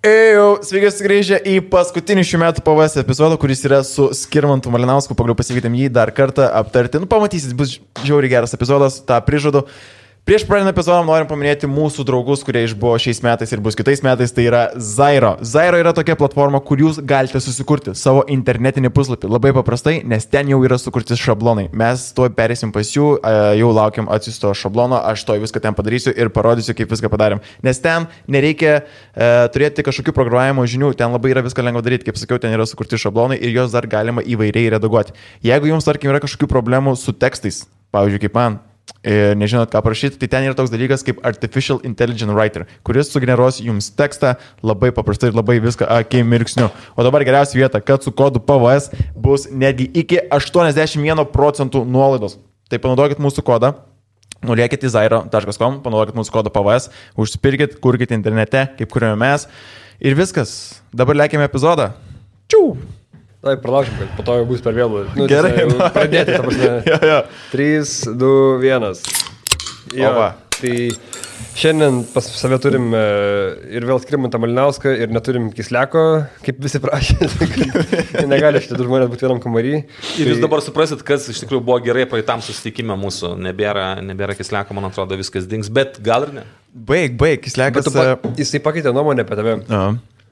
Sveiki sugrįžę į paskutinį šių metų PVS epizodą, kuris yra su Skirmantu Malinausku. Pagaliau pasikvietėm jį dar kartą aptarti. Pamatysit, bus žiauriai geras epizodas, tą prižadu. Prieš pradedant epizodą norim paminėti mūsų draugus, kurie išbuvo šiais metais ir bus kitais metais, tai yra Zairo. Zairo yra tokia platforma, kur jūs galite susikurti savo internetinį puslapį labai paprastai, nes ten jau yra sukurti šablonai. Mes tuoj perėsim pas jų, jau laukiam atsiusto šablono, aš to viską ten padarysiu ir parodysiu, kaip viską padarėm. Nes ten nereikia turėti kažkokių programavimo žinių, ten labai yra viską lengva daryti, kaip sakiau, ten yra sukurti šablonai ir juos dar galima įvairiai redaguoti. Jeigu jums, tarkim, yra kažkokių problemų su tekstais, pavyzdžiui, kaip man, ir nežinot, ką parašyti, tai ten yra toks dalykas kaip Artificial Intelligent Writer, kuris sugeneruos jums tekstą labai paprastai ir labai viską akimirksniu. O dabar geriausia vieta, kad su kodu PVS bus netgi iki 81% nuolaidos. Tai panaudokit mūsų kodą, nuliekit į zairo.com, panaudokit mūsų kodą PVS, užsipirkit, kurkit internete, kaip kuriame mes ir viskas. Dabar lėkime epizodą. Čiū! Tai pralaušim, kad po to jau bus per vėlų. Gerai, pradėti, ta prasme. 3, 2, 1. Jo, tai šiandien pas save turim ir vėl Skirmantą Malinauską ir neturim Kisleko, kaip visi prašė. Negali šitie du žmonės būti vienam kambarį. Ir jūs dabar suprasit, kas iš tikrųjų buvo gerai praeitam susitikime mūsų. Nebėra Kisleko, man atrodo, viskas dings, bet gal ir ne. Baig, Kislekas. Jisai pakeitė nuomonę apie tave.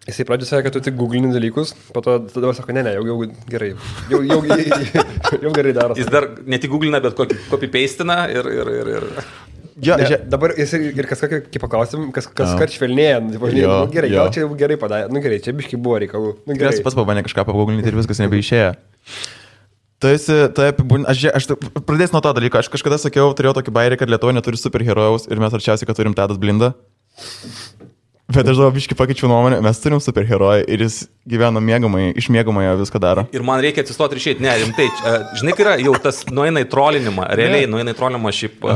Jisai pradžio sakė, kad tu tik googlini dalykus, po to tada sako, ne, jau gerai. Jau gerai daro. Jis dar ne tik googlina, bet copy-pastina ir... Ja, dabar jis ir kas paklausim, kas kart švelnėja. Gerai, gal čia jau gerai padarė. Gerai, čia biškai buvo reikalų. Gerai, pats pabandė kažką paguglinti ir viskas nebeišėjo. Aš pradėsiu nuo to dalyko. Aš kažkada sakiau, turėjau tokį bairį, kad Lietuva neturi superherojaus ir mes arčiausiai, kad turim Tadas Blindą. Bet aš dabar biškai pakeičiau nuomonę, mes turim superherojų ir jis gyvena iš miegamojo viską daro. Ir man reikia atsistoti ir išėti. Ne, rimtai, žinai, kai yra jau tas nueina į trolinimą, realiai nueina į trolinimą šiaip...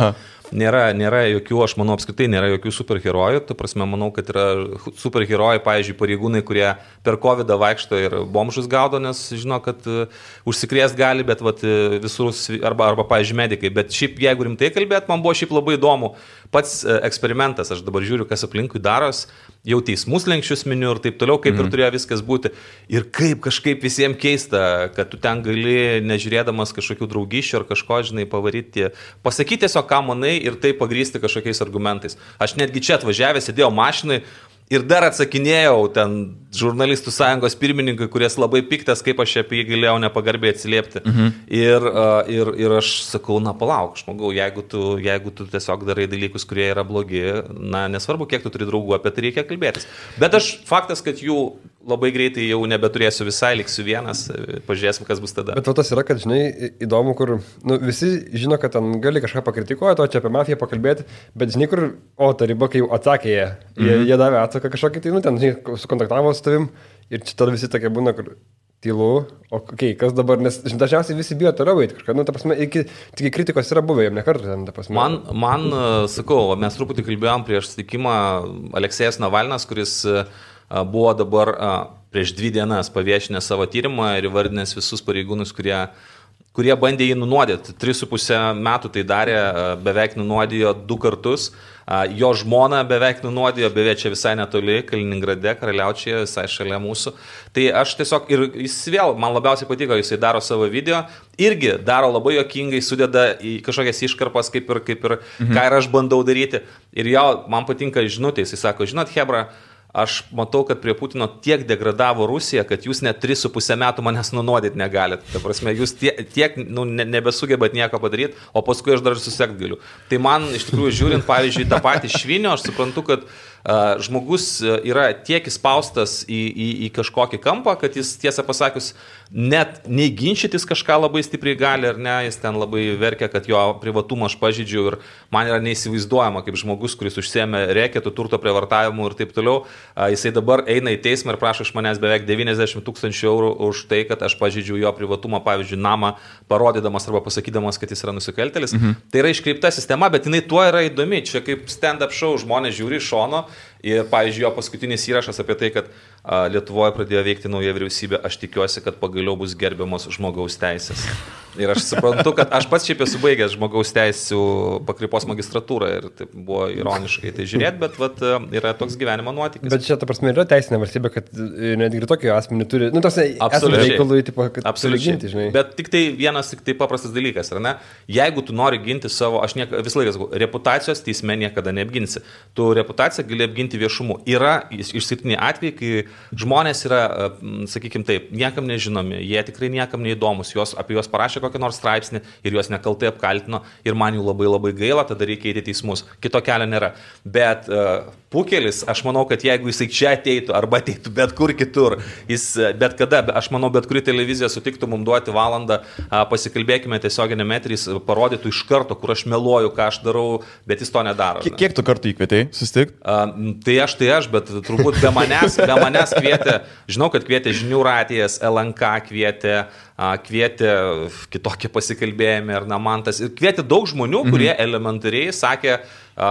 Nėra jokių, aš manau, apskritai nėra jokių superherojų. Tu prasme, manau, kad yra superherojai, pavyzdžiui, pareigūnai, kurie per COVID vaikšto ir bomžus gaudo, nes žino, kad užsikrėst gali, bet visur, arba pavyzdžiui, medikai. Bet šiaip, jeigu rimtai kalbėt, man buvo šiaip labai įdomu. Pats eksperimentas, aš dabar žiūriu, kas aplinkui daros, jau teismus lenkščius miniu ir taip toliau, kaip ir turėjo viskas būti. Ir kaip kažkaip visiems keista, kad tu ten gali, nežiūrėdamas kažkokių draugyšių ar kažko, žinai, pavaryti, pasakyti tiesiog, ką manai, ir tai pagrysti kažkokiais argumentais. Aš netgi čia atvažiavęs, sėdėjau mašinai ir dar atsakinėjau ten žurnalistų sąjungos pirmininkai, kuris labai piktas, kaip aš apie jį galėjau nepagarbiai atsiliepti. Ir aš sakau, na palauk, žmogau, jeigu tu tiesiog darai dalykus, kurie yra blogi, na nesvarbu, kiek tu turi draugų, apie tai reikia kalbėtis. Bet faktas, kad jų labai greitai jau nebeturėsiu visai, liksiu vienas, pažiūrėsim, kas bus tada. Bet tas yra, kad, žinai, įdomu, kur visi žino, kad ten gali kažką pakritikuoti, o čia apie mafiją pakalbėti, bet žinai, kur, ta riba, kai jau atsakė jie davė atsaką kažkokį, tai, ten, žinai, sukontaktavo su tavim ir čia tada visi tokie būna, kur tylu, kas dabar, nes dažniausiai visi bijo toliau eiti kažką, ta prasme, iki kritikos yra buvę, jam nekartą ten, ta prasme. Man, sakau, mes truputį kalbėjom prieš susitikimą Aleksėjas Navalnas, kuris buvo dabar prieš 2 dienas paviešinęs savo tyrimą ir įvardinęs visus pareigūnus, kurie bandė jį nunuodyti. 3,5 metų tai darė, beveik nunuodijo 2 kartus. Jo žmona beveik nunuodijo, beveik čia visai netoli, Kaliningrade, Karaliaučiuje, visai šalia mūsų. Tai aš tiesiog, ir jis vėl, man labiausiai patiko, jisai daro savo video, irgi daro labai juokingai, sudeda į kažkokias iškarpas, kaip ir ką ir aš bandau daryti. Ir jo, man patinka žinutė, jisai sako, žinot, Hebra, aš matau, kad prie Putino tiek degradavo Rusija, kad jūs net 3,5 metų manęs nunuodyti negalit. Ta prasme, jūs tiek nebesugebat nieko padaryti, o paskui aš dar susekt galiu. Tai man, iš tikrųjų, žiūrint, pavyzdžiui, tą patį Švinio, aš suprantu, kad žmogus yra tiek įspaustas į kažkokį kampą, kad jis, tiesą pasakius, net nei ginčytis kažką labai stipriai gali, ar ne, jis ten labai verkia, kad jo privatumą aš pažydžiu ir man yra neįsivaizduojama, kaip žmogus, kuris užsiėmė reketų, turto prievartavimu ir taip toliau, jisai dabar eina į teismą ir prašo iš manęs beveik 90 000 eurų už tai, kad aš pažydžiu jo privatumą, pavyzdžiui, namą, parodydamas arba pasakydamas, kad jis yra nusikaltelis. Tai yra iškreipta sistema, bet jinai tuo yra įdomi. Čia kaip stand-up show, žmonės žiūri iš šono Ir, pavyzdžiui, jo paskutinis įrašas apie tai, kad Lietuvoje pradėjo veikti nauja vyriausybė, aš tikiuosi, kad pagaliau bus gerbiamos žmogaus teisės. Ir aš suprantu, kad aš pats šiaip esu baigęs žmogaus teisų pakraipos magistratūrą ir tai buvo ironiškai tai žiūrėti, bet vat, yra toks gyvenimo nuotykis. Bet čia, ta prasme, yra teisinė valstybė, kad netgi tokį asmenį turi, nu, tos reikalų, tipo, kad turi ginti, žinai. Bet tik tai vienas, tik tai paprastas dalykas, ar ne? Jeigu tu nori ginti savo, aš visą laiką sakau, reputacijos teisme niekada neapginsi. Tu reputaciją gali apginti viešumu. Yra išskirtiniai atvejai, kai žmonės yra, sakykime taip, niekam nežinomi, jie tikrai niekam neįdomus, apie juos parašė kokią nors straipsnį ir juos nekaltai apkaltino ir man jų labai labai gaila, tada reikia eiti į teismus. Kito kelio nėra. Bet Pukelis, aš manau, kad jeigu jisai čia ateitų arba ateitų bet kur kitur, jis bet kada, aš manau, bet kuri televizija sutiktų mums duoti valandą, pasikalbėkime tiesioginėme eteryje, jis parodytų iš karto, kur aš meluoju, ką aš darau, bet jis to nedaro. Kiek tu kartų įkvietei susitikti? Tai aš, bet turbūt be manęs kvietė, žinau, kad kvietė Žinių radijas, LNK kvietė kitokie pasikalbėjimai ar Namantas ir kvietė daug žmonių, kurie elementariai sakė,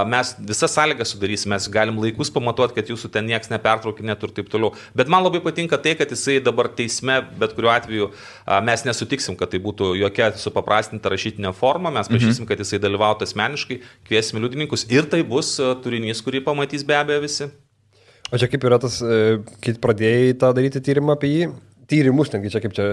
mes visas sąlygas sudarysime, mes galim laikus pamatuoti, kad jūsų ten nieks nepertraukinėtų ir taip toliau. Bet man labai patinka tai, kad jisai dabar teisme, bet kuriuo atveju mes nesutiksim, kad tai būtų jokia supaprastinta rašytinė forma, mes prašysim, kad jisai dalyvautų asmeniškai, kviesime liudininkus ir tai bus turinys, kurį pamatys be abejo visi. O čia kaip yra tas, kai pradėjai tą daryti tyrimą apie jį? Tyrimus, netgi čia kaip čia,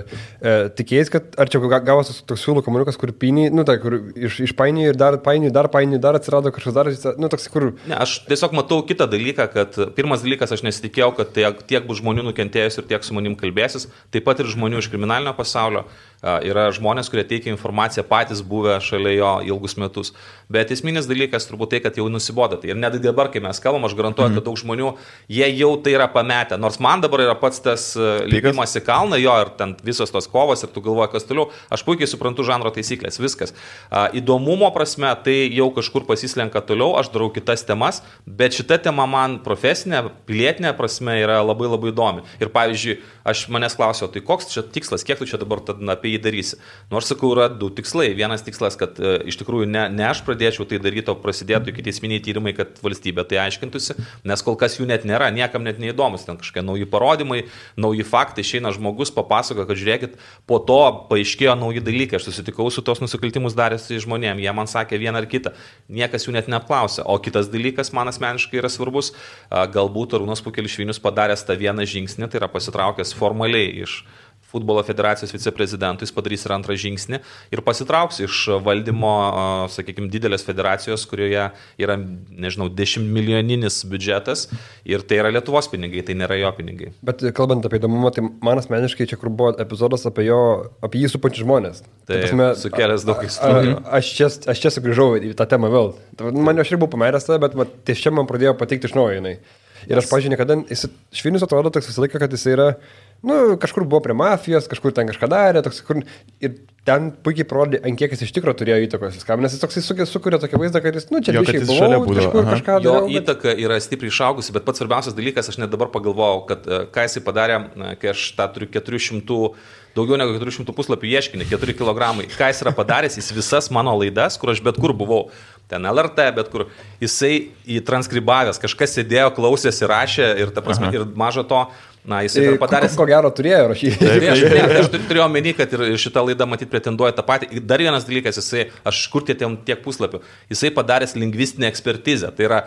tikėjais, kad ar čia gavosi toks siūlų kamuoliukas, kur piniai, nu tai, kur išpainioji ir dar painioji, dar atsirado kažkas dar, nu toks, kur... Ne, aš tiesiog matau kitą dalyką, kad pirmas dalykas, aš nesitikėjau, kad tiek bus žmonių nukentėjus ir tiek su manim kalbėsis, taip pat ir žmonių iš kriminalinio pasaulio, yra žmonės, kurie teikia informaciją patys buvę šalia jo ilgus metus, bet esminis dalykas turbūt tai, kad jau nusibodo. Ir net dabar, kai mes kalbam, aš garantuoju, kad daug žmonių, jie jau tai yra pametę, nors man dabar yra pats tas lipimas į kalną, jo, ir ten visos tos kovos, ir tu galvoji, kas toliau, aš puikiai suprantu žanro taisyklės, viskas. Įdomumo prasme, tai jau kažkur pasislenka toliau, aš darau kitas temas, bet šita tema man profesinė, pilietinė prasme yra labai labai įdomi. Ir pavyzdžiui, aš manęs klausiau, tai koks čia tikslas, kiek tu čia dabar apie jį darysi? Nors sakau, yra du tikslai. Vienas tikslas, kad iš tikrųjų ne aš pradėčiau tai daryti, o prasidėtų ikiteisminiai tyrimai, kad valstybė tai aiškintųsi, nes kol kas jų net nėra, niekam net neįdomus, ten kažkokie nauji parodymai, nauji faktai, išeina žmogus papasako, kad žiūrėkit, po to paaiškėjo nauji dalykai, aš susitikau su tos nusikaltimus darėsi žmonėm, jie man sakė vieną ar kitą, niekas jų net neapklausė. O kitas dalykas man asmeniškai yra svarbus, galbūt Arūnas Pukelis Švinius padaręs tą vieną žingsnį, tai yra pasitraukęs formaliai iš futbolo federacijos viceprezidentų, jis padarys ir antrą žingsnį ir pasitrauks iš valdymo, sakykime, didelės federacijos, kurioje yra, nežinau, 10 milijoninis biudžetas ir tai yra Lietuvos pinigai, tai nėra jo pinigai. Bet kalbant apie įdomumą, tai man asmeniškai čia, kur buvo epizodas apie jį supančius žmonės. Tai sukėlęs daug istorijų. Aš čia sugrįžau į tą temą vėl. Man aš ir buvau pameręs tada, bet ties čia man pradėjo patikti iš naujo jinai. Ir aš, pažiūrėjau, niekada, Švinius atrodo toks visą laiką, kad jis yra, kažkur buvo prie mafijos, kažkur ten kažką darė, toks, ir ten puikiai parodė, ant kiek jis iš tikrųjų turėjo įtakos viskam, nes jis toks sukuria tokį vaizdą, kad jis, čia biškai buvau, kažkur kažką darė. Jo įtaka yra stipriai išaugusi, bet pats svarbiausias dalykas, aš net dabar pagalvojau, kad ką jisai padarė, kai aš tą turiu daugiau negu 400 puslapių ieškinį, 4 kilogramai. Ką jis yra padaręs, jis visas mano laidas, kur aš bet kur buvau, ten LRT, bet kur, jisai įtranskribavęs, kažkas sėdėjo, klausėsi, rašė ir, ta prasme, ir mažo to, jisai yra padaręs... Ko gero turėjo rašyti. Aš turėjau omeny, kad ir šitą laidą matyt pretenduoja tą patį. Dar vienas dalykas, aš kur tiek puslapių, jisai padaręs lingvistinę ekspertizę. Tai yra,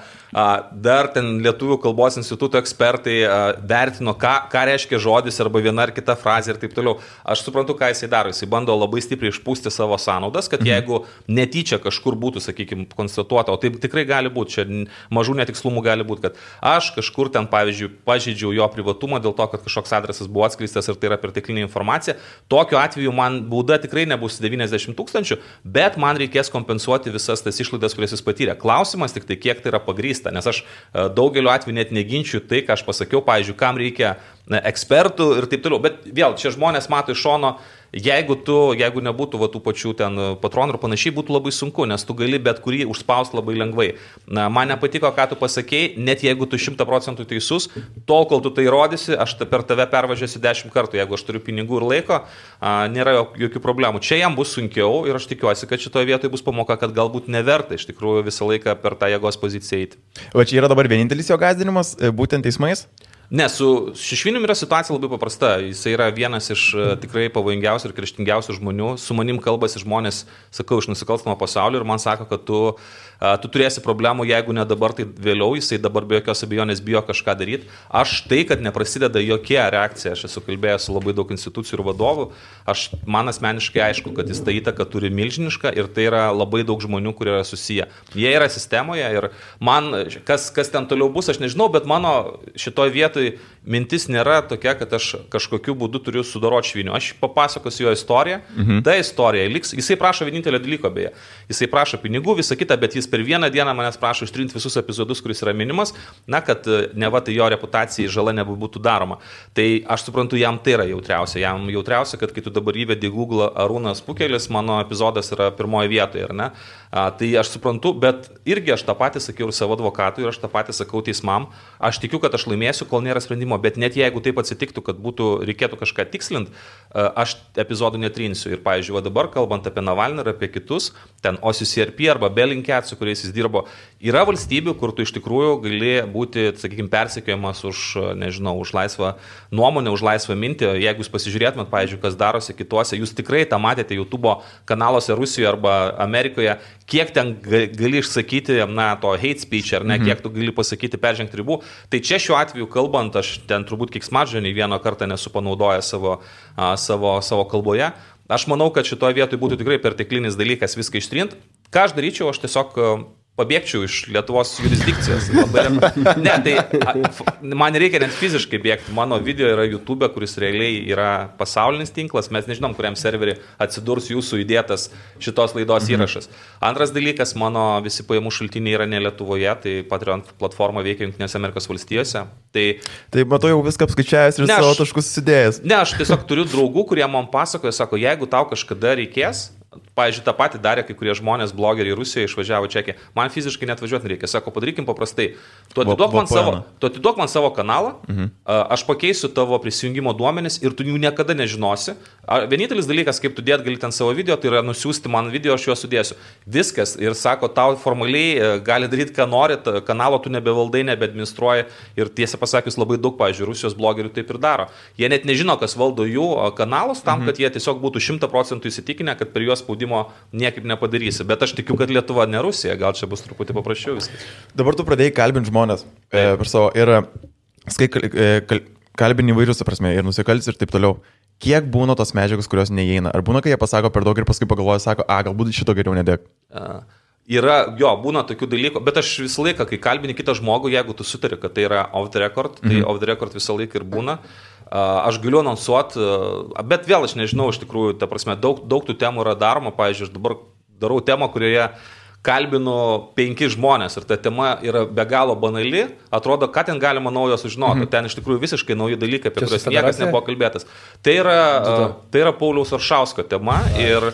dar ten Lietuvių kalbos instituto ekspertai vertino, ką reiškia žodis arba viena ar kita frazė ir taip toliau. Aš suprantu, ką jisai daro. Jisai bando labai stipriai išpūsti savo sąnaudas, kad jeigu netyčia kažkur būtų, sakykime, konstatuota, o taip tikrai gali būti, čia mažų netikslumų gali būti, kad aš kažkur ten, pavyzdžiui, pažeidžiau jo privatumą dėl to, kad kažkoks adresas buvo atskleistas ir tai yra perteklinė informacija. Tokiu atveju man bauda tikrai nebus 90 000, bet man reikės kompensuoti visas tas išlaidas, kurias jis patyrė. Klausimas tik tai, kiek tai yra pagrįsta, nes aš daugeliu atveju net neginčiu tai, ką aš pasakiau, pavyzdžiui, kam reikia ekspertų ir taip toliau. Bet vėl, čia žmonės mato iš šono, jeigu nebūtų tų pačių ten patronų ir panašiai, būtų labai sunku, nes tu gali bet kurį užspausti labai lengvai. Man nepatiko, ką tu pasakėjai, net jeigu tu 100% teisus, tol, kol tu tai rodysi, aš per tave pervažiuosiu 10 kartų, jeigu aš turiu pinigų ir laiko, nėra jokių problemų. Čia jam bus sunkiau ir aš tikiuosi, kad šitoje vietoje bus pamoka, kad galbūt neverta iš tikrųjų visą laiką per tą jėgos poziciją eiti. O čia yra dabar vienintelis jo gąsdinimas, būtent teismais? Ne, su Šešvinium yra situacija labai paprasta. Jisai yra vienas iš tikrai pavojingiausių ir kerštingiausių žmonių. Su manim kalbasi žmonės, sakau, iš nusikalstamo pasaulio ir man sako, kad tu turėsi problemų, jeigu ne dabar, tai vėliau. Jisai dabar be jokios abejonės bijo kažką daryti. Aš tai, kad neprasideda jokia reakcija, aš esu kalbėjęs su labai daug institucijų ir vadovų, man asmeniškai aišku, kad jis tą įtaką turi milžinišką ir tai yra labai daug žmonių, kurie yra susiję. Jie yra sistemoje ir man, kas ten toliau bus, aš nežinau, bet mano šitoje vietoje mintis nėra tokia, kad aš kažkokiu būdu turiu sudaroti Šviniu. Aš papasakosiu jo istoriją. Ta istorija liks. Jisai prašo vienintelio dalyko beje. Jisai prašo pinigų, visą kitą, bet jis per vieną dieną manęs prašo ištrinti visus epizodus, kuris yra minimas, kad neva tai jo reputacijai žala nebūtų daroma. Tai aš suprantu, jam tai yra jautriausia. Jam jautriausia, kad kai tu dabar įvedi Google Arūnas Pukelis, mano epizodas yra pirmoje vietoje, ar ne? Tai aš suprantu, bet irgi aš tą patį sakiau ir savo advokatui, ir aš tą patį sakau teismam. Aš tikiu, kad aš laimėsiu, kol nėra sprendimo, bet net jeigu taip atsitiktų, kad reikėtų kažką tikslint, aš epizodų netrinsiu. Ir, pavyzdžiui, dabar kalbant apie Navalną ir apie kitus, ten OCCRP arba Bellingcat, su kuriais jis dirbo, yra valstybių, kur tu iš tikrųjų gali būti, sakykime, persekiojamas už, nežinau, už laisvą nuomonę, už laisvą mintį. Jeigu jūs pasižiūrėtumėt, pavyzdžiui, kas darosi kituose, jūs tikrai tą matėte YouTube kanaluose Rusijoje arba Amerikoje, kiek ten gali išsakyti, to hate speech, ar ne, kiek tu gali pasakyti peržengti ribų. Tai čia šiuo atveju kalbant, aš ten turbūt keiksmažodžio nei vieną kartą nesu panaudojęs savo kalboje. Aš manau, kad šitoje vietoje būtų tikrai perteklinis dalykas viską ištrint. Ką aš daryčiau, aš tiesiog pabėgčiau iš Lietuvos jurisdikcijos. Ne, tai man reikia net fiziškai bėgti. Mano video yra YouTube, kuris realiai yra pasaulinis tinklas. Mes nežinom, kuriam serverį atsidurs jūsų įdėtas šitos laidos įrašas. Antras dalykas, mano visi pajamų šaltiniai yra ne Lietuvoje, tai Patreon platforma veikia Jungtinėse Amerikos valstijose. Tai matau jau viską apskaičiavęs ir savo taškus sudėjęs. Ne, aš tiesiog turiu draugų, kurie man pasakoja, sako, jeigu tau kažkada reikės, pavyzdžiui, tą patį darė kai kurie žmonės, blogeriai Rusijoje išvažiavo Čekiją. Man fiziškai net važiuoti nereikia. Sako, padarykim paprastai. Tu atiduok man savo kanalą, aš pakeisiu tavo prisijungimo duomenis ir tu jų niekada nežinosi. Vienintelis dalykas, kaip tu dėt gali ten savo video, tai yra nusiųsti man video, aš juos sudėsiu. Viskas. Ir sako, tau formaliai gali daryti, ką nori, kanalo tu nebevaldai, nebeadministruoji. Ir tiesą pasakius, labai daug, pavyzdžiui, Rusijos blogerių taip ir daro. Jie net nežino, kas valdo jų kanalus tam, kad jie tiesiog būtų 100% įsitikinę, kad per juos spaudimo niekaip nepadarysi. Bet aš tikiu, kad Lietuva ne Rusija, gal čia bus truputį paprasčiau viskas. Dabar tu pradėjai kalbinti žmonės per savo ir kalbini įvairius, prasme, ir nusikaltis ir taip toliau. Kiek būna tos medžiagos, kurios neįeina? Ar būna, kai jie pasako per daug ir paskui pagalvoja, sako, galbūt šito geriau nedėk? Būna tokių dalykų, bet aš visą laiką, kai kalbini kitą žmogų, jeigu tu sutari, kad tai yra off the record, tai off the record visą laiką ir būna. Aš galiu anonsuoti, bet vėl aš nežinau, iš tikrųjų, ta prasme, daug tų temų yra daroma. Pavyzdžiui, aš dabar darau temą, kurioje kalbinu 5 žmonės ir ta tema yra be galo banali, atrodo, ką ten galima naujo sužinoti, ten iš tikrųjų visiškai nauji dalykai, apie kuriuos niekas nebuvo kalbėtas. Tai yra Pauliaus Aršausko tema ir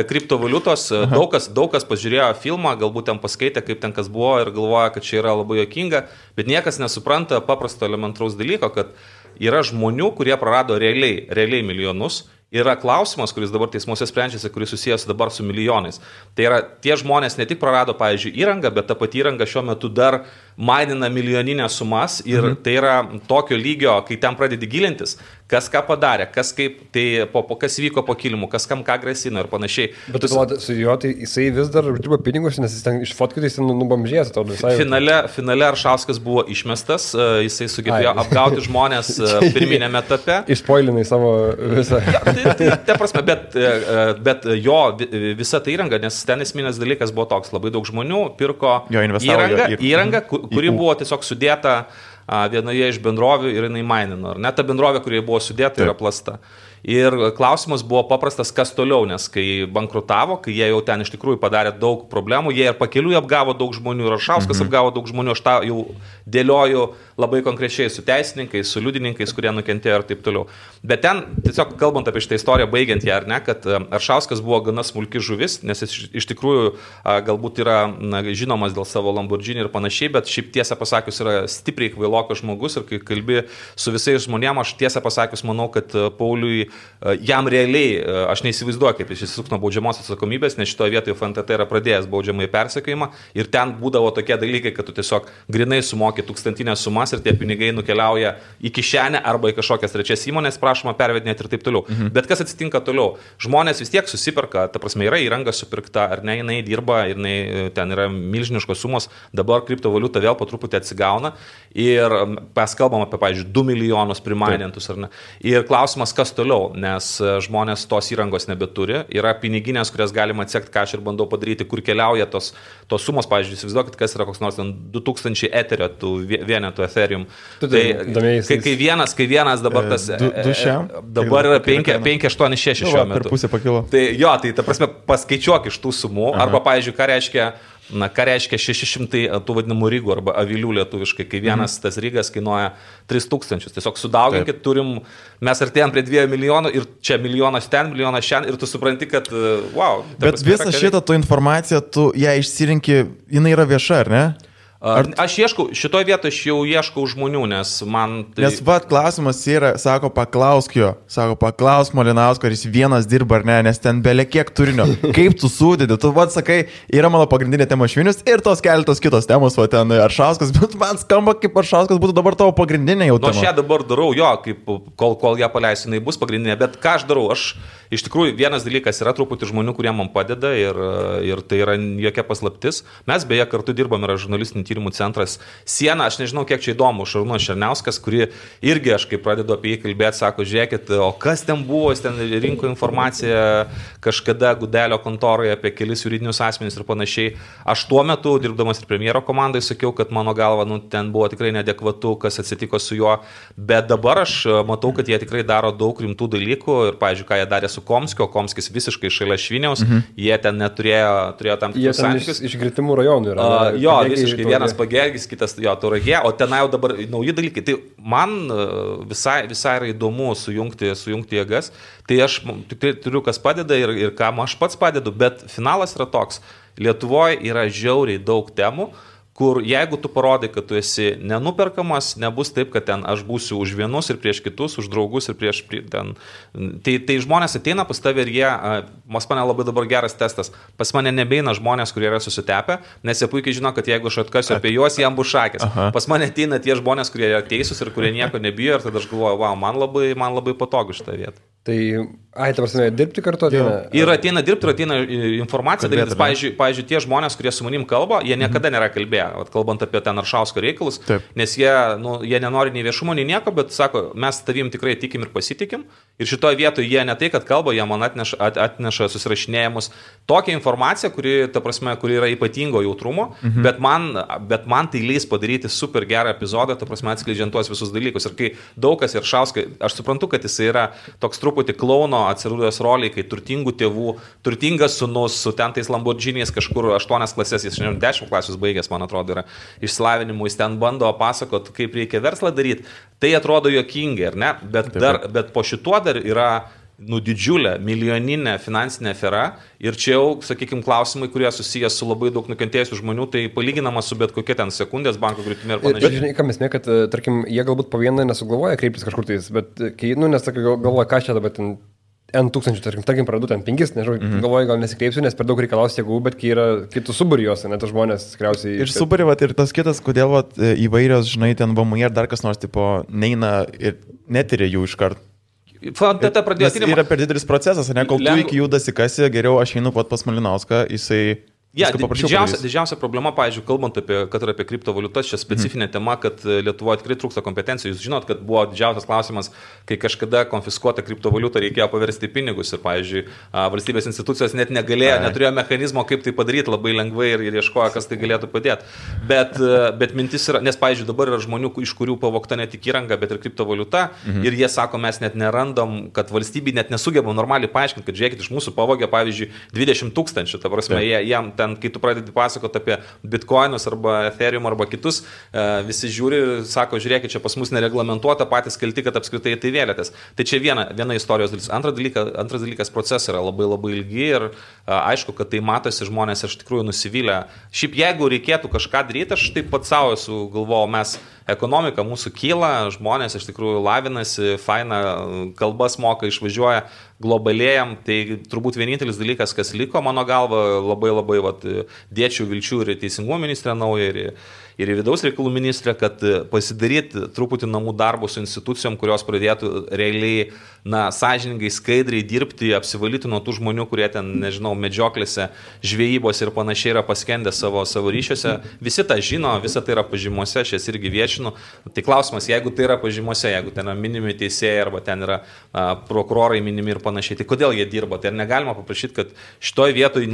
kriptovaliutos. Daug kas pažiūrėjo filmą, galbūt ten paskaitė, kaip ten kas buvo ir galvoja, kad čia yra labai juokinga, bet niekas nesupranta paprasto elementaraus dalyko, kad yra žmonių, kurie prarado realiai milijonus. Yra klausimas, kuris dabar teismuose sprendžiasi, kuris susijęs dabar su milijonais. Tai yra, tie žmonės ne tik prarado, pavyzdžiui, įrangą, bet ta pati įranga šiuo metu dar mainina milijoninės sumas ir tai yra tokio lygio, kai ten pradedi gilintis, kas ką padarė, kas vyko po kilimu, kas kam ką grasino ir panašiai. Bet su juo, tai jisai vis dar dirba pinigus, nes jis ten iš fotkų jis nubamžėjęs, atrodo visai. Finale Aršauskas buvo išmestas, jisai sugebėjo apgauti žmonės pirminėme etape. Išpoilinai savo visą. Ta prasme, bet jo visa ta įranga, nes ten esminės dalykas buvo toks, labai daug žmonių pirko įrangą, kuri buvo tiesiog sudėta vienoje iš bendrovių ir jinai mainino. Ar ne ta bendrovė, kurioje buvo sudėta, yra plasta. Ir klausimas buvo paprastas, kas toliau, nes kai bankrutavo, kai jie jau ten iš tikrųjų padarė daug problemų, jie ir pakeliui apgavo daug žmonių, ir Aršauskas apgavo daug žmonių, aš tą jau dėlioju labai konkrečiai su teisininkais, su liudininkais, kurie nukentėjo ir taip toliau. Bet ten, tiesiog kalbant apie šitą istoriją, baigiant ją, ar ne, kad Aršauskas buvo gana smulki žuvis, nes jis iš tikrųjų galbūt yra žinomas dėl savo Lamborghini ir panašiai, bet šiaip tiesą pasakius yra stipriai kvailokas žmogus ir kai kalbi su visais žmonėmis, aš tiesą pasakius manau, kad Pauliui jam realiai, aš neįsivaizduoju, kaip jis išsisuks nuo baudžiamos atsakomybės, nes šitoje vietoje FNTT yra pradėjęs baudžiamąjį persekiojimą ir ten būdavo tokie dalykai, kad tu tiesiog grinai sumoki tūkstantinės sumas ir tie pinigai nukeliauja į kišenę arba į kažkokias trečias įmonės, prašoma pervedinėti ir taip toliau. Bet kas atsitinka toliau? Žmonės vis tiek susiperka, ta prasme yra įranga supirkta, ar ne, jinai dirba, jinai ten yra milžiniškos sumos, dabar kriptovaliuta vėl po truputį atsigauna ir mes kalbam apie, pavyzdžiui, 2 milijonus primainintus, ar ne. Ir klausimas, kas toliau? Nes žmonės tos įrangos nebeturi, yra piniginės, kurias galima atsekti, ką aš ir bandau padaryti, kur keliauja tos sumos, pavyzdžiui, įsivaizduokit, kas yra koks nors 2000 eterio, tų vienetų Ethereum. Tai kai vienas dabar tas, dabar yra 586 šiuo metu. Per pusę pakilo. Tai jo, tai ta prasme paskaičiuok iš tų sumų, arba, pavyzdžiui, ką reiškia 600 tų vadinamų rygų arba avilių lietuviškai, kai vienas tas rygas kainuoja 3000. Tiesiog sudauginkit, mes artėjom prie 2 milijonų ir čia milijonas ten, milijonas šiandien ir tu supranti, kad wow. Bet visą šitą tu informaciją, tu ją išsirinki, jinai yra vieša, ar ne? Aš ieškau, šitoje vietoje aš jau ieškau žmonių, nes man... Nes klausimas yra, sako, paklausk Malinausko, ar jis vienas dirba ar ne, nes ten belė kiek turinio. Kaip tu sudedi, tu sakai, yra mano pagrindinė tema Švinius ir tos keletos kitos temos, o ten Aršauskas, bet man skamba, kaip Aršauskas būtų dabar tavo pagrindinė jau tema. Aš ją dabar darau, kaip kol ją paleisiu, jinai bus pagrindinė, bet ką aš darau, iš tikrųjų vienas dalykas yra truputį žmonių, kurie man padeda ir tai yra jokia paslaptis. Mes beje kartu dirbam, yra žurnalistinį tyrimų centras Siena, aš nežinau, kiek čia įdomu, Šarūnas Černiauskas, kuri irgi aš kai pradedu apie jį kalbėti, sako, žiūrėkit, o kas ten buvo, jis ten rinko informaciją kažkada Gudelio kontoroje apie kelis juridinius asmenys ir panašiai. Aš tuo metu, dirbdamas ir premjero komandai, sakiau, kad mano galva, ten buvo tikrai neadekvatu, kas atsitiko su juo, bet dabar aš matau, kad jie tikrai daro daug rimtų dalykų ir, pavyzdžiui, ką jie darė su Komskiu, o Komskis visiškai šalia Šviniaus, jie ten turėjo tam tikrus santykius. Iš Gritimų rajonų yra. Jo, visiškai vienas Pagergis, kitas jo Tauragė, o ten jau dabar nauji dalykai. Tai man visai yra įdomu sujungti jėgas, tai aš tikrai turiu, kas padeda ir kam aš pats padedu, bet finalas yra toks. Lietuvoje yra žiauriai daug temų, kur jeigu tu parodai, kad tu esi nenuperkamas, nebus taip, kad ten aš būsiu už vienus ir prieš kitus, už draugus ir prieš ten. Tai žmonės ateina pas tave ir jie, pas mane labai dabar geras testas, pas mane nebeina žmonės, kurie yra susitepę, nes jie puikiai žino, kad jeigu aš atkasiu apie juos, jam bus šakės. Pas mane ateina tie žmonės, kurie yra teisūs ir kurie nieko nebijo ir tada aš galvoju, wow, man labai patogu šitą vietą. Tai, ta prasme, dirbti kartu ateina? Ir ateina dirbti, ir ateina informacija dalytis. Pavyzdžiui, tie žmonės, kurie su manim kalba, jie niekada nėra kalbėję, kalbant apie ten Aršausko reikalus, nes jie nenori nei viešumo, nei nieko, bet sako, mes tavim tikrai tikim ir pasitikim. Ir šitoje vietoje jie ne tai, kad kalba, jie man atneša susirašinėjimus. Tokią informaciją, kuri yra ypatingo jautrumo, bet man tai leis padaryti super gerą epizodą, atskleidžiant tuos visus dalykus. Ir kai daug kas ir Aršauskai, aš suprantu, kad jis yra toks truputį klauno atsirūdęs roliai, kai turtingų tėvų, turtingas sūnus su ten tais Lamborghiniais kažkur 8 klasės, jis 10 klasius baigęs, man atrodo, yra išsilavinimu, jis ten bando pasakot, kaip reikia verslą daryti. Tai atrodo juokingai, ar ne? Bet po šituo dar yra didžiulė, milijoninė finansinė afera ir čia jau, sakykime, klausimai, kurie susijęs su labai daug nukentėjusių žmonių, tai palyginama su bet kokia ten sekundės banko griūtimi ir panašiai. Bet žinai, ką mes kad, tarkim, jie galbūt po vieną nesugalvoja kreiptis kažkur tais, bet kai, nes galvoja, ką čia dabar ten N tūkstančių, tarkim, pradu ten 5, nežinau, galvoju, gal nesikreipsiu, nes per daug reikalaus jėgų, bet kai yra kitų suburijos, net žmonės tikriausiai... Ir suburi, ir tas kitas, kodėl įvairios, žinai, ten VMI ar dar kas nors, tipo, neina ir netyrė jų iš karto. Yra per didelis procesas, ne, kol tu iki jų dasikasi, geriau aš einu pat pas Malinauską, jisai Ja, didžiausia problema, pavyzdžiui, kalbant apie kriptovaliutas, čia specifinė tema, kad Lietuvoje tikrai trūksta kompetencijų. Jūs žinot, kad buvo didžiausias klausimas, kai kažkada konfiskuota kriptovaliuta reikėjo paversti pinigus ir, pavyzdžiui, valstybės institucijos net negalėjo, neturėjo mechanizmo, kaip tai padaryti labai lengvai ir ieškojo, kas tai galėtų padėti. Bet mintis yra, nes, pavyzdžiui, dabar yra žmonių, iš kurių pavogta ne tik įranga, bet ir kriptovaliuta ir jie sako, mes net nerandam, kad valstybė net nesugeba normaliai paaiškinti, kad žiūrėkit, iš mūsų pavogė, pavyzdžiui, 20 000, ta prasme, jam kai tu pradedi pasakoti apie bitcoinus arba ethereum arba kitus, visi žiūri, sako, žiūrėkit, čia pas mus nereglamentuota, patys kalti, kad apskritai tai vėlėtės. Tai čia viena istorijos dalis. Antras dalykas, procesai yra labai labai ilgi ir aišku, kad tai matosi, žmonės iš tikrųjų nusivylę. Šiaip jeigu reikėtų kažką daryti, aš taip pat savo esu galvojau, mes ekonomika mūsų kyla, žmonės iš tikrųjų lavinasi, faina, kalbas moka, išvažiuoja, globalėjam, tai turbūt vienintelis dalykas, kas liko, mano galva, labai dėčiau vilčių ir teisingumo ministrė nauja, ir vidaus reikalų ministrė, kad pasidaryti truputį namų darbų su institucijom, kurios pradėtų realiai, sąžiningai, skaidriai dirbti, apsivalyti nuo tų žmonių, kurie ten, nežinau, medžioklėse, žvejybos ir panašiai yra paskendę savo ryšiuose. Visi tą žino, visa tai yra pažymose, aš jas irgi viešinu. Tai klausimas, jeigu tai yra pažymose, jeigu ten yra minimi teisėjai arba ten yra prokurorai minimi ir panašiai, tai kodėl jie dirba? Tai ar negalima paprašyti, kad šitoj vietoj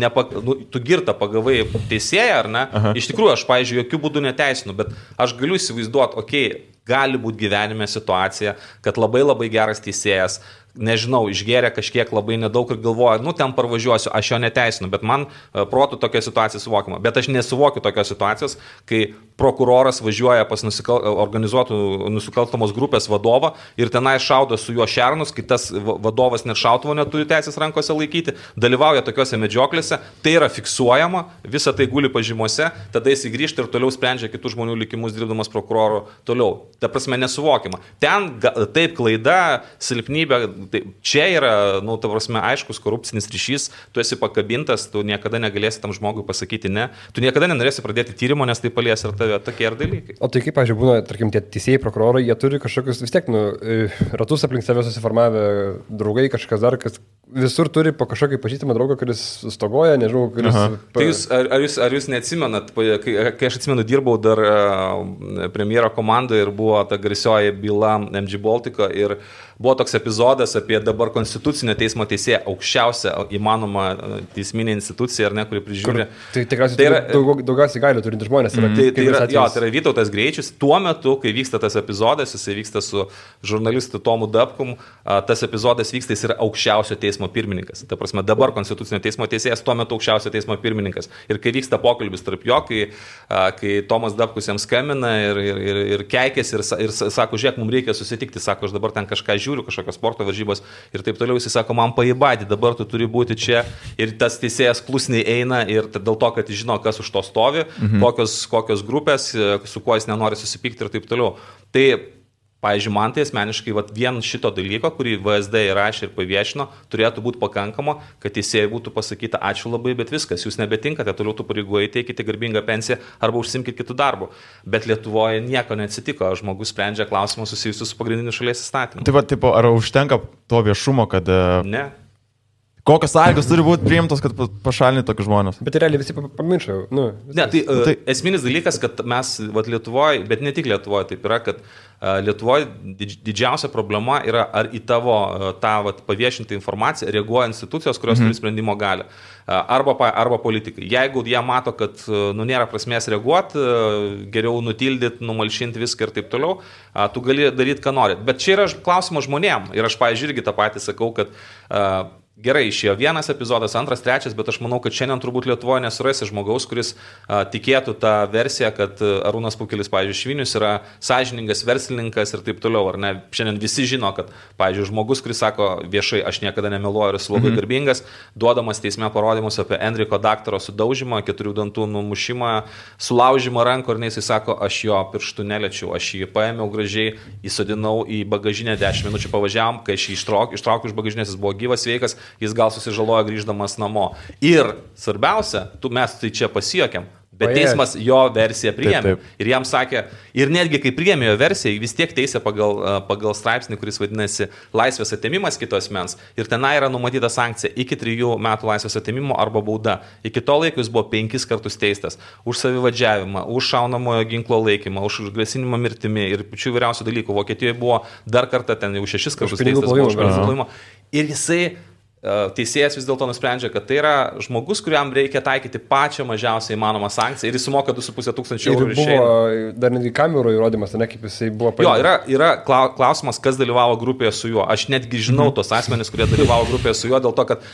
tu girtą pagavai teisėją, ar ne? Aha. Iš tikrųjų, aš, pavyzdžiui, jokių būdų neteisinu, bet aš galiu įsivaizduoti, gali būti gyvenime situacija, kad labai labai geras teisėjas, nežinau, išgėrė kažkiek labai nedaug ir galvoja, ten parvažiuosiu, aš jo neteisinu, bet man protų tokia situacija suvokiama. Bet aš nesuvokiu tokios situacijos, kai prokuroras važiuoja pas organizuotų nusikalstamos grupės vadovą ir tenai šaudo su juo šernus, kai tas vadovas net šautuvo neturi teisės rankose laikyti, dalyvauja tokiuose medžioklėse, tai yra fiksuojama, visa tai guli pažymose, tada jis grįžta ir toliau sprendžia kitų žmonių likimus dirbdamas prokuroru toliau. Ta prasme nesuvokiama. Ten taip klaida, silpnybė, tai čia yra, ta prasme, aiškus korupcinis ryšys, tu esi pakabintas, tu niekada negalėsi tam žmogui pasakyti ne, tu niekada nenorėsi pradėti tyrimo, nes tai palies ir tave tokie ir dalykai. O tai kaip, pavyzdžiui, būna, tarkim, tie teisėjai, prokurorai, jie turi kažkokius vis tiek, ratus aplink save susiformavę draugai, kažkas dar, kas visur turi po kažkokį pažįstamą draugą, kuris stogoja, nežinau, kuris... Tai ar jūs neatsimenat, kai aš atsimenu, dirbau dar premjero komandoje ir buvo ta garsioji byla MG Baltico ir buvo toks epizodas apie dabar konstitucinio teismo teisėją, aukščiausią įmanomą teisminę instituciją, ar ne, kuri prižiūri. Tai tikriausiai daugiausiai galių turinti žmonės. Tai yra Vytautas Greičius. Tuo metu, kai vyksta tas epizodas, jisai vyksta su žurnalistu Tomu Dapkum, tas epizodas vyksta, jis yra aukščiausio teismo pirmininkas. Ta prasme, dabar konstitucinio teismo teisėjas, tuo metu aukščiausio teismo pirmininkas. Ir kai vyksta pokalbis tarp jo, kai Tomas Dapkus jam skambina ir keikėsi ir sako, žiūrėk, mums reikia susitikti, sako, aš dabar ten kažką žiūriu, kažkokios sporto varžybos ir taip toliau, jis sako, man paibadį, dabar tu turi būti čia ir tas teisėjas klusniai eina ir dėl to, kad jis žino, kas už to stovi, kokios grupės, su kuo jis nenori susipykti ir taip toliau. Tai, pavyzdžiui, man tai asmeniškai vien šito dalyko, kurį VSD įrašė ir paviešino, turėtų būti pakankama, kad teisėjai būtų pasakyta ačiū labai, bet viskas, jūs nebetinkate, toliau tų pareigų teikite garbingą pensiją arba užsimkite kitų darbų. Bet Lietuvoje nieko neatsitiko, žmogus sprendžia klausimus susijusius su pagrindiniu šalies įstatymu. Tai ar užtenka to viešumo, kad... Ne. Kokios sąlygos turi būti priimtos, kad pašalinti tokius žmonės? Bet realiai visi pamiršo. Tai esminis dalykas, kad mes Lietuvoje, bet ne tik Lietuvoje, taip yra, kad Lietuvoje didžiausia problema yra, ar į tavo tą paviešintą informaciją reaguoja institucijos, kurios turi sprendimo galią. Arba politikai. Jeigu jie mato, kad nėra prasmės reaguoti, geriau nutildyti, numalšinti viską ir taip toliau, tu gali daryti, ką nori. Bet čia yra klausimas žmonėm. Ir aš, pavyzdžiui, irgi tą patį sakau, kad gerai, išėjo vienas epizodas, antras, trečias, bet aš manau, kad šiandien turbūt Lietuvoje nesurasi žmogaus, kuris tikėtų tą versiją, kad Arūnas Pukelis, pavyzdžiui, Švinius yra sąžiningas verslininkas ir taip toliau. Ar ne? Šiandien visi žino, kad, pavyzdžiui, žmogus, kuris sako viešai, aš niekada nemeluoju ir esu labai garbingas, duodamas teisme parodymus apie Enriko daktaro sudaužymą, 4 dantų numušimą, sulaužymą rankų ir jisai sako, aš jo pirštų neliečiau, aš jį paėmiau gražiai, įsodinau į bagažinę 10 minučių pavažiavam, kai aš jį ištraukiau iš bagažinės, jis buvo gyvas, sveikas, jis gal susižalojo grįždamas namo. Ir svarbiausia, mes tai čia pasijuokėm, Bet teismas jo versiją priėmė. Taip. Ir jam sakė, ir netgi kai priėmė jo versiją, vis tiek teisė pagal straipsnį, kuris vadinasi laisvės atėmimas kitos mens. Ir tenai yra numatyta sankcija iki 3 metų laisvės atėmimo arba bauda. Iki to laiko jis buvo 5 kartus teistas. Už savivadžiavimą, už šaunamojo ginklo laikymą, už grasinimą mirtimi ir pačių įvairiausių dalykų. Vokietijoje buvo dar kartą ten jau 6 kartus teistas. Ir jisai teisėjas vis dėlto nusprendžia, kad tai yra žmogus, kuriam reikia taikyti pačią mažiausią įmanomą sankciją ir jis sumoka 2,5 tūkstančių eurų. Ir buvo dar netgi kamerų įrodymas, ne kaip jisai buvo paimtas. Jo, yra klausimas, kas dalyvavo grupėje su juo. Aš netgi žinau tos asmenys, kurie dalyvavo grupėje su juo, dėl to, kad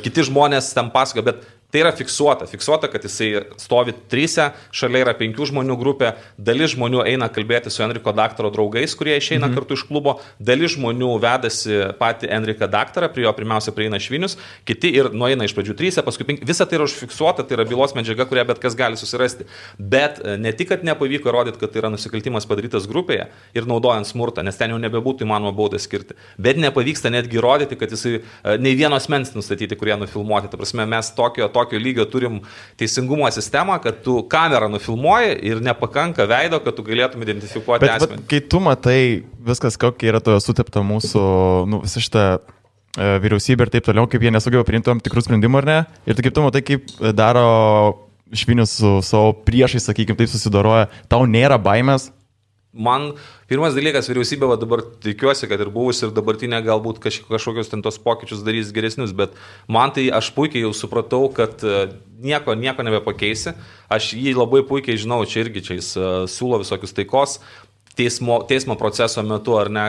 kiti žmonės ten pasakoja, bet tai yra fiksuota, kad jisai stovi 3, šalia yra 5 žmonių grupė, dalis žmonių eina kalbėti su Enriko daktaro draugais, kurie išeina kartu iš klubo, dalis žmonių vedasi patį Enriką daktarą, prie jo pirmiausia prieina Švinius, kiti ir nueina iš pradžių 3, paskui 5, visa tai yra užfiksuota, tai yra bylos medžiaga, kurią bet kas gali susirasti. Bet ne tik, kad nepavyko įrodyti, kad tai yra nusikaltimas padarytas grupėje ir naudojant smurtą, nes ten jau nebebūtų įmanoma baudą skirti, bet nepavyksta netgi įrodyti, kad jisai nei vieno asmens nustatyti, kurie nufilmuoti. Ta prasme, mes tokio lygio turim teisingumo sistemą, kad tu kamerą nufilmuoji ir nepakanka veido, kad tu galėtum identifikuoti asmenį. Bet kai tu matai viskas, kokia yra to sutepta mūsų, visą šitą vyriausybę ir taip toliau, kaip jie nesugeba priimti tam tikrų sprendimų ar ne, ir kaip tu matai, kaip daro Švinius su savo priešais, sakykime, taip susidaroja, tau nėra baimės? Man pirmas dalykas, vyriausybė dabar tikiuosi, kad ir buvus ir dabartinė galbūt kažkokius ten tos pokyčius darys geresnius, bet man tai aš puikiai jau supratau, kad nieko nebepakeisi. Aš jį labai puikiai žinau, čia jis siūlo visokius taikos teismo proceso metu, ar ne,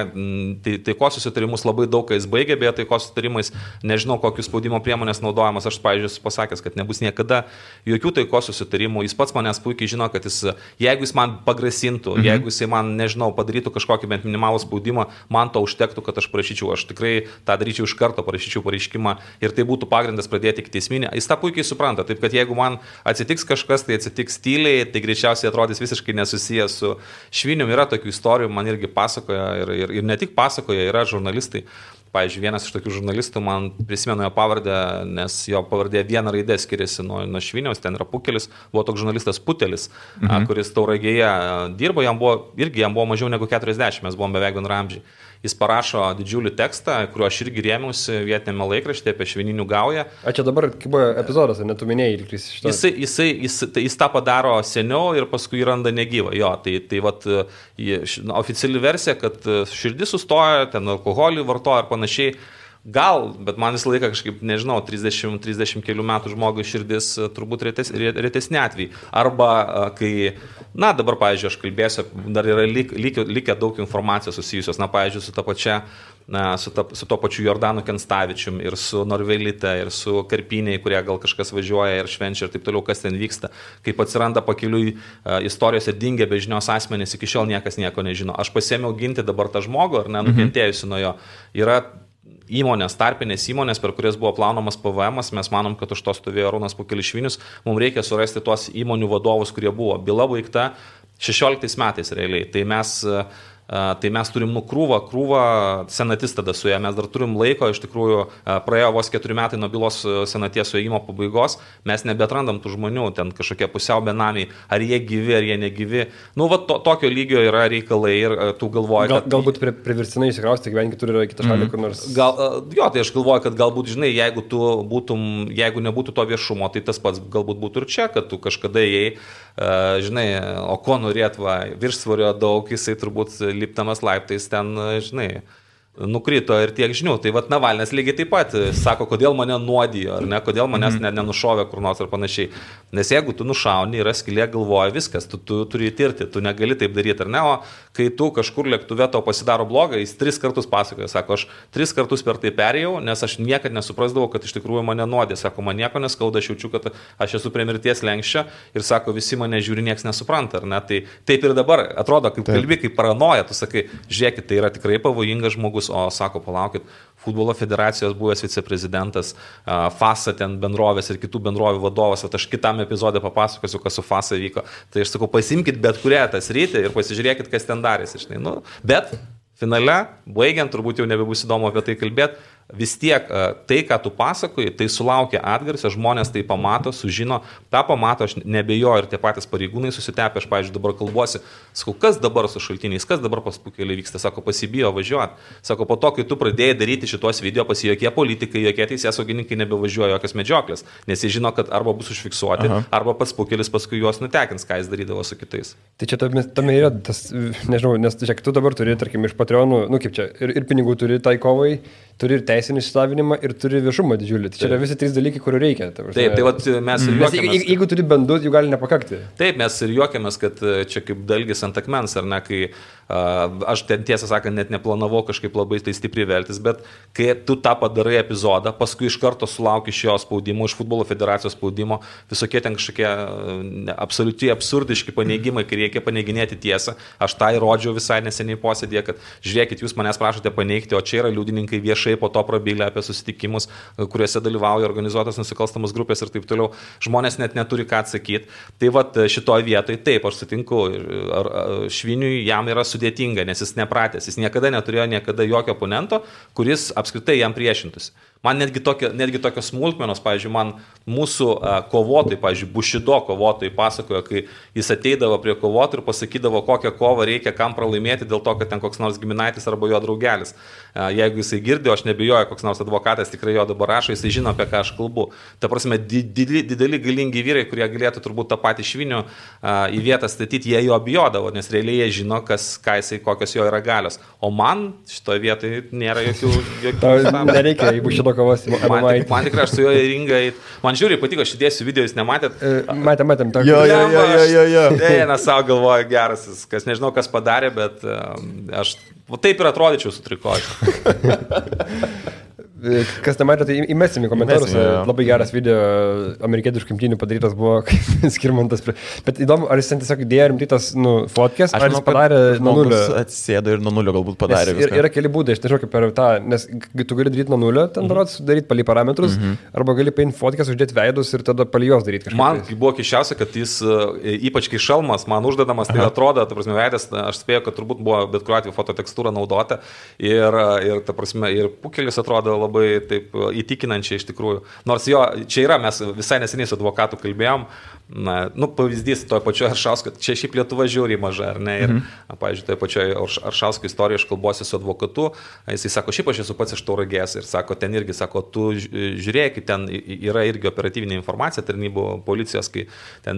taikos susitarimus labai daug, kai jis baigė, beje, taikos susitarimais, nežinau, kokius spaudimo priemonės naudojamas, aš, pavyzdžiui, esu pasakęs, kad nebus niekada jokių taikos susitarimų, jis pats manęs puikiai žino, kad jeigu jis man pagrasintų, jeigu jis man, nežinau, padarytų kažkokį bent minimalų spaudimą, man to užtektų, kad aš prašyčiau, aš tikrai tą daryčiau iš karto, parašyčiau pareiškimą ir tai būtų pagrindas pradėti ikiteisminį. Jis tą puikiai supranta, taip kad jeigu man atsitiks kažkas, tai atsitiks tyliai, tai greičiausiai atrodys visiškai nesusijęs su Švinium. Yra tokių istorijų, man irgi pasakoja ir ne tik pasakoja, yra žurnalistai. Pavyzdžiui, vienas iš tokių žurnalistų, man prisimenu jo pavardę, nes jo pavardė viena raidė skiriasi nuo Šviniaus, ten yra Pukelis, buvo toks žurnalistas Putelis, kuris Tauragėje dirbo, jam buvo mažiau negu 40, mes buvom beveik bendraamžiai. Jis parašo didžiulį tekstą, kuriuo aš irgi rėmiausi vietinėme laikraštyje apie švininių gaują. Čia dabar kaip buvo epizodas, netu minėjai ir kris iš to. Jis tą padaro seniau ir paskui jį randa negyvą. Jo, tai vat, oficiali versija, kad širdis sustoja, ten alkoholį vartoja ir panašiai. Gal, bet man visą laiką kažkaip, nežinau, 30 kelių metų žmogui širdis turbūt retesni atvejai. Arba kai, dabar, pavyzdžiui, aš kalbėsiu, dar yra likę daug informacijos susijusios, pavyzdžiui, su to pačiu Jordanu Kenstavičium ir su Norvelite ir su Karpiniai, kurie gal kažkas važiuoja ir švenčia ir taip toliau, kas ten vyksta. Kaip atsiranda pakeliui istorijose dingę be žinios asmenys, iki šiol niekas nieko nežino. Aš pasėmiau ginti dabar tą žmogų, ar nukentėjusi nuo jo. Yra įmonės, tarpinės įmonės, per kurias buvo plaunamas PVM, mes manom, kad už to stovėjo Arūnas Pukelis Švinius, mums reikia surasti tuos įmonių vadovus, kurie buvo. Byla baigta 16 metais realiai, tai mes turim krūvą senatis tada su ją, mes dar turim laiko, iš tikrųjų praėjo vos 4 metai nuo bylos senaties suėjimo pabaigos, mes nebetrandam tų žmonių, ten kažkokie pusiau benamiai, ar jie gyvi, ar jie negyvi. Tokio lygio yra reikalai ir tu galvoji, kad... Galbūt priverstinai įsikrausti gyventi kitur yra kitą šalį, kur nors... Tai aš galvoju, kad galbūt, žinai, jeigu nebūtų to viešumo, tai tas pats galbūt būtų ir čia, kad tu kažkada ėjai, žinai, o ko norėt, viršsvorio daug, jisai turbūt liptamas laiptais ten, žinai, nukrito ir tiek žinių. Tai vat Navalnas lygiai taip pat sako, kodėl mane nuodijo, ar ne, kodėl manęs nenušovė kur nors ar panašiai. Nes jeigu tu nušauni, yra skylė galvoja, viskas, tu turi įtirti, tu negali taip daryti, ar ne, o kai tu kažkur lėktuve to pasidaro blogą, jis 3 kartus pasakoja, sako, aš 3 kartus per tai perėjau, nes aš niekad nesuprasdavau, kad iš tikrųjų mane nuodė, sako, man nieko neskauda, aš jaučiu, kad aš esu prie mirties lenkščio ir sako, visi mane žiūri, nieks nesupranta, ar ne, tai taip ir dabar atrodo, kaip kalbi, kaip paranoja, tu sakai, žiūrėkit, tai yra tikrai pavojingas žmogus, o sako, palaukit, futbolo federacijos buvęs viceprezidentas, FASA ten bendrovės ir kitų bendrovių vadovas, aš kitam epizodė papasakosiu, kas su FASA vyko. Tai aš sakau, pasimkit bet kurią tą sritį ir pasižiūrėkit, kas ten darėsi. Bet finale, baigiant, turbūt jau nebebus įdomu apie tai kalbėti, vis tiek tai, ką tu pasakoji, tai sulaukia atgarsio, žmonės tai pamato, sužino, tą pamato, aš nebejoju ir tie patys pareigūnai susitepė, aš, pavyzdžiui, dabar kalbuosi, sakau, kas dabar su šaltiniais, kas dabar pas Pukelį vyksta, sako, pasibijo važiuoti, sako, po to, kai tu pradėjai daryti šitos video, pas jokie politikai, jokie teisėsaugininkai nebevažiuoja jokios medžioklės, nes jie žino, kad arba bus užfiksuoti, arba pats Pukelis paskui juos nutekins, ką jis darydavo su kitais. Tai čia tame yra tas, nežinau, nes čia tu dabar turi, tarkim, iš Patreonų, nu kaip čia, ir pinigų turi tai kovai, turi ir teisinį išsilavinimą, ir turi viešumą didžiulį. Tai čia yra visi 3 dalykai, kurių reikia. Taip, tai vat mes ir juokiamės. Jeigu turi bent 2, jų gali nepakakti. Taip, mes ir juokiamės, kad čia kaip dalgis ant akmens, ar ne, kai aš ten tiesą sakant net neplanavau kažkaip labai tai stipriai veltis, bet kai tu tą padarai epizodą, paskui iš karto sulauki iš jo spaudimo, iš futbolo federacijos spaudimo, visokie ten kažkokie absoliučiai absurdiški paneigimai, kai reikia paneiginėti tiesą. Aš tą įrodžiau visai neseniai posėdėje, kad žiūrėkit, jūs manęs prašote paneigti, o čia yra liudininkai viešai po to prabylę apie susitikimus, kuriuose dalyvauja organizuotos nusikalstamos grupės ir taip toliau. Žmonės net neturi ką atsakyti. Tai vat šitoje vietoje taip, aš sutinku, Šviniui jam yra sudėtinga, nes jis nepratęs, jis niekada neturėjo jokio oponento, kuris apskritai jam priešintųsi. Man netgi tokios smulkmenos, pavyzdžiui, man mūsų kovotojai, pavyzdžiui, Bušido kovotojai pasakojo, kai jis ateidavo prie kovotojų ir pasakydavo, kokią kovą reikia, kam pralaimėti dėl to, kad ten koks nors giminaitis arba jo draugelis. Jeigu jisai girdėjo, aš nebijoju, koks nors advokatas tikrai jo dabar rašo, jisai žino, apie ką aš kalbu. Ta prasme, dideli galingi vyrai, kurie galėtų turbūt tą patį Švinių į vietą statyti, jie jo bijodavo, nes realiai jie žino, kokios jo yra galios. O man šitoje vietoje nėra jokių nereikia, jeigu šito kovos. Man tikrai, aš su juo į ringą, man žiūri, patiko, aš įdėsiu video, jūs nematėt? Matėm. Jo. Eina savo galvoja geras, kas nežinau, kas padarė, bet aš taip ir atrodyčiau su trikočiu. Kas nematė, tai įmesim į komentarus. Labai geras video amerikietiškų imtynių padarytas buvo Skirmantas. Bet įdomu, ar jis ten tiesiog įdėjo rimtytas fotkės, ar jis padarė nuo nulio? Atsėdo ir nuo nulio galbūt padarė. Yra keli būdai, aš nežinau kaip per tą, nes tu gali daryti nuo nulio, ten darot, daryti palį parametrus, arba gali paimti fotkės, uždėti veidus ir tada palį jos daryti kažkaip. Man buvo keisčiausia, kad jis, ypač kai šalmas, man uždedamas, tai atrodo, ta prasme, veidas, aš spėjau, kad turbūt buvo bet kuriuo atveju fototekstūra naudota ir ta prasme, ir Pukelis atrodo labai taip įtikinančiai iš tikrųjų. Nors jo, čia yra, mes visai neseniai su advokatu kalbėjom, pavyzdys toje pačioje Aršausko, čia šiaip Lietuva žiauriai maža, ar ne? Ir, pavyzdžiui, toje pačioje Aršausko istorijoje aš kalbuosi su advokatu, jisai sako, šiaip aš esu pats iš Tauragės ir sako, ten irgi, sako, tu žiūrėk, ten yra irgi operatyvinė informacija tarnybų policijos, kai ten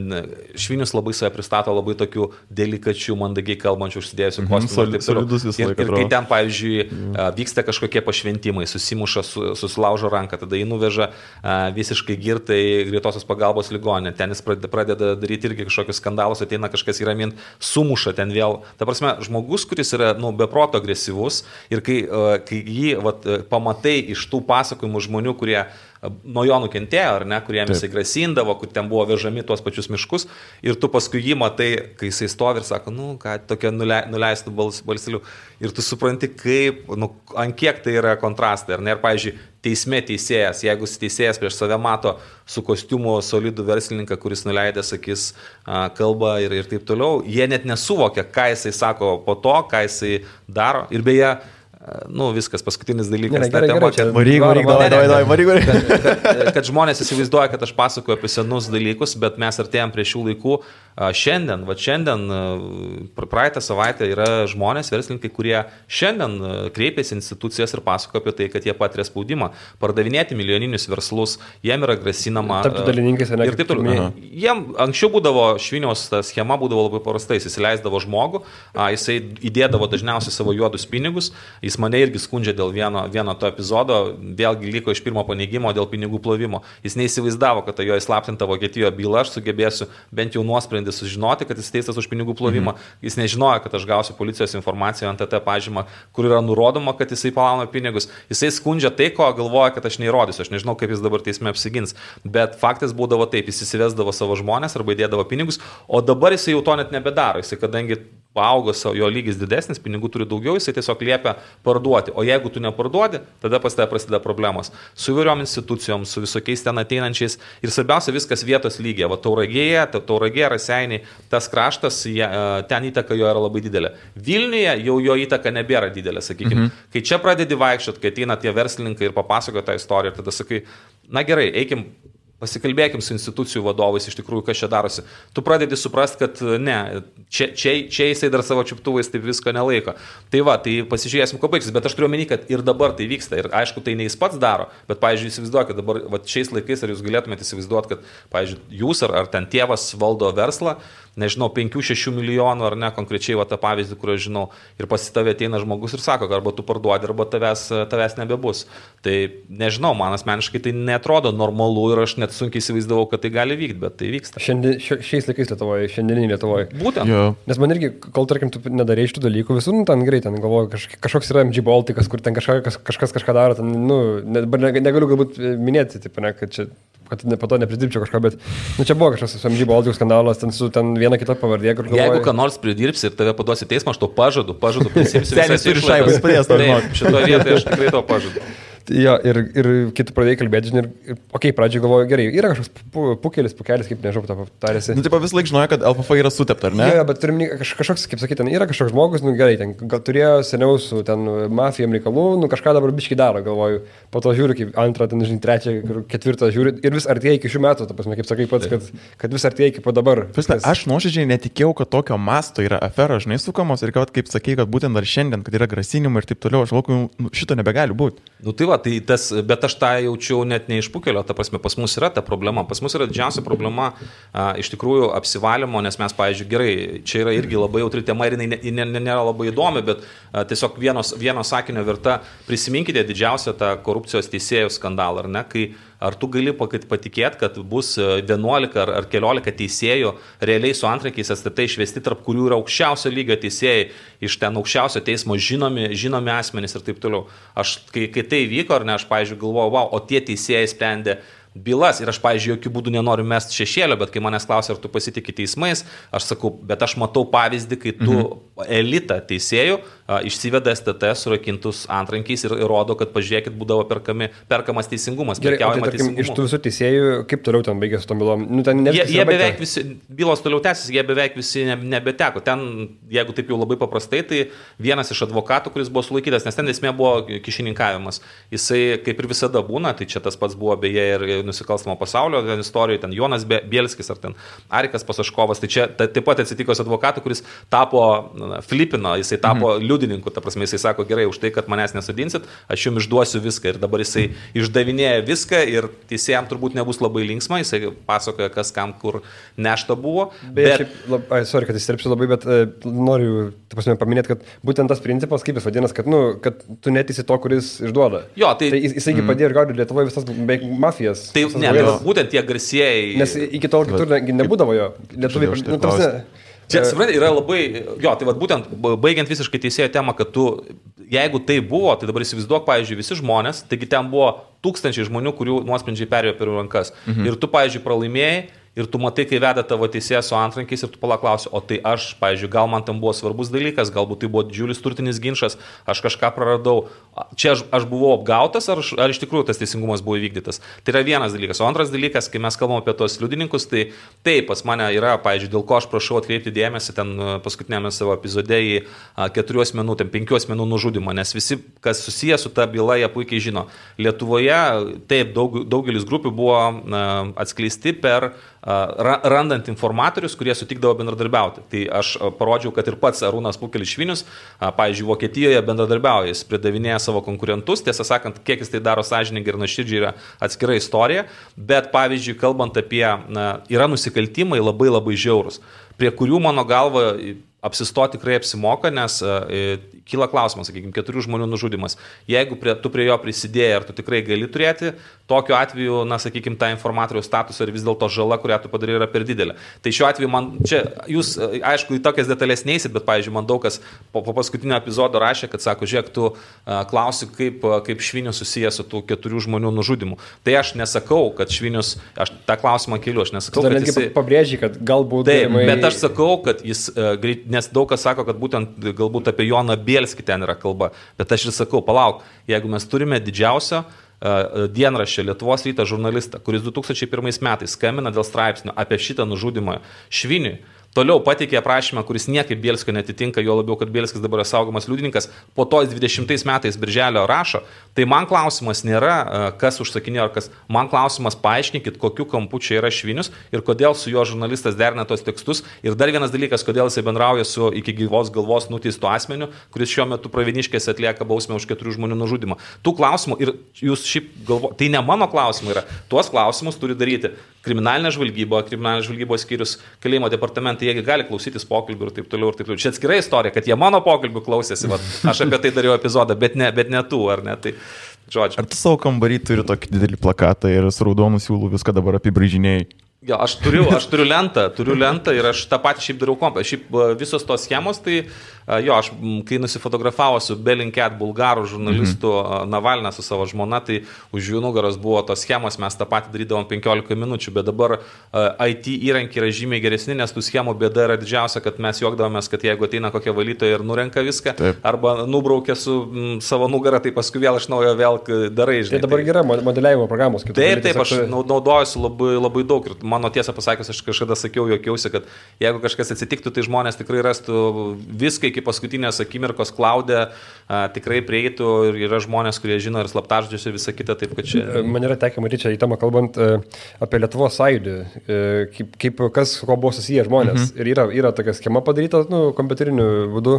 Švinius labai save pristato labai tokių delikačių, mandagiai kalbančių, užsidėjusių kostiumų. Ir kai ten, pavyzdžiui, vyksta kažkokie pašventimai, susimuša, susilaužo ranką, tada jį nuveža visiškai girtai greitosios pagalbos ligoninę, ten jis pradeda daryti irgi kažkokius skandalus, ateina kažkas įramint, sumuša ten vėl. Ta prasme, žmogus, kuris yra beproto agresyvus ir kai jį pamatai iš tų pasakojimų žmonių, kurie nuo jo nukentėjo, ar ne, kuriem jisai grasindavo, kur ten buvo vežami tuos pačius miškus ir tu paskui jį matai, kai jisai stovi ir sako, ką tokia nuleistų balselių ir tu supranti, kaip, ant kiek tai yra kontrastai, ar ne, ir pavyzdžiui, teisme teisėjas, jeigu teisėjas prieš save mato su kostiumu solidų verslininką, kuris nuleidęs akis kalba ir taip toliau, jie net nesuvokia, ką jisai sako po to, ką jisai daro ir beje, viskas, paskutinis dalykas. Kad žmonės įsivaizduoja, kad aš pasakoju apie senus dalykus, bet mes artėjom prie šių laikų. Šiandien, praeitą savaitę yra žmonės, verslininkai, kurie šiandien kreipiasi institucijas ir pasakoja apie tai, kad jie patiria spaudimą. Pardavinėti milijoninius verslus, jiem yra grasinama. Tapti dalininkais, ne? Ir taip toliau. Jiem anksčiau būdavo, Šviniaus ta schema būdavo labai paprasta, jis įsileisdavo žmogų, jisai įdėdavo dažniausiai savo juodus pinigus, jis mane irgi skundžia dėl vieno to epizodo, vėlgi liko iš pirmo paneigimo dėl pinigų plovimo. Jis neįsivaizdavo, kad jo įslaptinta Vokietijoje byla, aš sugebėsiu bent jau nuosprendį sužinoti, kad jis teistas už pinigų plovimą. Jis nežinojo, kad aš gausiu policijos informaciją ant TT pažymą, kur yra nurodoma, kad jisai palauna pinigus. Jisai skundžia tai, ko galvoja, kad aš neįrodysiu. Aš nežinau, kaip jis dabar teisme apsigins. Bet faktas būdavo taip, jis įsivesdavo savo žmonės arba įdėdavo pinigus, o dabar jisai jau to net nebedaro. Jisai, kadangi paaugo jo lygis didesnis, pinigų turi daugiau, jisai tiesiog liepia parduoti. O jeigu tu neparduodi, tada pas tave prasideda problemos. Su įvairiom institucijom, su visokiais ten ateinančiais. Ir svarbiausia, viskas vietos lygiai. Va, Tauragėje, Raseiniai, tas kraštas, ten įtaka jo yra labai didelė. Vilniuje jau jo įtaka nebėra didelė, sakykime. Kai čia pradedi vaikščiot, kai ateina tie verslininkai ir papasakoja tą istoriją, ir tada sakai, na gerai, eikim. Pasikalbėkim su institucijų vadovais, iš tikrųjų, kas čia darosi. Tu pradedi suprasti, kad ne, čia jisai dar savo čiuptuvais taip visko nelaiko. Tai va, tai pasižiūrėsim, ko baigsis, bet aš turiu omeny, kad ir dabar tai vyksta. Ir aišku, tai ne jis pats daro, bet, pavyzdžiui, įsivaizduokit, dabar va, šiais laikais, ar jūs galėtumėte įsivaizduoti, kad, pavyzdžiui, jūs ar ten tėvas valdo verslą, nežinau, 5-6 milijonų ar ne, konkrečiai va tą pavyzdį, kurį aš žinau, ir pasitavė ateina žmogus ir sako, arba tu parduodi, arba tavęs nebebus. Tai nežinau, man asmeniškai tai netrodo normalu ir aš net sunkiai įsivaizdavau, kad tai gali vykti, bet tai vyksta. Šiais laikais Lietuvoje, šiandieninį Lietuvoje. Būtent. Jo. Nes man irgi, kol tarkim, tu nedarai šitų dalykų, visur, ten greitai, ten galvoju, kažkoks yra MG Baltikas, kur ten kažkas kažką daro, ten, negaliu galbūt minėti, taip, ne, kad po to nepridirbčiau kažką, bet čia buvo kažkas su MG Baltikų skandalas, ten su viena kita pavardė, kur galvoju. Jeigu ką nors pridirbsi ir tave paduosi teismą, aš to pažadu, prisimsiu. Senis turi šaibas padės, to žinok. Šitoje vietoje aš tikrai to pažadu. Jo, ir kai tu pradėjai kalbėti, žinai, pradžiai galvoju, gerai, yra kažkoks pukelis, kaip nežinau, tą tarėsi. Nu, taip vis laik žinojo, kad LFF yra sutepta, ar ne? Jo, bet turim kažkoks, kaip sakyti, ten yra kažkoks žmogus, gerai, ten gal turėjo seniau su ten mafijom reikalų, kažką dabar biškai daro, galvoju, po to žiūriu, kaip antrą, ten, žinai, trečią, ketvirtą žiūriu ir vis artėja iki šių metų, ta prasme, kaip sakai pats, kad vis artėja iki po dabar. Aš nuoširdžiai netikėjau, kad tokio masto yra afera, žinai, sukamos ir kad, kaip sakai, kad būtent dar šiandien, kad yra grasinimai ir taip toliau, aš galvoju, šito nebegali būti. Nu tai va, tai tas, bet aš tą jaučiau net ne iš pukelio, ta prasme, pas mus yra ta problema. Pas mus yra didžiausia problema iš tikrųjų apsivalymo, nes mes, pavyzdžiui, gerai, čia yra irgi labai jautri tema ir jinai nėra labai įdomi, bet tiesiog vieno sakinio verta, prisiminkite didžiausią tą korupcijos teisėjų skandalą, ar ne, kai ar tu gali patikėti, kad bus 11 ar keliolika teisėjų realiai su antrankiais STT išvesti, tarp kurių yra aukščiausio lygio teisėjai, iš ten aukščiausio teismo žinomi asmenys ir taip toliau. Aš, kai tai vyko, ar ne, aš, pavyzdžiui, galvojau, wow, o tie teisėjai sprendė bylas ir aš, pavyzdžiui, jokių būdų nenoriu mesti šešėlio, bet kai manęs klausia, ar tu pasitikė teismais, aš sakau, bet aš matau pavyzdį, kai tu elitą teisėjų išsiveda STT surakintus antrankiais ir rodo, kad pažiūrėkit, būdavo perkamas teisingumas, prekiaujama teisingumu. Iš tų visų teisėjų, kaip toliau ten baigėsi su tom bylom? Jie beveik visi, bylos toliau tęsis, jie beveik visi nebeteko. Ten, jeigu taip jau labai paprastai, tai vienas iš advokatų, kuris buvo sulaikytas, nes ten esmė buvo kišininkavimas. Jisai, kaip ir visada būna, tai čia tas pats buvo beje ir nusikalstamo pasaulio istorijoje, ten Jonas Bielskis ar ten Arikas Pasaškovas, tai čia taip pat atsitiko su advokatu, kuris tapo Filipino, jisai tapo liudininku, ta prasme, jisai sako, gerai, už tai, kad manęs nesodinsit, aš jums išduosiu viską ir dabar jisai išdavinėja viską ir teisėjams turbūt nebus labai linksma, jisai pasakoja, kas kam kur nešta buvo. Sorry, kad įsiterpsiu labai, bet noriu, ta prasme, paminėti, kad būtent tas principas, kaip jis vadinasi, kad tu neteisi to, kuris išduoda. Jo, tai jisai padėjo ir gaudė Lietuvoje visas beveik mafijas. Tai ne, būtent tie garsieji. Nes iki tol kitur nebūdavo jo. Lietuviai. Čia, suprantate, yra labai, tai vat būtent, baigiant visiškai teisėjo temą, kad tu, jeigu tai buvo, tai dabar įsivaizduok, pavyzdžiui, visi žmonės, taigi ten buvo tūkstančiai žmonių, kurių nuosprendžiai perėjo per rankas. Ir tu, pavyzdžiui, pralaimėjai. Ir tu matai, kai veda tavo teisėjas su antrankiais ir tu paklausi, o tai aš, pavyzdžiui, gal man tam buvo svarbus dalykas, galbūt tai buvo didžiulis turtinis ginčas, aš kažką praradau. Čia aš buvau apgautas, ar iš tikrųjų tas teisingumas buvo įvykdytas. Tai yra vienas dalykas. O antras dalykas, kai mes kalbam apie tos liudininkus, tai taip, pas mane yra, pavyzdžiui, dėl ko aš prašau atkreipti dėmesį ten paskutinėme savo epizode į 4 asmenų, 5 asmenų nužudimą, nes visi, kas susijęs su ta byla, jie puikiai žino. Lietuvoje taip, daugelis grupių buvo atskleisti per randant informatorius, kurie sutikdavo bendradarbiauti. Tai aš parodžiau, kad ir pats Arūnas Pukelis Švinius, pavyzdžiui, Vokietijoje bendradarbiauja, jis pridavinėja savo konkurentus, tiesą sakant, kiek jis tai daro sąžiningai ir nuoširdžiai yra atskira istorija, bet pavyzdžiui, kalbant apie, yra nusikaltimai labai labai žiaurūs, prie kurių mano galva apsistoti tikrai apsimoka, nes kyla klausimas, sakykime, 4 žmonių nužudimas. Jeigu tu prie jo prisidėjai, ar tu tikrai gali turėti, tokiu atveju, na, sakykime, tą informatoriaus statusą ir vis dėlto žala, kurią tu padarai, yra per didelė. Tai šiuo atveju man, čia jūs, aišku, į tokias detalės neįsit, bet, pavyzdžiui, man daug kas po paskutinio epizodo rašė, kad sako, žiūrėk, tu klausi, kaip Švinius susijęs su tų 4 žmonių nužudimu. Tai aš nesakau, kad Švinius, aš tą klausimą keliu, aš nesakau, kad jis... Pabrėžiai, kad galbūt... Taip, bet aš sakau, kad jis, nes daug kas sako, kad būtent galbūt apie Joną Bielskį ten yra kalba, bet aš ir sakau, palauk, jeigu mes turime didžiausio dienraščio Lietuvos Ryto žurnalistą, kuris 2001 metais skambina dėl straipsnio apie šitą nužudimą Šviniui, toliau pateikė aprašymą, kuris niekaip Bielskio netitinka, jo labiau, kad Bielskis dabar yra saugomas liudininkas, po to 20 metais birželio rašo, tai man klausimas nėra, kas užsakinėjo ar kas, man klausimas paaiškinkit, kokiu kampu čia yra Švinius ir kodėl su jo žurnalistas derina tos tekstus. Ir dar vienas dalykas, kodėl jisai bendrauja su iki gyvos galvos nuteistu asmeniu, kuris šiuo metu Pravieniškėse atlieka bausmę už 4 žmonių nužudimą. Tų klausimų ir jūs šiaip galvojate, tai ne mano klausimai yra, tuos klausimus turi daryti kriminalinė žvalgybos skyrius, kalėjimo departamentai, jie gali klausytis pokalbių ir taip toliau ir taip toliau. Čia atskira istorija, kad jie mano pokalbių klausėsi, aš apie tai dariau epizodą, bet ne tu, ar ne? Tai, žodžiu. Ar tu savo kambarį turi tokį didelį plakatą ir su raudonu siūlu viską dabar apibraižinėjai? Jo, aš turiu lentą ir aš tą patį šiaip dariau kompą. Šiaip visos tos schemos, tai jo, aš kai nusifotografavo su Bellingcat bulgarų žurnalistu Navalną su savo žmona, tai už jų nugaros buvo tos schemos, mes tą patį darydavom 15 minučių, bet dabar IT įrankiai yra žymiai geresni, nes tų schemų bėda yra didžiausia, kad mes juokdavomės, kad jeigu ateina kokia valytoja ir nurenka viską, taip, arba nubraukia su savo nugarą, tai paskui vėl iš naujo vėl darai. Žinai, tai dabar yra modeliavimo programos. Taip, aš naudojuosi labai daug ir mano tiesą pasakius, aš kažkada sakiau, juokiausi, kad jeigu kažkas atsitiktų, tai žmonės tikrai rastų viską iki paskutinės akimirkos klaudę, tikrai prieitų ir yra žmonės, kurie žino ir slaptažodžius ir visą kitą, taip kad čia... Man yra tekę matyti čia į temą kalbant apie Lietuvos sąjūdį, kaip kas ko buvo susiję žmonės. Ir yra tokia schema padaryta, kompiuteriniu būdu,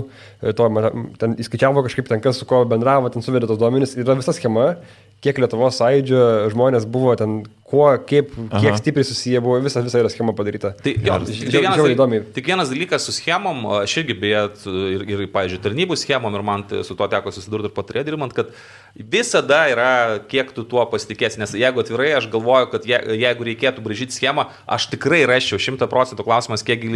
ten įskaičiavo kažkaip ten kas su ko bendravo, ten suvedė tos duomenys, yra visa schema, kiek Lietuvos sąjūdžio žmonės buvo ten, kiek stipriai susiję buvo, visa yra schema padaryta. Tai tik vienas dalykas su schemom, aš irgi beje ir pavyzdžiui, tarnybų schemom ir man su to teko susidurti ir patarė dirbant, kad visada yra, kiek tu tuo pasitikėsi, nes jeigu atvirai, aš galvoju, kad jeigu reikėtų braižyti schemą, aš tikrai raščiau 100% klausimas, kiek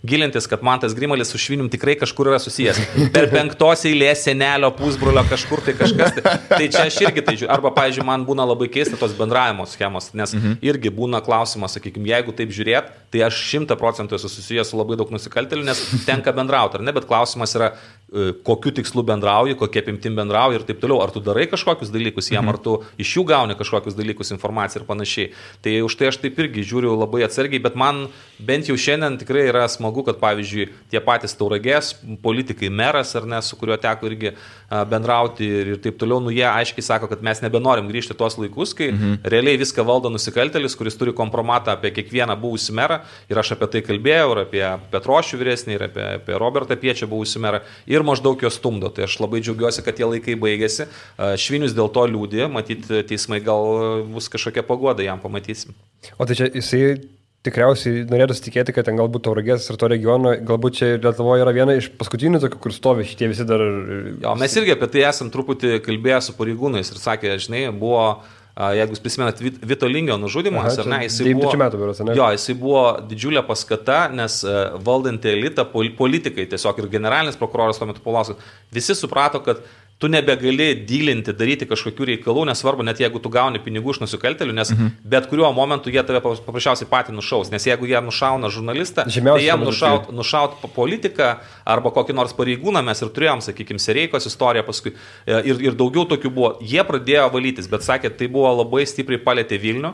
gilintis, kad man tas Grimalis su Švinium tikrai kažkur yra susijęs. Per 5 eilės senelio pusbrolio kažkur tai kažkas. Tai čia aš irgi tai žiūriu. Arba, pavyzdžiui, man būna labai keista tos bendravimo schemos, nes irgi būna klausimas, sakykime, jeigu taip žiūrėt, tai aš 100% esu susijęs su labai daug nusikaltėlių, nes tenka bendrauti, ar ne, bet klausimas yra, kokiu tikslu bendrauji, kokie apimtim bendrauji ir taip toliau, ar tu darai kažkokius dalykus jam, ar tu iš jų gauni kažkokius dalykus, informaciją ir panašiai. Tai už tai aš taip irgi žiūriu labai atsargiai, bet man bent jau šiandien tikrai yra smagu, kad pavyzdžiui, tie patys Tauragės politikai, meras, ar ne, su kuriuo teko irgi bendrauti ir taip toliau, jie aiškiai sako, kad mes nebenorim grįžti tuos laikus, kai realiai viską valdo nusikaltėlis, kuris turi kompromatą apie kiekvieną buvusį merą, ir aš apie tai kalbėjau, ir apie Petrošių vyresnį, ir apie Robertą Piečą buvusį merą, ir maždaug jo stumdo. Tai aš labai džiaugiuosi, kad tie laikai baigėsi. Švinius dėl to liūdė, matyt, teismai gal bus kažkokia paguoda, jam pamatysim. O tai čia jisai tikriausiai norėtų tikėti, kad ten galbūt Tauragės ir to regiono, galbūt čia Lietuvoje yra viena iš paskutinių tokių, kur stovi šitie visi dar... Jo, mes irgi apie tai esam truputį kalbėję su pareigūnais ir sakė, žinai, buvo... Jeigu jūs prisimenat Vito Lingio nužudimas, ar ne, jisai buvo didžiulė paskata, nes valdantį elitą, politikai tiesiog ir generalinis prokuroras tuo metu Paulauskas, visi suprato, kad tu nebegali dylinti, daryti kažkokių reikalų, nesvarbu, net jeigu tu gauni pinigų iš nusikaltėlių, nes bet kuriuo momentu jie tave paprasčiausiai patį nušaus, nes jeigu jie nušauna žurnalistą, tai jiem nušaut politiką arba kokį nors pareigūną, mes ir turėjom, sakykime, Sereikos istoriją paskui ir daugiau tokių buvo. Jie pradėjo valytis, bet sakė, tai buvo labai stipriai palėtė Vilnių.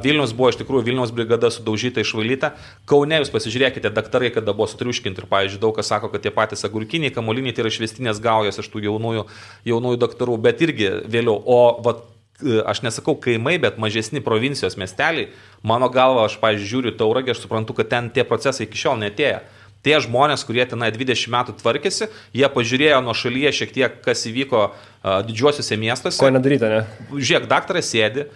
Vilnius buvo iš tikrųjų Vilniaus brigada sudaužyta, išvalyta. Kaune jūs pasižiūrėkite, daktarai kada buvo sutriuškinti ir, pavyzdžiui, daug kas sako, kad tie patys agurkiniai, kamuoliniai tai yra išvestinės gaujos iš tų jaunųjų daktarų, bet irgi vėliau. O aš nesakau kaimai, bet mažesni provincijos miesteliai, mano galva, aš, pavyzdžiui, žiūriu Tauragę, aš suprantu, kad ten tie procesai iki šiol netėjo. Tie žmonės, kurie tenai 20 metų tvarkėsi, jie pažiūrėjo nuo šalyje šiek tiek, kas įvyko didžiuosiuose miestuose. Ko nedaryta, ne? Žiūrėk, daktaras sėdi,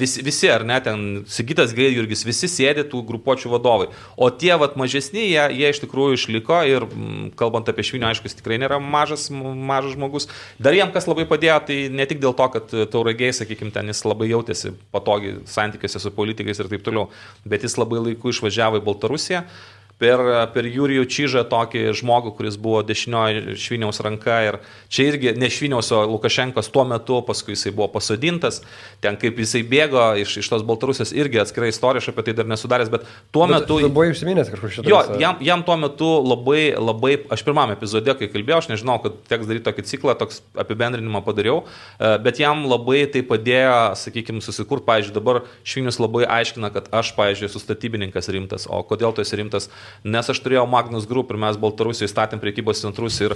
visi ar ne, ten Sigitas Gaidjurgis, visi sėdi tų grupuočių vadovai. O tie mažesni, jie iš tikrųjų išliko ir kalbant apie Švinį, aišku, jis tikrai nėra mažas žmogus. Dar jam kas labai padėjo, tai ne tik dėl to, kad Tauragiai, sakykime, ten jis labai jautėsi patogiai santykiuose su politikais ir taip toliau, bet jis labai laiku išvažiavo į Baltarusiją. Per Jurijų Čyžą tokį žmogų, kuris buvo dešinioji Šviniaus ranka ir čia irgi ne Šviniaus, o Lukašenkos tuo metu, paskui jisai buvo pasodintas, ten kaip jisai bėgo iš tos Baltarusijos irgi atskirai istorija, aš apie tai dar nesudaręs, bet tuo metu... Tu buvai užsiminęs kažkur šitą. Jo, jam tuo metu labai, aš pirmame epizode, kai kalbėjau, aš nežinau, kad teks daryti tokį ciklą, toks apibendrinimą padariau, bet jam labai tai padėjo, sakykime, susikurt, pavyzdžiui, dabar Švinius labai aiškina, kad aš, pavyzdžiui, esu statybininkas rimtas, o kodėl tu esi rimtas? Nes aš turėjau Magnus Group ir mes Baltarusijoje statėm prekybos centrus ir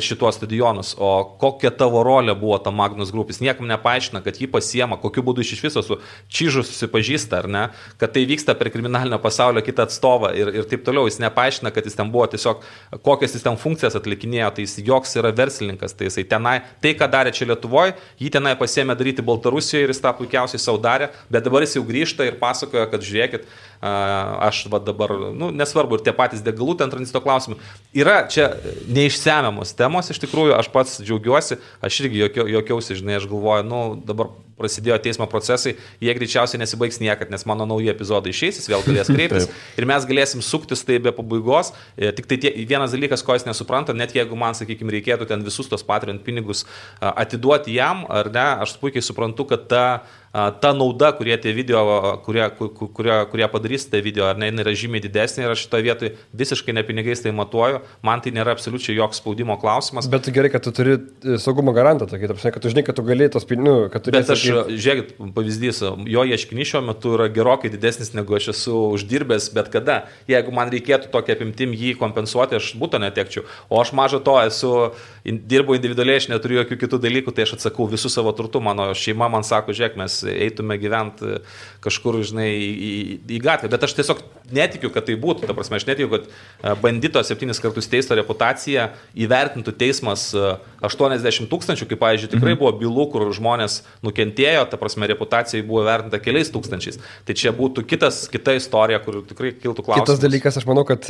šituos stadionus. O kokia tavo rolė buvo ta Magnus Group? Jis niekam nepaaiškina, kad jį pasiema, kokiu būdu iš viso su Čyžu susipažįsta, ar ne, kad tai vyksta per kriminalinio pasaulio kitą atstovą ir taip toliau. Jis nepaaiškina, kad jis ten buvo tiesiog, kokias jis ten funkcijas atlikinėjo, tai jis joks yra verslininkas, tai jisai tenai, tai ką darė čia Lietuvoje, jį tenai pasiėmė daryti Baltarusijoje ir jis tą puikiausiai savo darė, bet dabar jis jau grįžta ir pasakoja, kad žiūrėkit, aš dabar, nesvarbu, ir tie patys degalų ten tranzito klausimai. Yra čia neišsemiamos temos, iš tikrųjų, aš pats džiaugiuosi, aš irgi jokiausi, žinai, aš galvoju, dabar prasidėjo teismo procesai, jie greičiausiai nesibaigs niekad, nes mano nauji epizodai išeis, jis vėl galės kreiptis ir mes galėsim suktis tai be pabaigos. Tik tai vienas dalykas, ko jis nesupranta, net jeigu man, sakykime, reikėtų ten visus tos Patreon pinigus atiduoti jam, ar ne, aš puikiai suprantu, kad ta nauda, kurie tie video, kurie padarys tą video, ar ne, yra žymiai didesnė ir aš šitoje vietoje visiškai ne pinigais tai matuoju, man tai nėra absoliučiai joks spaudimo klausimas. Bet gerai, kad tu turi saugumo garantą, tokį, kad tu žinai, kad tu gali tos pinigus, kad tu... Bet aš, žiūrėkit, pavyzdys, jo ieškinys šiuo metu yra gerokai didesnis, negu aš esu uždirbęs bet kada. Jeigu man reikėtų tokia apimtim jį kompensuoti, aš būtų netekčiau. O aš maža to dirbu individualiai, aš neturiu jokių kitų dalykų, tai aš atsakau visų savo turtų. Mano šeima man sako, žiūrėk, mes eitume gyventi kažkur, žinai, į gatvę. Bet aš tiesiog netikiu, kad tai būtų. Ta prasme, aš netikiu, kad bandito 7 kartus teisto reputaciją įvertintų teismas 80 000, kaip, pavyzdžiui, tikrai buvo bylų, kur žmonės nukentėjo, ta prasme, reputacijai buvo vertinta keliais tūkstančiais. Tai čia būtų kita istorija, kur tikrai kiltų klausimas. Kitas dalykas, aš manau, kad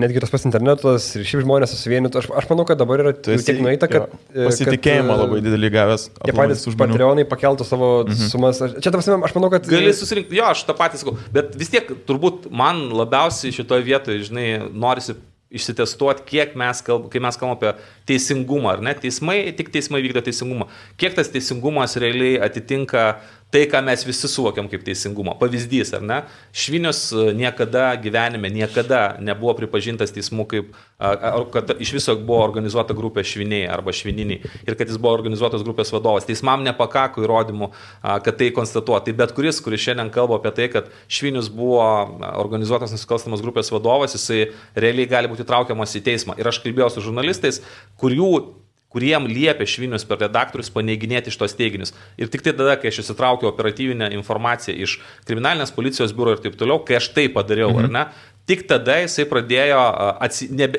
netgi tas pats internetas ir šiaip žmonės susivienytų, aš manau, kad dabar yra tiek nueita, kad... Pasitikėjimą labai didelį gavęs. Jie patys Patreonai pakeltų savo sumas. Čia, ta prasme, aš manau, kad... Gali susirinkti, jo, aš tą patį sakau, bet vis tiek turbūt man labiausiai šitoje vietoje, žinai, norisi išsitestuoti, kiek kai mes kalbame apie teisingumą, ar ne? Tik teismai vykdo teisingumą. Kiek tas teisingumas realiai atitinka tai, ką mes visi suvokiam kaip teisingumą. Pavyzdys, ar ne? Švinius niekada gyvenime, nebuvo pripažintas teismų kaip, kad iš viso buvo organizuota grupė šviniai arba švininiai ir kad jis buvo organizuotos grupės vadovas. Teismam nepakako įrodymų, kad tai konstatuoja. Tai bet kuris šiandien kalba apie tai, kad Švinius buvo organizuotos nusikalstamos grupės vadovas, jisai realiai gali būti traukiamas į teismą. Ir aš kalbėjau su žurnalistais, kuriem liepė Švinius per redaktorius paneiginėti šitos teiginius. Ir tik tai tada, kai aš įsitraukiau operatyvinę informaciją iš kriminalinės policijos biuro ir taip toliau, kai aš tai padariau, ar ne, tik tada jisai pradėjo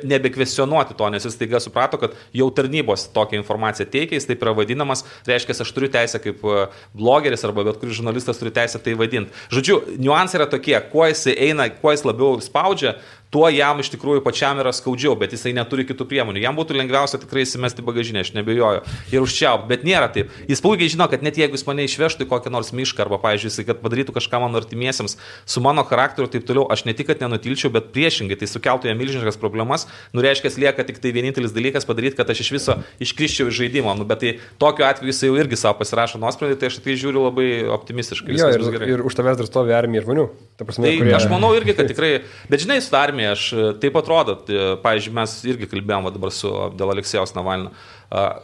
nebekvestionuoti to, nes jis taiga suprato, kad jau tarnybos tokią informaciją teikia, jis taip yra vadinamas, reiškia, aš turiu teisę kaip blogeris arba bet kuris žurnalistas turi teisę tai vadinti. Žodžiu, niuansai yra tokie, kuo jis eina, kuo jis labiau spaudžia, tuo jam iš tikrųjų pačiam yra skaudžiau, bet jisai neturi kitų priemonių. Jam būtų lengviausia tikrai įsimesti bagažinę, aš nebejoju, ir užčiaupt, bet nėra taip. Jis puikiai žino, kad net jeigu jis mane išvežtų į kokią nors mišką arba, pavyzdžiui, jisai, kad padarytų kažką mano artimiesiems su mano charakteriu ir taip toliau, aš ne tik, kad nenutilčiau, bet priešingai, tai sukeltų jam milžiniškas problemas, reiškia, lieka tik tai vienintelis dalykas padaryti, kad aš iš viso iškriščiau iš žaidimo. Bet tai tokiu atveju jisai jau irgi savo pasirašo nuosprendį, tai aš tai žiūriu labai optimistiškai. Jo, ir už tavęs dar stovi armija žmonių. Prasme, tai aš manau irgi, kad tikrai, bet žinai, su armija aš taip atrodo, pavyzdžiui, mes irgi kalbėjome dabar dėl Aleksejaus Navalno.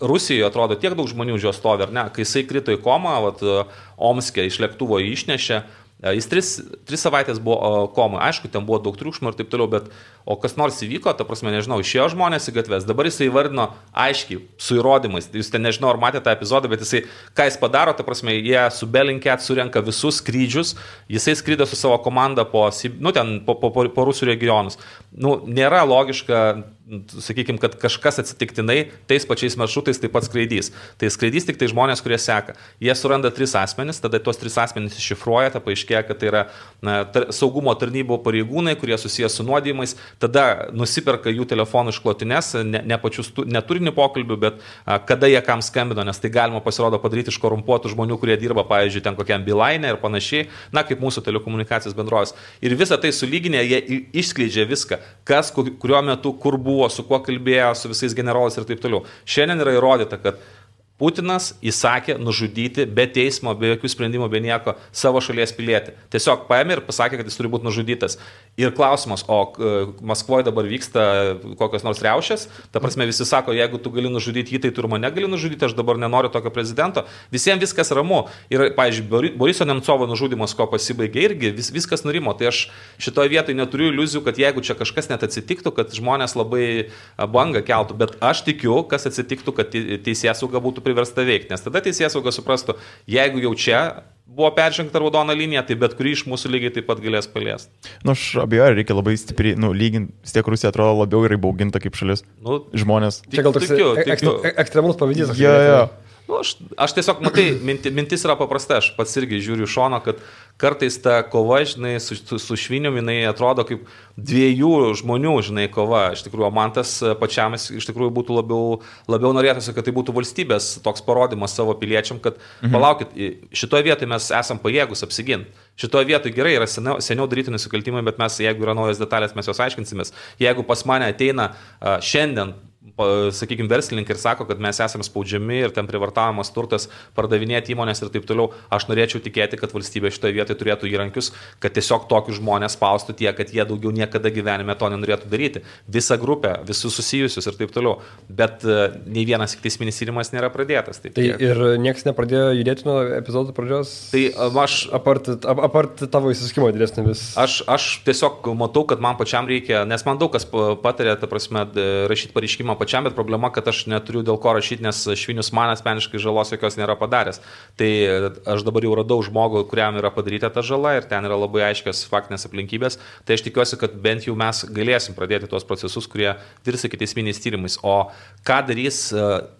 Rusijoje atrodo tiek daug žmonių už jo stovi, ar ne? Kai jisai krito į komą, Omske iš lėktuvo jį išnešė, Jis 3 savaitės buvo komui, aišku, ten buvo daug triukšmo ir taip toliau, bet o kas nors įvyko, ta prasme, nežinau, išėjo žmonės į gatves, dabar jisai įvardino aiškiai, su įrodymais, jūs ten nežinau, ar matėte tą epizodą, bet jisai, ką jis padaro, ta prasme, jie su Bellingcat surenka visus skrydžius, jisai skrydė su savo komanda po Rusų regionus. Nėra logiška, sakykime, kad kažkas atsitiktinai tais pačiais maršrutais taip pat skraidys. Tai skraidys tik tai žmonės, kurie seka. Jie suranda 3 asmenis, tada tuos 3 asmenis iššifruoja, ta paaiškėja, kad tai yra saugumo tarnybų pareigūnai, kurie susijęs su nuodijimais, tada nusiperka jų telefonų išklotines, ne turinį pokalbių, bet kada jie kam skambino, nes tai galima pasirodo padaryti iš korumpuotų žmonių, kurie dirba, pavyzdžiui, ten kokiam Beeline ir panašiai, kaip mūsų telekomunikacijos bendrovės. Ir visą tai sulyginę, jie išskleidžia viską, kas, kuriuo metu, kur buvo, su kuo kalbėjo, su visais generolais ir taip toliau. Šiandien yra įrodyta, kad Putinas įsakė nužudyti be teismo, be jokių sprendimų, be nieko savo šalies pilietį. Tiesiog paėmė ir pasakė, kad jis turi būti nužudytas. Ir klausimas, o Maskvoje dabar vyksta kokios nors riaušės, ta prasme visi sako, jeigu tu gali nužudyti jį, tai tu ir mane gali nužudyti, aš dabar nenoriu tokio prezidento. Visiems viskas ramu. Ir, pavyzdžiui, Boriso Nemcovo nužudymas, ko pasibaigė, irgi viskas nurimo. Tai aš šitoje vietoje neturiu iliuzijų, kad jeigu čia kažkas net atsitiktų, kad žmonės labai bangą keltų, bet aš tikiu, kas atsitiktų, kad teisėsauga būtų priversta veikti, nes tada teisėsauga suprastų, jeigu jau čia buvo peržengta raudona linija, tai bet kurį iš mūsų lygiai taip pat galės paliesti. Aš abejoju, reikia labai stipriai, lyginti, vis tiek Rusija atrodo labiau yra įbauginta kaip šalis. Žmonės. Čia gal toks ekstremalus pavyzdys. Aš tiesiog, matai, mintis yra paprasta, aš pats irgi žiūriu šono, kad kartais ta kova, žinai, su švinium, jinai atrodo kaip 2 žmonių, žinai, kova. Iš tikrųjų, man tas pačiam iš tikrųjų būtų labiau norėtųsi, kad tai būtų valstybės toks parodymas savo piliečiam, kad palaukit, šitoje vietoje mes esam pajėgus apsiginti. Šitoje vietoje gerai yra seniau daryti nusikaltimai, bet mes, jeigu yra naujas detalės, mes jos aiškinsimės. Jeigu pas mane ateina šiandien, sakykime, verslininkai ir sako, kad mes esame spaudžiami ir ten privartavimas turtas, pardavinėti įmonės ir taip toliau, aš norėčiau tikėti, kad valstybė šitoje vietoje turėtų įrankius, kad tiesiog tokius žmonės spaustų tiek, kad jie daugiau niekada gyvenime to nenorėtų daryti. Visą grupę, visus susijusius ir taip toliau. Bet nei vienas teisminis tyrimas nėra pradėtas. Tai ir niekas nepradėjo judėti nuo epizodo pradžios? Tai aš... Apart tavo įsiskimo didesnį vis. Aš tiesiog matau, kad man pačiam reikia, nes man daug kas patarė, ta prasme, rašyti pareiškimą pačiam, bet problema, kad aš neturiu dėl ko rašyti, nes Švinius man asmeniškai žalos jokios nėra padaręs. Tai aš dabar jau radau žmogų, kuriam yra padaryta ta žala ir ten yra labai aiškios faktinės aplinkybės. Tai aš tikiuosi, kad bent jau mes galėsim pradėti tuos procesus, kurie virs iki teisminiais tyrimais. O ką darys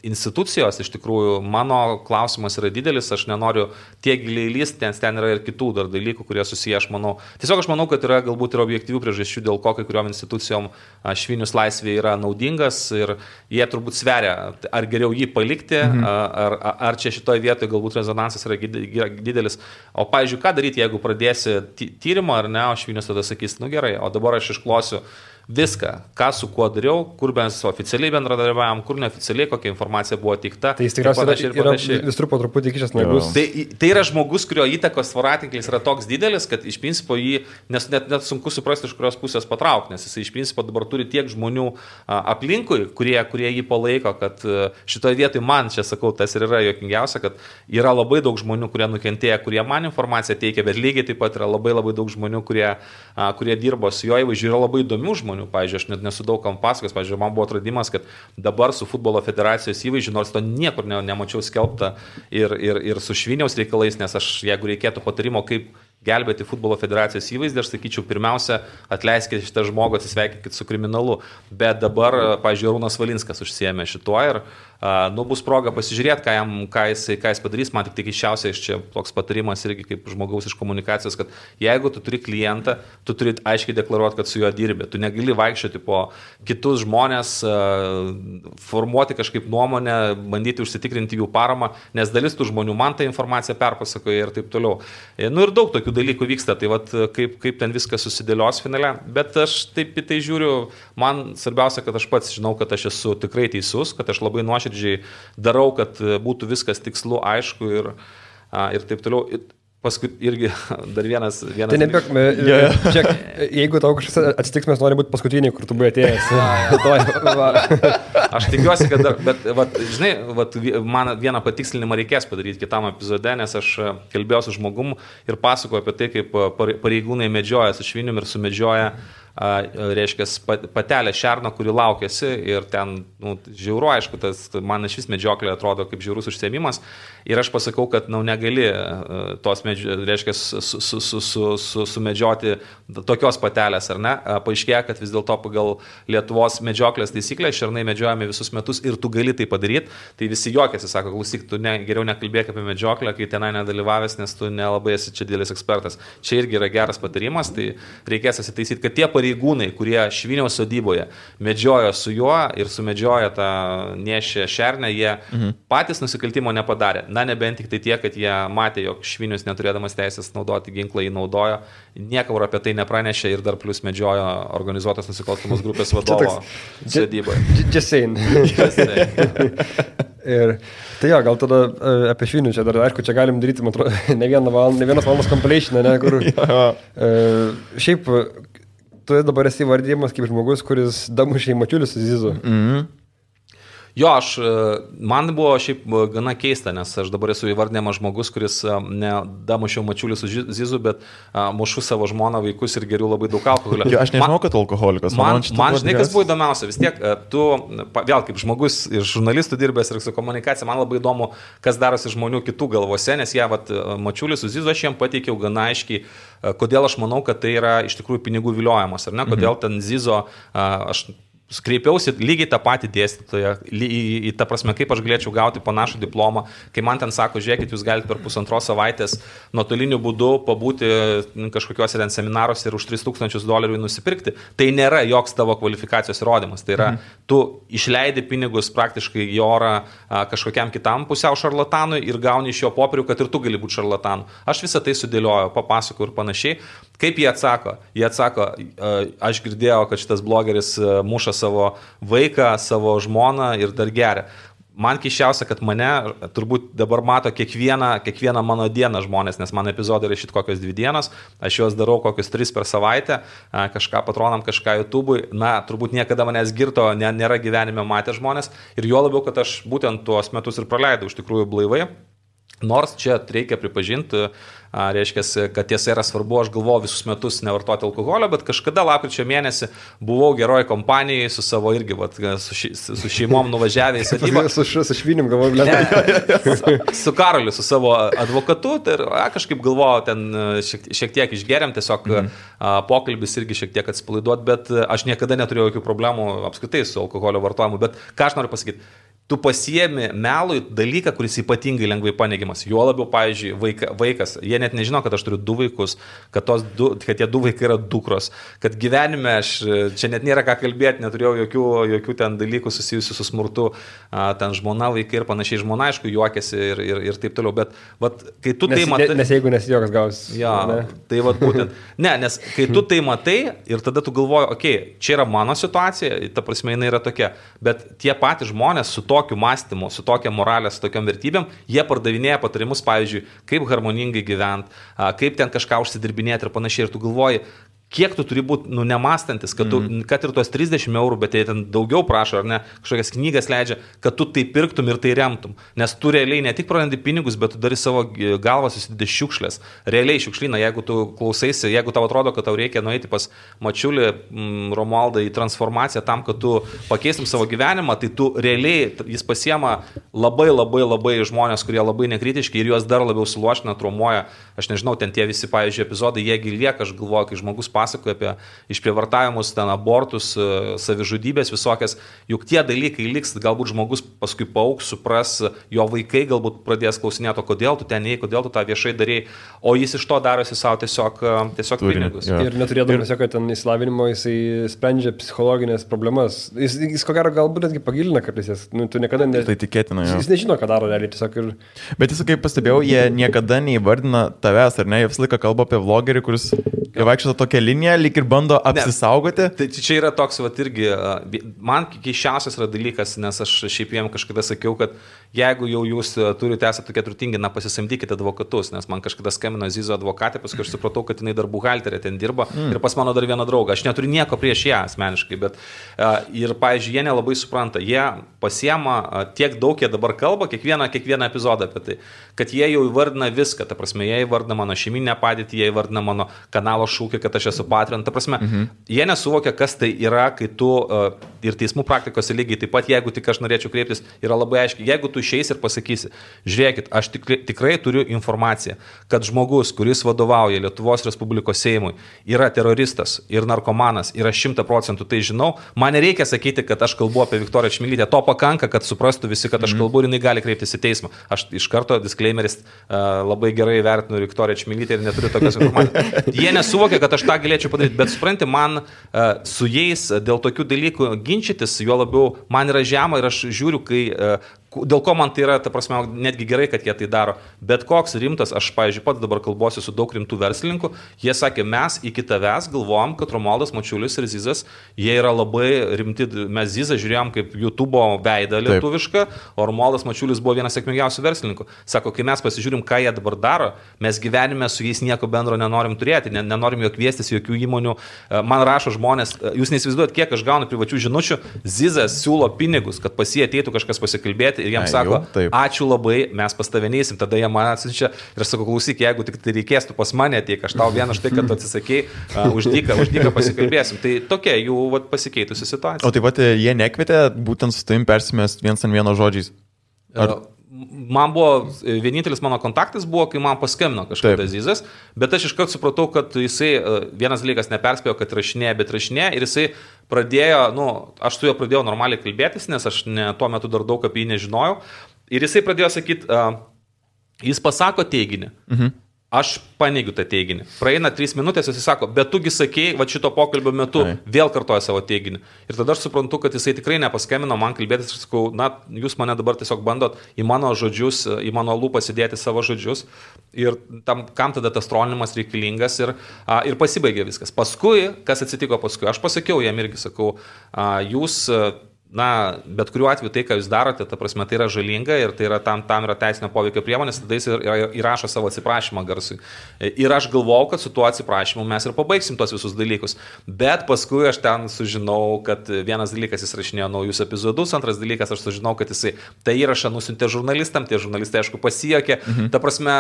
institucijos, iš tikrųjų, mano klausimas yra didelis, aš nenoriu tiek giliai lysti, nes ten yra ir kitų dar dalykų, kurie susiję, aš manau. Tiesiog aš manau, kad yra galbūt ir objektyvių priežasčių, dėl ko kai kuriuom institucijom Švinius laisvė yra naudingas. Ir jie turbūt sveria, ar geriau jį palikti, ar čia šitoje vietoje galbūt rezonansas yra didelis. O, pavyzdžiui, ką daryti, jeigu pradėsi tyrimą, ar ne, o Švinius tada sakys, gerai, o dabar aš išklosiu viską, ką su kuo dariau, kur mes oficialiai bendradarbiavom, kur neoficialiai, kokia informacija buvo teikta. Tai jis tikriausiai yra visur po truputį kišęs nagus. Tai yra žmogus, kurio įtakos voratinklis yra toks didelis, kad iš principo jį net sunku suprasti, iš kurios pusės patraukti, nes jis iš principo dabar turi tiek žmonių aplinkui, kurie jį palaiko, kad šitoje vietoje man, čia sakau, tas ir yra juokingiausia, kad yra labai daug žmonių, kurie nukentėjo, kurie man informaciją teikia, bet lygiai taip pat yra labai daug žmonių, kurie dirbo su jo įvaizdžiu, yra labai įdomių žmonių. Pavyzdžiui, aš net nesu daug kam pasakojęs, pavyzdžiui, man buvo atradimas, kad dabar su futbolo federacijos įvaizdžiu, nors to niekur nemačiau skelbta ir su Šviniaus reikalais, nes aš, jeigu reikėtų patarimo, kaip gelbėti futbolo federacijos įvaizdį, aš sakyčiau, pirmiausia, atleiskite šitą žmogų, atsisveikinkite su kriminalu. Bet dabar, pavyzdžiui, Arūnas Valinskas užsiėmė šituo ir bus proga pasižiūrėti, ką jis padarys. Man tik keisčiausia iš čia toks patarimas irgi kaip žmogaus iš komunikacijos, kad jeigu tu turi klientą, tu turi aiškiai deklaruoti, kad su juo dirbi. Tu negali vaikščioti po kitus žmonės, formuoti kažkaip nuomonę, bandyti užsitikrinti jų paramą, nes dalis tų žmonių man tą informaciją perpasakoja ir taip toliau. Ir daug tokių dalykų vyksta, tai vat, kaip ten viskas susidėlios finale. Bet aš taip į tai žiūriu, man svarbiausia, kad aš pats žinau, kad aš esu tikrai teisus, kad aš labai nuoširdžiai darau, kad būtų viskas tikslu, aišku ir taip toliau. paskui irgi dar vienas. Tai nebėk, čia, jeigu tau kažkas atsitiks, mes norime būti paskutiniai, kur tu buvai atėjęs. Aš tikiuosi, kad dar, bet, žinai, man vieną patikslinimą reikės padaryti kitam epizode, nes aš kalbėjau su žmogum ir pasakoju apie tai, kaip pareigūnai medžioja su švinium ir sumedžioja reiškia patelę šerną, kuri laukėsi ir ten, žiauru, aišku, man iš vis medžioklė atrodo kaip žiaurus užsiėmimas ir aš pasakau, kad, negali tos, reiškia, sumedžioti tokios patelės, ar ne? Paaiškėja, kad vis dėlto pagal Lietuvos medžioklės taisyklę šernai medžiojami visus metus ir tu gali tai padaryti, tai visi juokiasi, sako, klausyk, tu geriau nekalbėk apie medžioklę, kai tenai nedalyvavęs, nes tu nelabai esi čia didelis ekspertas. Čia irgi yra geras patarimas, tai reikės asitaisyti, kad tie pareigūnai, kurie Šviniaus sodyboje medžiojo su juo ir sumedžiojo tą nešę šernę, jie patys nusikaltimo nepadarė. Na, nebent tik tai tie, kad jie matė, jog Švinius neturėdamas teisės naudoti ginklą jį naudojo, niekur apie tai nepranešė ir dar plus medžiojo organizuotos nusikalstamos grupės vadovo sodyboje. Just saying. Ir tai gal tada apie Švinių čia dar, aišku, čia galim daryti, man atrodo, ne vienas valandos compilation, ne, kur šiaip tu dabar esi vardėjimas kaip žmogus, kuris damušė į mačiulius su Zizu. Jo, man buvo šiaip gana keista, nes aš dabar esu įvardinamas žmogus, kuris ne damušiau mačiulį su Zizu, bet mušu savo žmoną, vaikus ir geriu labai daug alkoholio. Jo, aš nežinau, kad alkoholikas. Man žinai, kas buvo įdomiausia, vis tiek tu, vėl kaip žmogus ir žurnalistų dirbęs ir su komunikacija, man labai įdomu, kas darosi žmonių kitų galvose, nes jie, mačiulį su Zizu aš jiem pateikiau gana aiškiai, kodėl aš manau, kad tai yra iš tikrųjų pinigų viliojimas, ar ne, kodėl ten Zizo, aš kreipiausi lygiai tą patį dėstytoją, į tą prasme, kaip aš galėčiau gauti panašų diplomą, kai man ten sako, žiūrėkit, jūs galite per 1,5 savaitės nuotoliniu būdu pabūti kažkokiuose ten seminaruose ir už $3,000 nusipirkti. Tai nėra joks tavo kvalifikacijos įrodymas. Tai yra, tu išleidi pinigus praktiškai į orą kažkokiam kitam pusiau šarlatanui ir gauni iš jo popierių, kad ir tu gali būti šarlatanu. Aš visą tai sudėlioju, papasakoju ir panašiai. Kaip jie atsako? Jie atsako, aš girdėjau, kad šitas blogeris muša savo vaiką, savo žmoną ir dar geria. Man keiščiausia, kad mane turbūt dabar mato kiekvieną mano dieną žmonės, nes mano epizodai yra šit kokios 2 dienos, aš juos darau kokius 3 per savaitę, kažką patronam, kažką YouTube'ui, turbūt niekada manęs girto nėra gyvenime matę žmonės ir juo labiau, kad aš būtent tuos metus ir praleidau iš tikrųjų blaivai. Nors čia reikia pripažinti, reiškia, kad tiesa yra svarbu, aš galvoju visus metus nevartoti alkoholio, bet kažkada lapkričio mėnesį buvau geroj kompanijai su savo irgi, su šeimom nuvažiavę į sodybą. Su Švinim galvoju, su Karoliu, su savo advokatu, tai kažkaip galvoju, ten šiek tiek išgeriam, tiesiog pokalbis irgi šiek tiek atsipalaiduot, bet aš niekada neturėjau jokių problemų apskritai su alkoholio vartojimu, bet ką aš noriu pasakyti? Tu pasiemi melui dalyką, kuris ypatingai lengvai paneigiamas. Jo labiau, pavyzdžiui, vaikas, jie net nežino, kad aš turiu 2 vaikus, kad tie 2 vaikai yra dukros, kad gyvenime aš čia net nėra ką kalbėti, neturėjau jokių ten dalykų susijusių su smurtu, ten žmona, vaikai ir panašiai, žmona, aišku, juokiasi ir taip toliau, bet kai tu tai matai... Nes jeigu nesijuokas gaus. Ja, tai būtent. Ne, nes kai tu tai matai ir tada tu galvoji, okei, čia yra mano situacija, ta prasme, jinai yra tokia, bet tie patys žmonės su tokiu mąstymu, su tokia moralė, su tokiam vertybėm, jie pardavinėja patarimus, pavyzdžiui, kaip harmoningai gyventi, kaip ten kažką užsidirbinėti ir panašiai. Ir tu galvoji, kiek tu turi būti nemąstantis, kad ir tuos 30 €, bet jie ten daugiau prašo, ar ne, kažkokias knygas leidžia, kad tu tai pirktum ir tai remtum. Nes tu realiai ne tik prarandi pinigus, bet tu dari savo galvą susidedi šiukšlės. Realiai šiukšlyną, jeigu tu klausaisi, jeigu tau atrodo, kad tau reikia nueiti pas Mačiulį, Romualdą į transformaciją tam, kad tu pakeistum savo gyvenimą, tai tu realiai, jis pasiema labai žmonės, kurie labai nekritiški ir juos dar labiau suluošina, traumuoja. Aš nežinau, ten tie visi, pavyzdžiui, epizodai, jiegi lieka, aš galvoju, kai žmogus pasakoja apie išprievartavimus, ten abortus, savižudybės visokias, juk tie dalykai liks, galbūt žmogus paskui paaugs, supras, jo vaikai galbūt pradės klausinėti, kodėl tu ten ei, kodėl tu tą viešai darėjai, o jis iš to darosi savo tiesiog pinigus. Ja. Ir neturėdamas jokio ten įsilavinimo, jisai sprendžia psichologinės problemas. Jis ko gero galbūt netgi pagilina kartais, tu niekada Tai tikėtina, jo. Jis nežino, ką daro realiai, tiesiog ir... Bet jis, kaip pastebėjau, jie niekada neįvardina tavęs, ar ne, jie visą laiką kalba apie vlogerį, kuris vaikščia tokia linija, liniją, lyg ir bando apsisaugoti. Tai čia yra toks, va, irgi, man keiščiausias yra dalykas, nes aš šiaip jiem kažkada sakiau, kad jeigu jau jūs turite esate tokie turtingi, pasisamdykite advokatus, nes man kažkada skambino Zizo advokatė, paskui aš supratau, kad jinai dar buhalterė ten dirba ir pas mano dar vieną draugą. Aš neturiu nieko prieš ją asmeniškai, bet ir, pavyzdžiui, jie nelabai supranta, jie pasiema tiek daug, jie dabar kalba, kiekvieną epizodą apie tai, kad jie jau įvardina viską, ta prasme, jie įvardina mano šeiminę padėtį, jie įvardina mano kanalo šūkį, kad aš esu Patreon, ta prasme, jie nesuvokia, kas tai yra, kai tu ir teismų praktikose lygiai taip pat, jeigu tik aš norėčiau kreiptis, yra labai aiškiai, jeigu tu išeisi ir pasakysi, žiūrėkit, aš tikrai turiu informaciją, kad žmogus, kuris vadovauja Lietuvos Respublikos Seimui, yra teroristas ir narkomanas, yra 100%, tai žinau, man nereikia sakyti, kad aš kalbu apie Viktoriją Čmilytę, to pakanka, kad suprastų visi, kad aš kalbu ir jinai gali kreiptis į teismą. Aš iš karto, disclaimeris, labai gerai vertinu Viktoriją Čmilytę ir neturiu tokios informacijos. Jie nesuvokia, kad aš tą galėčiau padaryti, bet supranti, man su jais dėl tokių dalykų ginčytis, juo labiau man yra žema ir aš žiūriu, dėl ko man tai yra, ta prasme, netgi gerai, kad jie tai daro. Bet koks rimtas, aš, pavyzdžiui, pats dabar kalbuosiu su daug rimtų verslininkų, jie sakė, mes iki tavęs galvojom, kad Romualdas Mačiulis ir Zizas, jie yra labai rimti, mes Zizą žiūrėjom kaip YouTube'o veidą lietuvišką, o Romualdas Mačiulis buvo vienas sėkmingiausių verslininkų. Sako, kai mes pasižiūrim, ką jie dabar daro, mes gyvenime su jais nieko bendro nenorim turėti, nenorim jo kviestis jokių įmonių. Man rašo žmonės, jūs neįsivaizduojat, kiek aš gaunu privačių žinučių, Zizas siūlo pinigus, kad pas jį ateitų kažkas pasikalbėti. Ir jiems sako, ačiū labai, mes pas tave neįsim, tada jie man atsiunčia ir sako, klausyk, jeigu tik tai reikės, tu pas mane ateik, aš tau vieną štai, kad tu atsisakei, už dyką pasikalbėsim. Tai tokia jų pasikeitusi situacija. O taip pat jie nekvietė būtent su tavim persimest viens ant vieno žodžiais? Man buvo, vienintelis mano kontaktas buvo, kai man paskambino kažkada Zizas, bet aš iškart supratau, kad jisai, vienas dalykas neperspėjo, kad rašinėja, bet rašinėja ir jisai pradėjo, aš su juo pradėjau normaliai kalbėtis, nes aš tuo metu dar daug apie jį nežinojau ir jisai pradėjo sakyti, jis pasako teiginį. Aš paneigiu tą teiginį. Praeina 3 minutės, jis sako, bet tugi sakei, va šito pokalbio metu vėl kartoja savo teiginį. Ir tada aš suprantu, kad jisai tikrai nepaskambino man kalbėtis ir sakau, jūs mane dabar tiesiog bandot į mano žodžius, į mano lūpas įdėti savo žodžius. Ir kam tada tas trolinimas reikalingas ir pasibaigė viskas. Paskui, kas atsitiko paskui, aš pasakiau jam irgi, sakau, jūs... bet kuriuo atveju tai, ką jūs darote, ta prasme, tai yra žalinga ir tai yra tam yra teisinio poveikio priemonės, tada jis įrašo savo atsiprašymą garsui. Ir aš galvojau, kad su tuo atsiprašymu mes ir pabaigsim tos visus dalykus. Bet paskui aš ten sužinau, kad vienas dalykas jis rašinėjo naujus epizodus, antras dalykas aš sužinau, kad jisai tą įrašą nusiuntė žurnalistam, tie žurnalistai aišku pasijokė, ta prasme,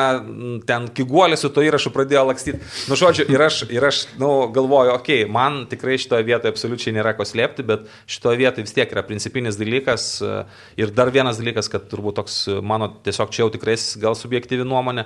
ten kiguolė su to įrašu pradėjo lakstyti. Žodžiu, ir aš galvoju, okei, man tikrai šitoje vietoje absoliučiai nėra ko slėpti, bet šitoje vietoje vis tiek yra principinis dalykas ir dar vienas dalykas, kad turbūt toks mano tiesiog čia jau tikrai gal subjektyvi nuomonė,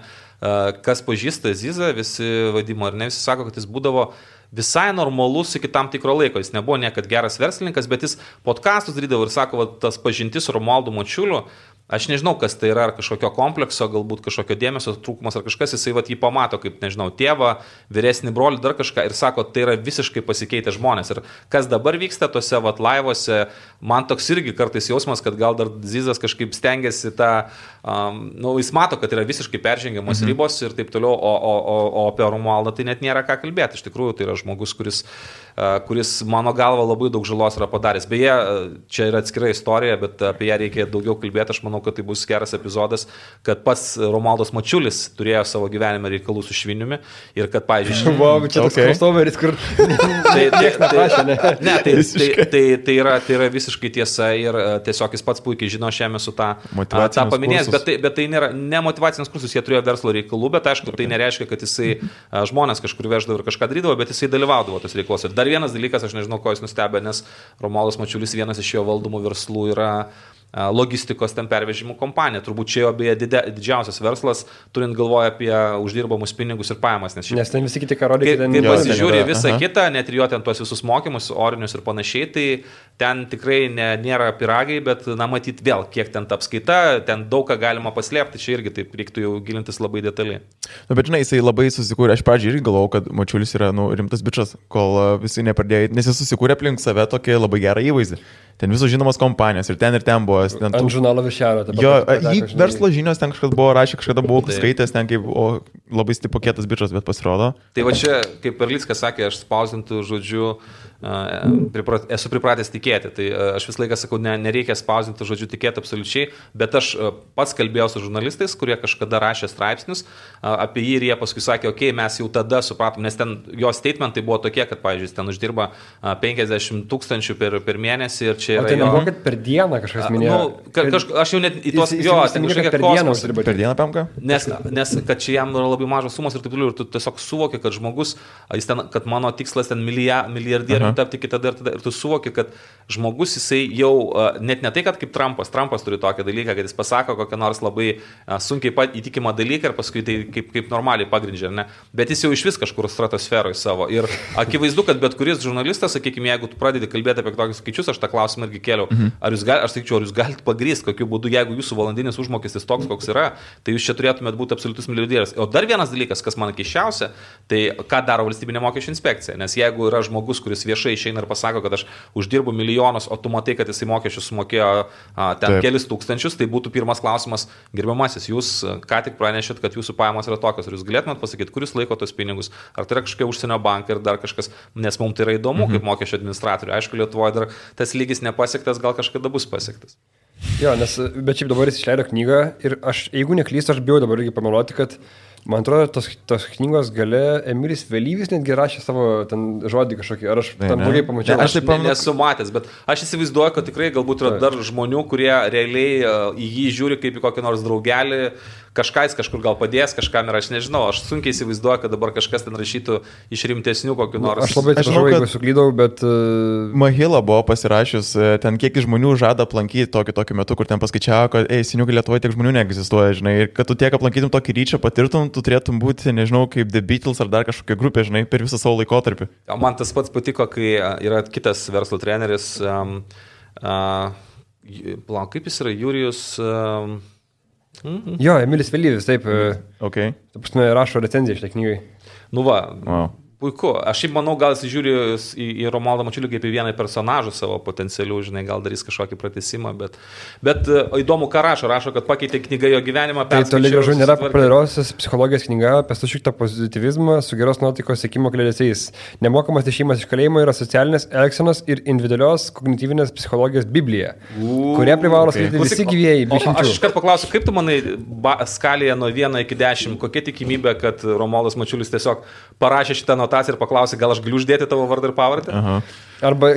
kas pažįsta Zizą, visi vadimo ar ne, visi sako, kad jis būdavo visai normalus iki tam tikro laiko, jis nebuvo niekad geras verslininkas, bet jis podcastus darydavo ir sako, tas pažintis su Romualdu Mačiuliu, aš nežinau, kas tai yra, ar kažkokio komplekso, galbūt kažkokio dėmesio trūkumas ar kažkas, jisai jį pamato kaip, nežinau, tėvą, vyresnį brolį, dar kažką ir sako, tai yra visiškai pasikeitę žmonės. Ir kas dabar vyksta tose laivuose, man toks irgi kartais jausmas, kad gal dar Zizas kažkaip stengiasi jis mato, kad yra visiškai peržengiamos ribos ir taip toliau, o apie Romualdą tai net nėra ką kalbėti. Iš tikrųjų, tai yra žmogus, kuris mano galva labai daug žalos yra padaręs. Beje, čia yra atskira istorija, bet apie ją reikia daugiau kalbėti. Aš manau, kad tai bus geras epizodas, kad pats Romualdas Mačiulis turėjo savo gyvenime reikalų su šviniumi ir kad, pavyzdžiui... Čia toks crossoveris, kur... Tai yra visiškai tiesa ir tiesiog jis pats puikiai žino šiame su tą paminėjęs, bet tai nėra ne motyvacinis kursus, jie turėjo verslo reikalų, bet aišku, tai nereiškia, kad jisai žmonės kažkur veždavo ir kažką darydavo, bet jisai dalyvaudavo tos reikaluose. Dar vienas dalykas, aš nežinau, ko jis nustebė, nes Romualdas Mačiulis vienas iš jo valdomų verslų yra logistikos ten pervežimų kompanija. Turbūt čia jo beje didžiausias verslas, turint galvoje apie uždirbamus pinigus ir pajamas. Nes ten visi kiti karodė, kai pasižiūrė visą kitą, net ir jo ten tuos visus mokymus, orinius ir panašiai, tai ten tikrai nėra piragai, bet, matyt, vėl, kiek ten ta apskaita, ten daug ką galima paslėpti, čia irgi taip reiktų jau gilintis labai detaliai. Bet žinai, jisai labai susikūrė, aš pradžiai irgi galvojau, kad Mačiulis yra rimtas bičas, kol visi nepradėjo, nes jis susikūrė aplink save tokį labai gerą įvaizdį. Ten visos žinomos kompanijos ir ten buvo buvo. Ant žurnalo Višelio. Jo, jį verslo žinios ten kažkas buvo rašę, kažkada buvau skaitęs ten kaip labai stipokėtas bičias, bet pasirodo. Tai va čia, kaip Perlickas sakė, aš spausdintų žodžiu, esu pripratęs tikėti. Tai aš visą laiką sakau, nereikia spausdinti žodžiu tikėti absoliučiai, bet aš pats kalbėjau su žurnalistais, kurie kažkada rašė straipsnius apie jį ir jie paskui sakė, okei, mes jau tada supratom, nes ten jo statementai buvo tokie, kad, pavyzdžiui, ten uždirba 50 000 per mėnesį ir čia yra... O tai nebuvo, kad per dieną kažkas minėjo? Aš jau net į tos... Jo, ten kažkokia kosmos. Per dieną pamka? Nes kad čia jam yra labai mažos sumos ir taip toliau, ir tu tiesiog suvoki, kad žmogus, kad mano tikslas ten milijardierių tapti iki tada ir tu suvoki, kad žmogus jisai jau, net ne tai, kad kaip Trumpas turi tokį dalyką, kad jis pasako kokią nors labai sunkiai įtikimą dalyką ir paskui tai kaip normaliai pagrindžia, ne? Bet jis jau iš vis kažkur stratosferoje savo. Ir akivaizdu, kad bet kuris žurnalistas, sakykime, jeigu tu pradedi kalbėti apie tokius skaičius, aš tą klausimą irgi kėliau, ar jūs galite pagrįsti, kokiu būdu, jeigu jūsų valandinis užmokestis toks, koks yra, tai jūs čia turėtumėt būti absoliutus milijardierius. O dar vienas dalykas, kas man keisčiausia, tai ką daro valstybinė mokesčių inspekcija. Nes jeigu yra žmogus, kuris viešai išeina ir pasako, kad aš uždirbu milijonus, o tu matai, kad jisai mokesčius sumokėjo ten kelis tūkstančius, tai būtų pirmas klausimas, gerbiamasis, jūs ką tik pranešėt, kad jūsų pajamos yra tokios, ar jūs galėtumėt pasakyti, kuris laiko tos pinigus, ar tai yra kažkokia užsienio banka ir dar kažkas, nes mums tai yra įdomu kaip mokesčio administratoriui. Aišku, Lietuvoje dar tas lygis nepasiektas, gal kažkada bus pasiektas. Jo, bet šiaip dabar jis išleido knygą ir aš, jeigu neklystu, aš bijau dabar irgi pameluoti, kad man atrodo, tos knygos gale Emilis Vėlyvis netgi rašė savo ten žodį kažkokį, ar aš tam blogai pamačiau. Aš taip nesu matęs, bet aš įsivaizduoju, kad tikrai galbūt yra dar žmonių, kurie realiai į jį žiūri kaip į kokį nors draugelį, kažkas kažkur gal padės, kažkam ir aš nežinau, aš sunkiai įsivaizduoju, kad dabar kažkas ten rašytų iš rimtesnių kokių nors. Aš labai atsiprašau, jeigu suklydau, bet... Mahila buvo pasirašius, ten kiek žmonių žada aplankyti tokiu metu, kur ten paskaičiavo, kad, seniukai Lietuvoje tiek žmonių neegzistuoja, žinai, ir kad tu tiek aplankytum tokį ryčą, patirtum, tu turėtum būti, nežinau, kaip The Beatles ar dar kažkokia grupė, žinai, per visą savo laikotarpį. Man tas pats patiko, kai yra kitas verslo treneris, kaip jis yra, Jurijus... Jo, Emilis Vėlyvis, taip. Okay. Taip, rašo recenziją šitai knygai. Nu va, puiku. Aš šiaip manau, gal jis žiūri į Romualdą Mačiulį kaip į vieną personažą savo potencialių, žinai, gal darys kažkokį pratesimą, bet įdomu, ką rašo, kad pakeitė knygą jo gyvenimą. Tai toli gražu nėra populiariausias psichologijos knyga apie sušiktą pozityvizmą su geros nuotaikos siekimo kliedesiais. Nemokamas išėjimas iš kalėjimo yra socialinės elgsenos ir individualios kognityvinės psichologijos Biblija, kurią privalo skaityti visi gyvieji. Aš iškart paklausiu, kaip tu manai skalėje nuo 1 iki 10, kokia tikimybė, kad Romualdas Mačiulis tiesiog parašė šitą notaciją ir paklausė, gal aš galiu uždėti tavo vardą ir pavardę? Arba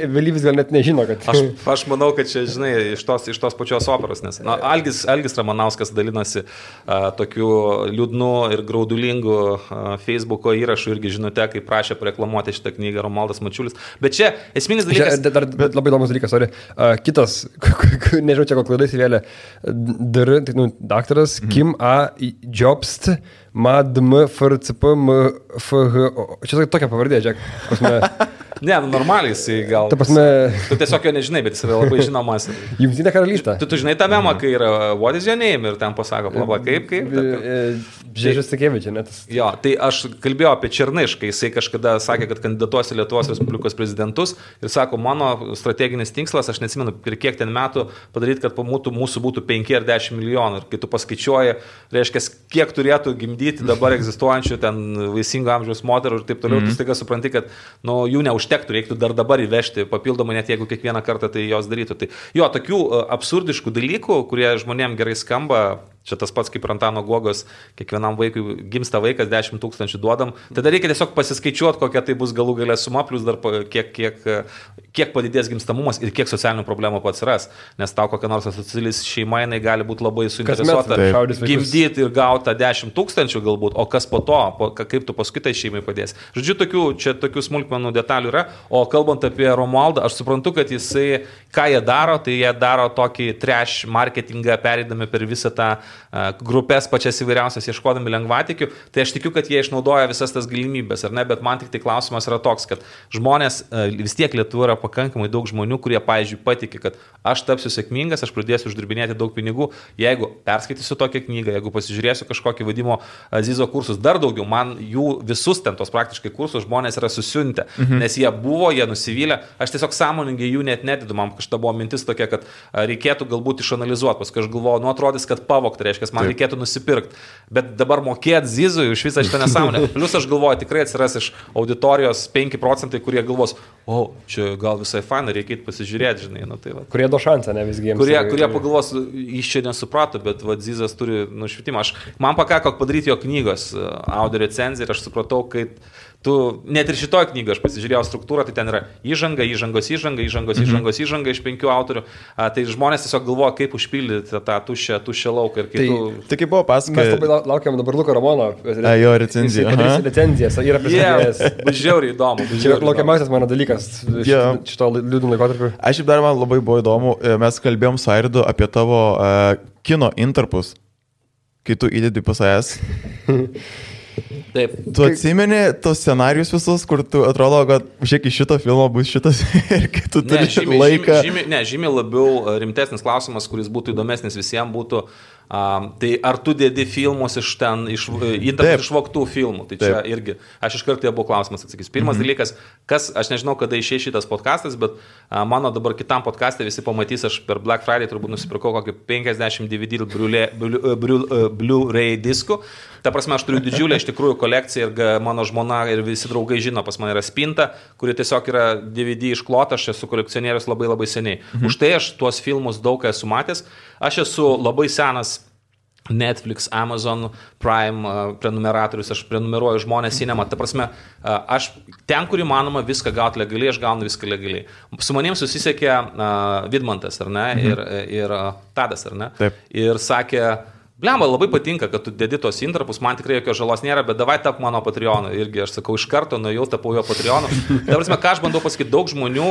Vėlyvis gal net nežino, kad... Aš manau, kad čia, žinai, iš tos pačios operos, nes Algis Ramanauskas dalinosi tokiu liūdnu ir graudulingų Facebooko įrašų irgi žinote, kaip prašė pareklamuoti šitą knygą Romualdas Mačiulis. Bet čia esminis dalykas... Bet labai įdomus dalykas, kitas, nežinau, čia kokia klaida įsivėlė, daktaras Kim A. Jobst, MADM, FRCP, MFH. Čia tokia pavardė, žiūrėk. Ne, normaliai jisai gal. Ta prasme... Tu tiesiog jo nežinai, bet jis yra labai žinomas. Jungtinė karalystė. Tu žinai tą memą, kai yra What is your name ir ten pasako, plaba, kaip. Žiežis Takėvičiai, net. Jo, tai aš kalbėjau apie Černišką, jisai kažkada sakė, kad kandidatuos į Lietuvos Respublikos prezidentus ir sako, mano strateginis tikslas, aš neatsimenu, per kiek ten metų padaryti, kad mūsų būtų 5 ar 10 milijonų. Ir kai tu paskaičiuoji, reiškia, kiek turėtų gimdyti dabar egzistuojančių ten vaisingo amžiaus moterų ir taip toliau, tu staiga supranti, kad jų neužtektų, reiktų dar dabar įvežti papildomai, net jeigu kiekvieną kartą tai jos darytų. Tai jo, tokių absurdiškų dalykų, kurie žmonėm gerai skamba, čia tas pats kaip Antano Guogos, kiekvienam vaikui gimsta vaikas, 10 000 duodam. Tada reikia tiesiog pasiskaičiuoti, kokia tai bus galų galę suma, plus dar kiek padidės gimstamumas ir kiek socialinių problemų atsiras. Nes tau kokia nors asocialis šeima, jinai gali būti labai suinteresuota gimdyti ir gauti 10 000 galbūt, o kas po to, kaip tu paskui tai šeimai padės. Žodžiu, tokių smulkmenų detalių yra, o kalbant apie Romualdą, aš suprantu, kad jisai, ką jie daro, tai jie daro tokį trash marketingą, pereidami per visą tą grupės pačias įvairiausias ieškodami lengvatikių, tai aš tikiu, kad jie išnaudoja visas tas galimybės, ar ne, bet man tik tai klausimas yra toks, kad žmonės, vis tiek Lietuvoje yra pakankamai daug žmonių, kurie, pavyzdžiui, patikė, kad aš tapsiu sėkmingas, aš pradėsiu uždirbinėti daug pinigų, jeigu perskaitysiu tokią knygą, jeigu pasižiūrėsiu kažkokį vadimo Zizo kursus, dar daugiau, man jų visus ten tos praktiškai kursus žmonės yra susiuntę, nes jie buvo, jie nusivylę, aš tiesiog sąmoningai jų net nedidu, man kažta buvo mintis tokia, kad reikėtų galbūt išanalizuoti, paskui aš galvoju, nu atrodys, kad pavogta, reiškia, man reikėtų nusipirkti, bet dabar mokėti Zizui už visą šitą nesąmonę. Plius aš galvoju, tikrai atsiras iš auditorijos 5%, kurie galvos, čia gal visai faina, reikia pasižiūrėti, žinai, nu tai va. Kurie do šansą, ne visgi jiems. Kurie pagalvos, jis čia nesuprato, bet va, Zizas turi nušvitimą. Man pakako padaryti jo knygos audio recenziją ir aš supratau, kad net ir šitoj knygoje aš pasižiūrėjau struktūrą, tai ten yra įžanga iš 5 autorių. Tai žmonės tiesiog galvoja, kaip užpildyti tą tuščią lauką. Tai kaip buvo pasakoja. Mes labai laukiam dabar Luko Ramono. Jo recenziją. Recenzijas yra pristatęs. Bus žiauriai įdomu. Čia laukiamasis mano dalykas šito liūdų laikotarpiu. Aš šiaip dar man labai buvo įdomu, mes kalbėjom su Airidu apie tavo kino intarpus, kai tu įdedi pas AS. Taip. Tu atsimeni tos scenarius visus, kur tu atrodo, kad žiūrėk, iš šito filmo bus šitas ir kai tu turi laiką. Žymiai labiau rimtesnis klausimas, kuris būtų įdomesnis visiems būtų, tai ar tu dedi filmus iš išvogtų filmų. Tai čia irgi, aš iš karto buvo klausimas atsakys. Pirmas dalykas, aš nežinau, kada išėjo šitas podcastas, bet mano dabar kitam podcast'e visi pamatys, aš per Black Friday turbūt nusipirkau kokį 50 DVD Blu-ray diskų. Ta prasme, aš turiu didžiulę iš tikrųjų kolekciją ir mano žmona ir visi draugai žino, pas mane yra spinta, kuri tiesiog yra DVD išklota, aš esu kolekcionierius labai labai seniai. Už tai aš tuos filmus daug esu matęs. Aš esu labai senas Netflix, Amazon Prime prenumeratorius, aš prenumeruoju Žmonės Cinema. Ta prasme, aš ten, kur įmanoma viską gauti legaliai, aš gaunu viską legaliai. Su manim susisiekė Vidmantas, ar ne, ir Tadas, ar ne, Taip. Ir sakė, blemba, labai patinka, kad tu dedi tos intarpus, man tikrai jokios žalos nėra, bet davai tap mano Patreonu. Irgi aš sakau, iš karto nuėjau, tapau jo Patreonu. Ta prasme, ką aš bandau pasakyti, daug žmonių,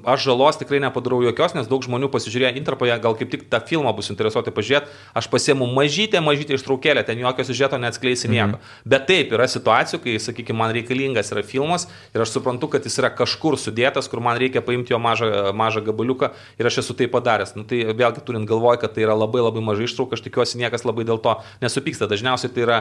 aš žalos tikrai nepadarau jokios, nes daug žmonių pasižiūrėjo intarpą, gal kaip tik tą filmą bus interesuoti pažiūrėti, aš pasiemu mažytę ištraukėlę, ten jokio siužeto neatskleisi nieko. Bet taip, yra situacijų, kai, sakykime, man reikalingas yra filmas ir aš suprantu, kad jis yra kažkur sudėtas, kur man reikia paimti jo mažą gabaliuką ir aš esu tai padaręs. Nu, tai vėlgi turint galvoj, kad tai yra labai labai mažai ištrauka, aš tikiuosi niekas labai dėl to nesupyksta. Dažniausiai tai yra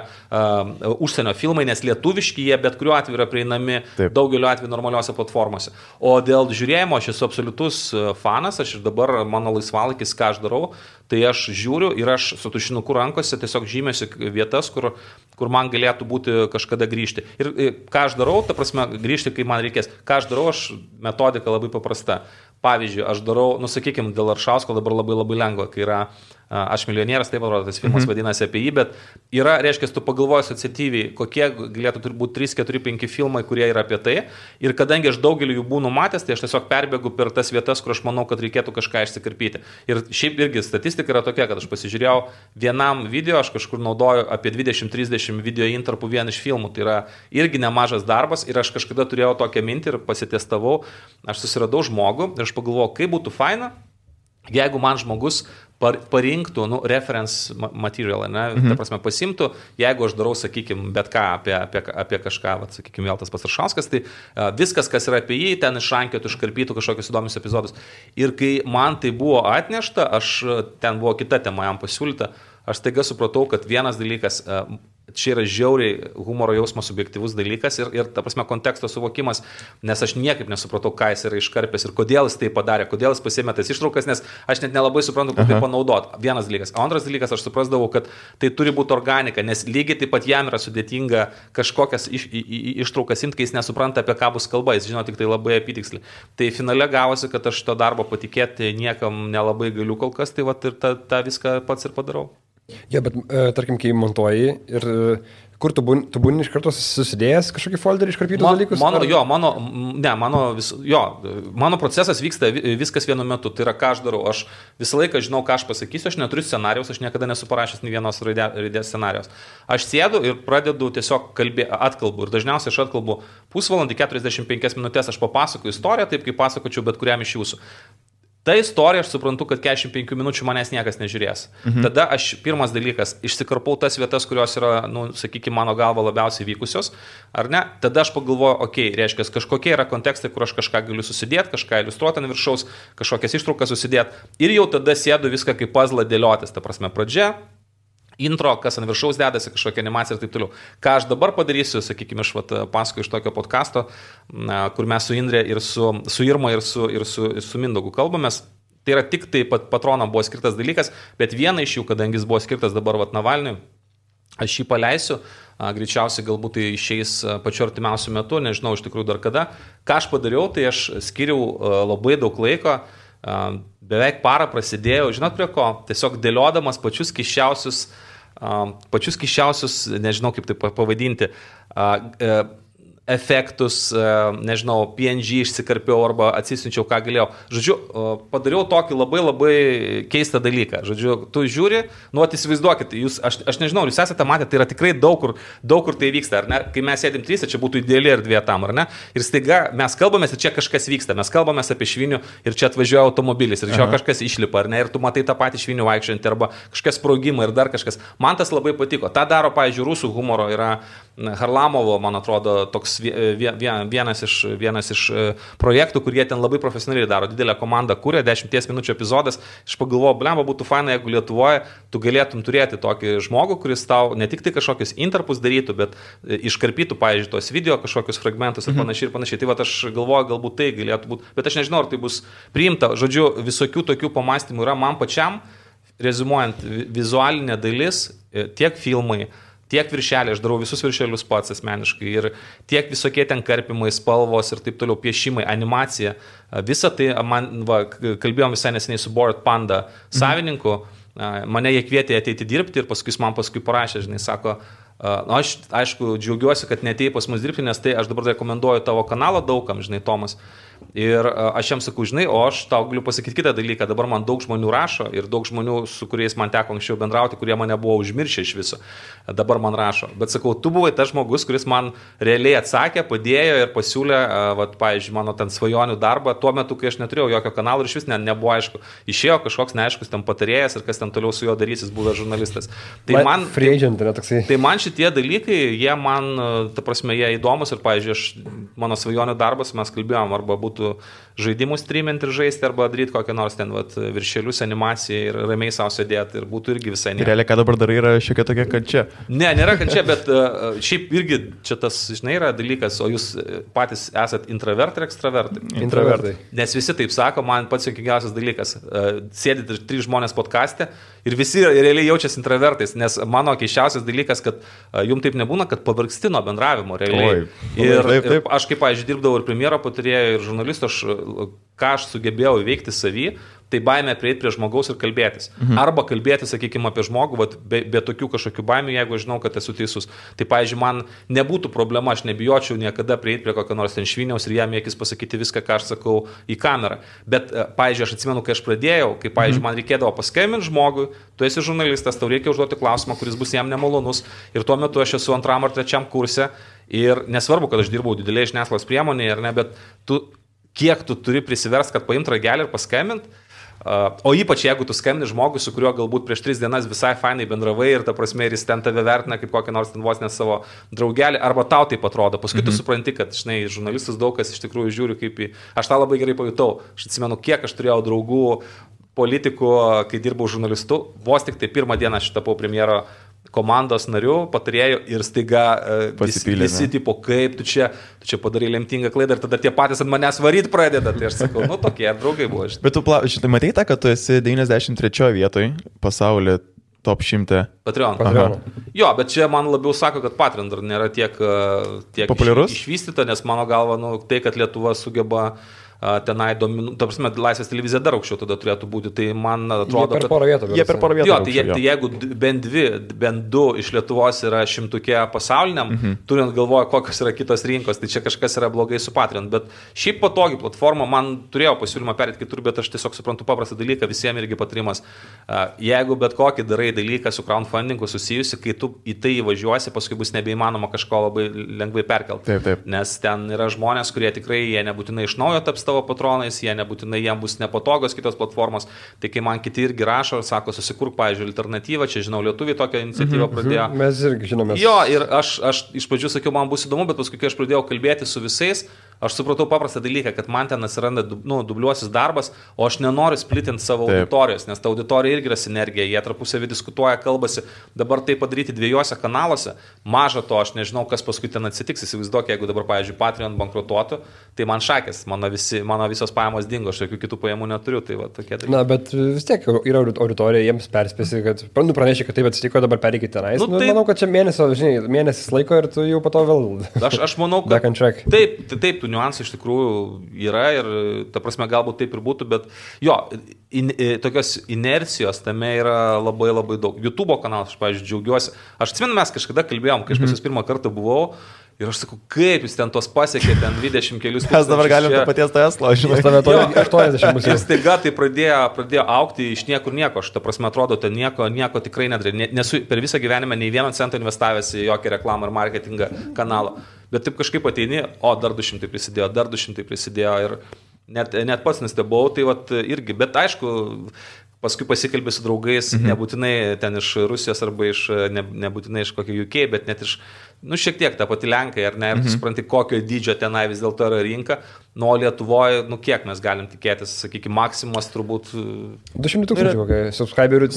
užsienio filmai, nes lietuviški jie bet kuriuo atveju yra prieinami daugeliu atveju normaliuose platformose. O dėl žiūrėjimo aš esu absoliutus fanas, aš ir dabar mano laisvalaikis, ką aš darau, tai aš žiūriu ir aš su tušinuku rankose tiesiog žymėsiu vietas, kur man galėtų būti kažkada grįžti. Ir ką aš darau, ta prasme, grįžti, kai man reikės. Ką aš darau, aš metodika labai paprasta. Pavyzdžiui, aš darau, sakykime, dėl Aršausko dabar labai labai lengva, kai yra Aš milijonierius, taip atrodo, tas filmas vadinasi apie jį, bet yra, reiškia, tu pagalvoji asociatyviai, kokie galėtų turbūt 3, 4, 5 filmai, kurie yra apie tai. Ir kadangi aš daugelį jų būnu matęs, tai aš tiesiog perbėgu per tas vietas, kur aš manau, kad reikėtų kažką išsikarpyti. Ir šiaip irgi statistika yra tokia, kad aš pasižiūrėjau vienam video, aš kažkur naudoju apie 20-30 video intarpų vien iš filmų. Tai yra irgi nemažas darbas ir aš kažkada turėjau tokią mintį ir pasitestavau. Aš susiradau žmogų ir aš pagalvojau, kaip būtų faina, jeigu man žmogus parinktų reference material, ne? Ta prasme pasimtų, jeigu aš darau, sakykime, bet ką apie kažką, sakykime, vėl tas pats Aršauskas, tai viskas, kas yra apie jį, ten išrankėtų, iškarpytų kažkokius įdomius epizodus. Ir kai man tai buvo atnešta, ten buvo kita tema jam pasiūlyta, aš staiga supratau, kad vienas dalykas, čia yra žiauriai humoro jausmas subjektyvus dalykas ir ta prasme konteksto suvokimas, nes aš niekaip nesupratau, ką jis yra iškarpęs ir kodėl jis tai padarė, kodėl jis pasėmė tas ištraukas, nes aš net nelabai suprantu, kaip tai panaudot. Vienas dalykas. O antras dalykas, aš suprasdavau, kad tai turi būti organika, nes lygiai taip pat jam yra sudėtinga kažkokias ištraukas imti, kai jis nesupranta, apie ką bus kalba, jis žino tik tai labai apytiksliai. Tai finale gavosi, kad aš šito darbo patikėti niekam nelabai galiu kol kas, tai ir tą viską pats ir padarau. Ja, bet tarkim, kai montuoji ir kur tu būni iš karto susidėjęs kažkokį folderį iškarpytus dalykus? Mano procesas vyksta viskas vienu metu. Tai yra, ką aš darau. Aš visą laiką žinau, ką aš pasakysiu, aš neturiu scenarijaus, aš niekada nesu parašęs nei vienos raidės scenarijos. Aš sėdu ir pradedu tiesiog atkalbu. Ir dažniausiai aš atkalbu pusvalandį, 45 minutės, aš papasakoju istoriją, taip kaip pasakočiau bet kuriam iš jūsų. Ta istorija, aš suprantu, kad 45 minučių manęs niekas nežiūrės. Tada aš, pirmas dalykas, išsikarpau tas vietas, kurios yra, sakykime, mano galva labiausiai vykusios, ar ne? Tada aš pagalvoju, reiškia, kažkokie yra kontekstai, kur aš kažką galiu susidėti, kažką iliustruoti ant viršaus, kažkokias ištraukas susidėti. Ir jau tada sėdu viską kaip puzzle dėliotis. Ta prasme, pradžia, intro, kas ant viršaus dedasi, kažkokia animacija ir taip toliau. Ką aš dabar padarysiu, sakykime, aš pasakoju iš tokio podcasto, kur mes su Indre ir su Irma ir su Mindaugu kalbamės. Tai yra tik tai patronam buvo skirtas dalykas, bet viena iš jų, kadangi jis buvo skirtas dabar Navalniui, aš jį paleisiu, greičiausiai galbūt tai išeis pačiu artimiausiu metu, nežinau iš tikrųjų dar kada. Ką aš padariau, tai aš skiriau labai daug laiko, beveik parą prasidėjau, žinot prie ko, tiesiog dėliodamas pačius kiščiausius, nežinau kaip tai pavadinti, efektus, nežinau, PNG išsikarpiau arba atsisinčiau, ką galėjau. Žodžiu, padariau tokį labai labai keistą dalyką. Žodžiu, tu žiūri, įsivaizduokit, aš nežinau, jūs esate matę, tai yra tikrai daug kur tai vyksta, ar ne? Kai mes sėdim trysia, čia būtų ideali erdvė tam, ar ne? Ir staiga mes kalbamės ir čia kažkas vyksta, mes kalbamės apie švinių ir čia atvažiuoja automobilis ir čia kažkas išlipa, ar ne? Ir tu matai tą patį švinių vaikščiantį arba kažkas sprogimą ir dar kažkas. Man tas labai patiko. Ta daro, pavyzdžiui, rusų humoro yra Harlamovo, man atrodo, toks vienas iš projektų, kurie ten labai profesionaliai daro. Didelę komandą kūrė, 10 minučių epizodas. Aš pagalvojau, blemba, būtų faina, jeigu Lietuvoje tu galėtum turėti tokį žmogų, kuris tau ne tik tai kažkokius interpus darytų, bet iškarpytų, pavyzdžiui, tos video, kažkokius fragmentus ir panašiai. Tai va, aš galvoju, galbūt tai galėtų būti, bet aš nežinau, ar tai bus priimta. Žodžiu, visokių tokių pamastymų yra man pačiam, rezumuojant, vizualinė dalis, tiek filmai, tiek viršeliai, aš darau visus viršelius pats asmeniškai ir tiek visokie ten karpimai, spalvos ir taip toliau, piešimai, animacija, visa tai, kalbėjom visai neseniai su Bored Panda savininku, mane jie kvietė ateiti dirbti ir paskui parašė, žinai, sako, aš aišku džiaugiuosi, kad neatėjai pas mus dirbti, nes tai aš dabar rekomenduoju tavo kanalą daugam, žinai, Tomas. Ir aš jam sakau, žinai, o aš tau galiu pasakyti kitą dalyką, dabar man daug žmonių rašo ir daug žmonių, su kuriais man teko anksčiau bendrauti, kurie mane buvo užmiršę iš viso, dabar man rašo. Bet sakau, tu buvai tas žmogus, kuris man realiai atsakė, padėjo ir pasiūlė, pavyzdžiui, mano ten svajonių darbą tuo metu, kai aš neturėjau jokio kanalo ir iš vis nebuvo aišku. Išėjo kažkoks neaiškus ten patarėjas ir kas ten toliau su juo darys, jis buvęs žurnalistas. Tai man, tai man šitie dalykai, jie man, ta prasme, jie įdomus ir, pavyzdžiui, mano svajonių darbas, mes kalbėjom, arba būtų žaidimų streaminti ir žaisti, arba daryti kokią nors ten viršelius, animaciją ir ramiai savo sėdėti ir būtų irgi visai ne. Realiai, ką dabar darai, yra šiek tiek tokia kančia. Ne, nėra kančia, bet šiaip irgi čia tas, žinai, yra dalykas, o jūs patys esat intravertai ir ekstravertai. Intravertai. Nes visi taip sako, man pats juokingiausias dalykas. Sėdit 3 žmonės podcaste ir visi realiai jaučiasi intravertais, nes mano keisčiausias dalykas, kad jum taip nebūna, kad pavargsti nuo bendravimo realiai. Ir aš kaip, pavyzdžiui, dirbdavau ir premjero patarėjų, ir žurnalistų, ką aš sugebėjau įveikti savį, tai baimė prieiti prie žmogaus ir kalbėtis. Arba kalbėti, sakykime, apie žmogų, be tokių kažkokių baimių, jeigu žinau, kad esu teisus. Tai, pavyzdžiui, man nebūtų problema, aš nebijočiau niekada prieiti prie kokio nors ten šviniaus ir jam akis pasakyti viską, ką aš sakau į kamerą. Bet, pavyzdžiui, aš atsimenu, kai aš pradėjau, kai, pavyzdžiui, man reikėdavo paskambinti žmogui, tu esi žurnalistas, tau reikia užduoti klausimą, kuris bus jam nemalonus. Ir tuo metu aš esu 2. ar 3. kurse ir nesvarbu, kad aš dirbau didelėje žiniasklaidos priemonėje, ar ne, bet kiek tu turi prisiverst, kad paimti ragelį ir paskambinti. O ypač jeigu tu skambini žmogui, su kuriuo galbūt prieš 3 dienas visai fainai bendravai ir ta prasme ir jis ten tave vertina kaip kokią nors ten vos ne savo draugelį, arba tau taip atrodo. Paskui tu supranti, kad, žinai, žurnalistus daug kas iš tikrųjų žiūri kaip į... Aš tą labai gerai pajutau. Aš atsimenu, kiek aš turėjau draugų politikų, kai dirbau žurnalistu. Vos tik tai 1 dieną aš tapau premjero komandos narių, patarėjų ir staiga visi tipo, kaip tu čia padarai lemtingą klaidą ir tada tie patys ant manęs varyti pradeda. Tai aš sakau, tokie draugai buvo. Bet tu šitai matei tą, kad tu esi 93 vietoj pasaulyje top 100. Patreon. Jo, bet čia man labiau sako, kad Patreon dar nėra tiek populiarus išvystyta, nes mano galva, tai, kad Lietuva sugeba tenai ta prasme, Laisvės televizija dar aukščiau tada turėtų būti, tai man atrodo, jie per porą vietų. Jo, tai jeigu bent 2 iš Lietuvos yra 100 pasauliniam, turint galvoje, kokios yra kitos rinkos, tai čia kažkas yra blogai su Patreon, bet šiaip patogi platforma, man turėjo pasiūlymą perėti kitur, bet aš tiesiog suprantu paprastą dalyką, visiems irgi patarimas. Jeigu bet kokį darai dalyką su crowdfundingu susijusi, kai tu į tai įvažiuosi, paskui bus nebeįmanoma kažko labai lengvai perkelti. Taip. Nes ten yra žmonės, kurie tikrai jie nebūtinai iš naujo taps tavo tavo patronais, jie nebūtinai jiems bus nepatogios kitos platformos. Tai kai man kiti irgi rašo ir sako, susikurk, pavyzdžiui, alternatyvą, čia žinau, lietuviai tokią iniciatyvą pradėjo. Mes irgi žinome. Jo, ir aš iš pradžių sakiau, man bus įdomu, bet paskui, kai aš pradėjau kalbėti su visais, aš supratau paprastą dalyką, kad man ten atsiranda dubliuosis darbas, o aš nenoriu splitinti savo auditorijos, nes ta auditorija irgi yra sinergija, jie tarpusavį diskutuoja, kalbasi, dabar tai padaryti dviejose kanaluose, maža to, aš nežinau, kas paskui ten atsitiks, įsivaizduok, jeigu dabar, pavyzdžiui, Patreon bankrutuotų, tai man šakės, mano visos pajamos dingo, aš jokių kitų pajamų neturiu, tai va tokie dalykai. Na, bet vis tiek yra auditorija, jiems perspėsi, kad pranešė, kad taip atsitiko, dabar pereikite tenais. Tai... Manau, kad čia mėnesis laiko ir tu jau po to vėl. Aš manau, kad taip, tų niuansų iš tikrųjų yra ir, ta prasme, galbūt taip ir būtų, bet jo, tokios inercijos tame yra labai labai daug. YouTube kanalas, aš, pavyzdžiui, džiaugiuosi. Aš atsimenu, mes kažkada kalbėjom, kai aš pas jūs pirmą kartą buvau. Ir aš sakau, kaip jūs ten tos pasiekė, ten 20 kelius. Mes dabar galim to paties Tesla, žinai. 80 bus. Ir staiga tai pradėjo aukti iš niekur nieko. Aš, ta prasme, atrodo, ten nieko tikrai nedarė. Nesu per visą gyvenimą nei 1 centą investavęs į jokią reklamą ir marketingą kanalą. Bet taip kažkaip ateini, dar 200 prisidėjo ir net pats nestebau, tai vat irgi. Bet aišku, paskui pasikalbė su draugais, nebūtinai ten iš Rusijos arba nebūtinai iš kokio UK, bet net iš, šiek tiek ta pati Lenkai, ar ne, ir tu supranti, kokio dydžio tenai vis dėlto yra rinka, nuo Lietuvoje, kiek mes galim tikėtis, sakykime, maksimumas turbūt... 200 tūkstančių kokie subscriberių.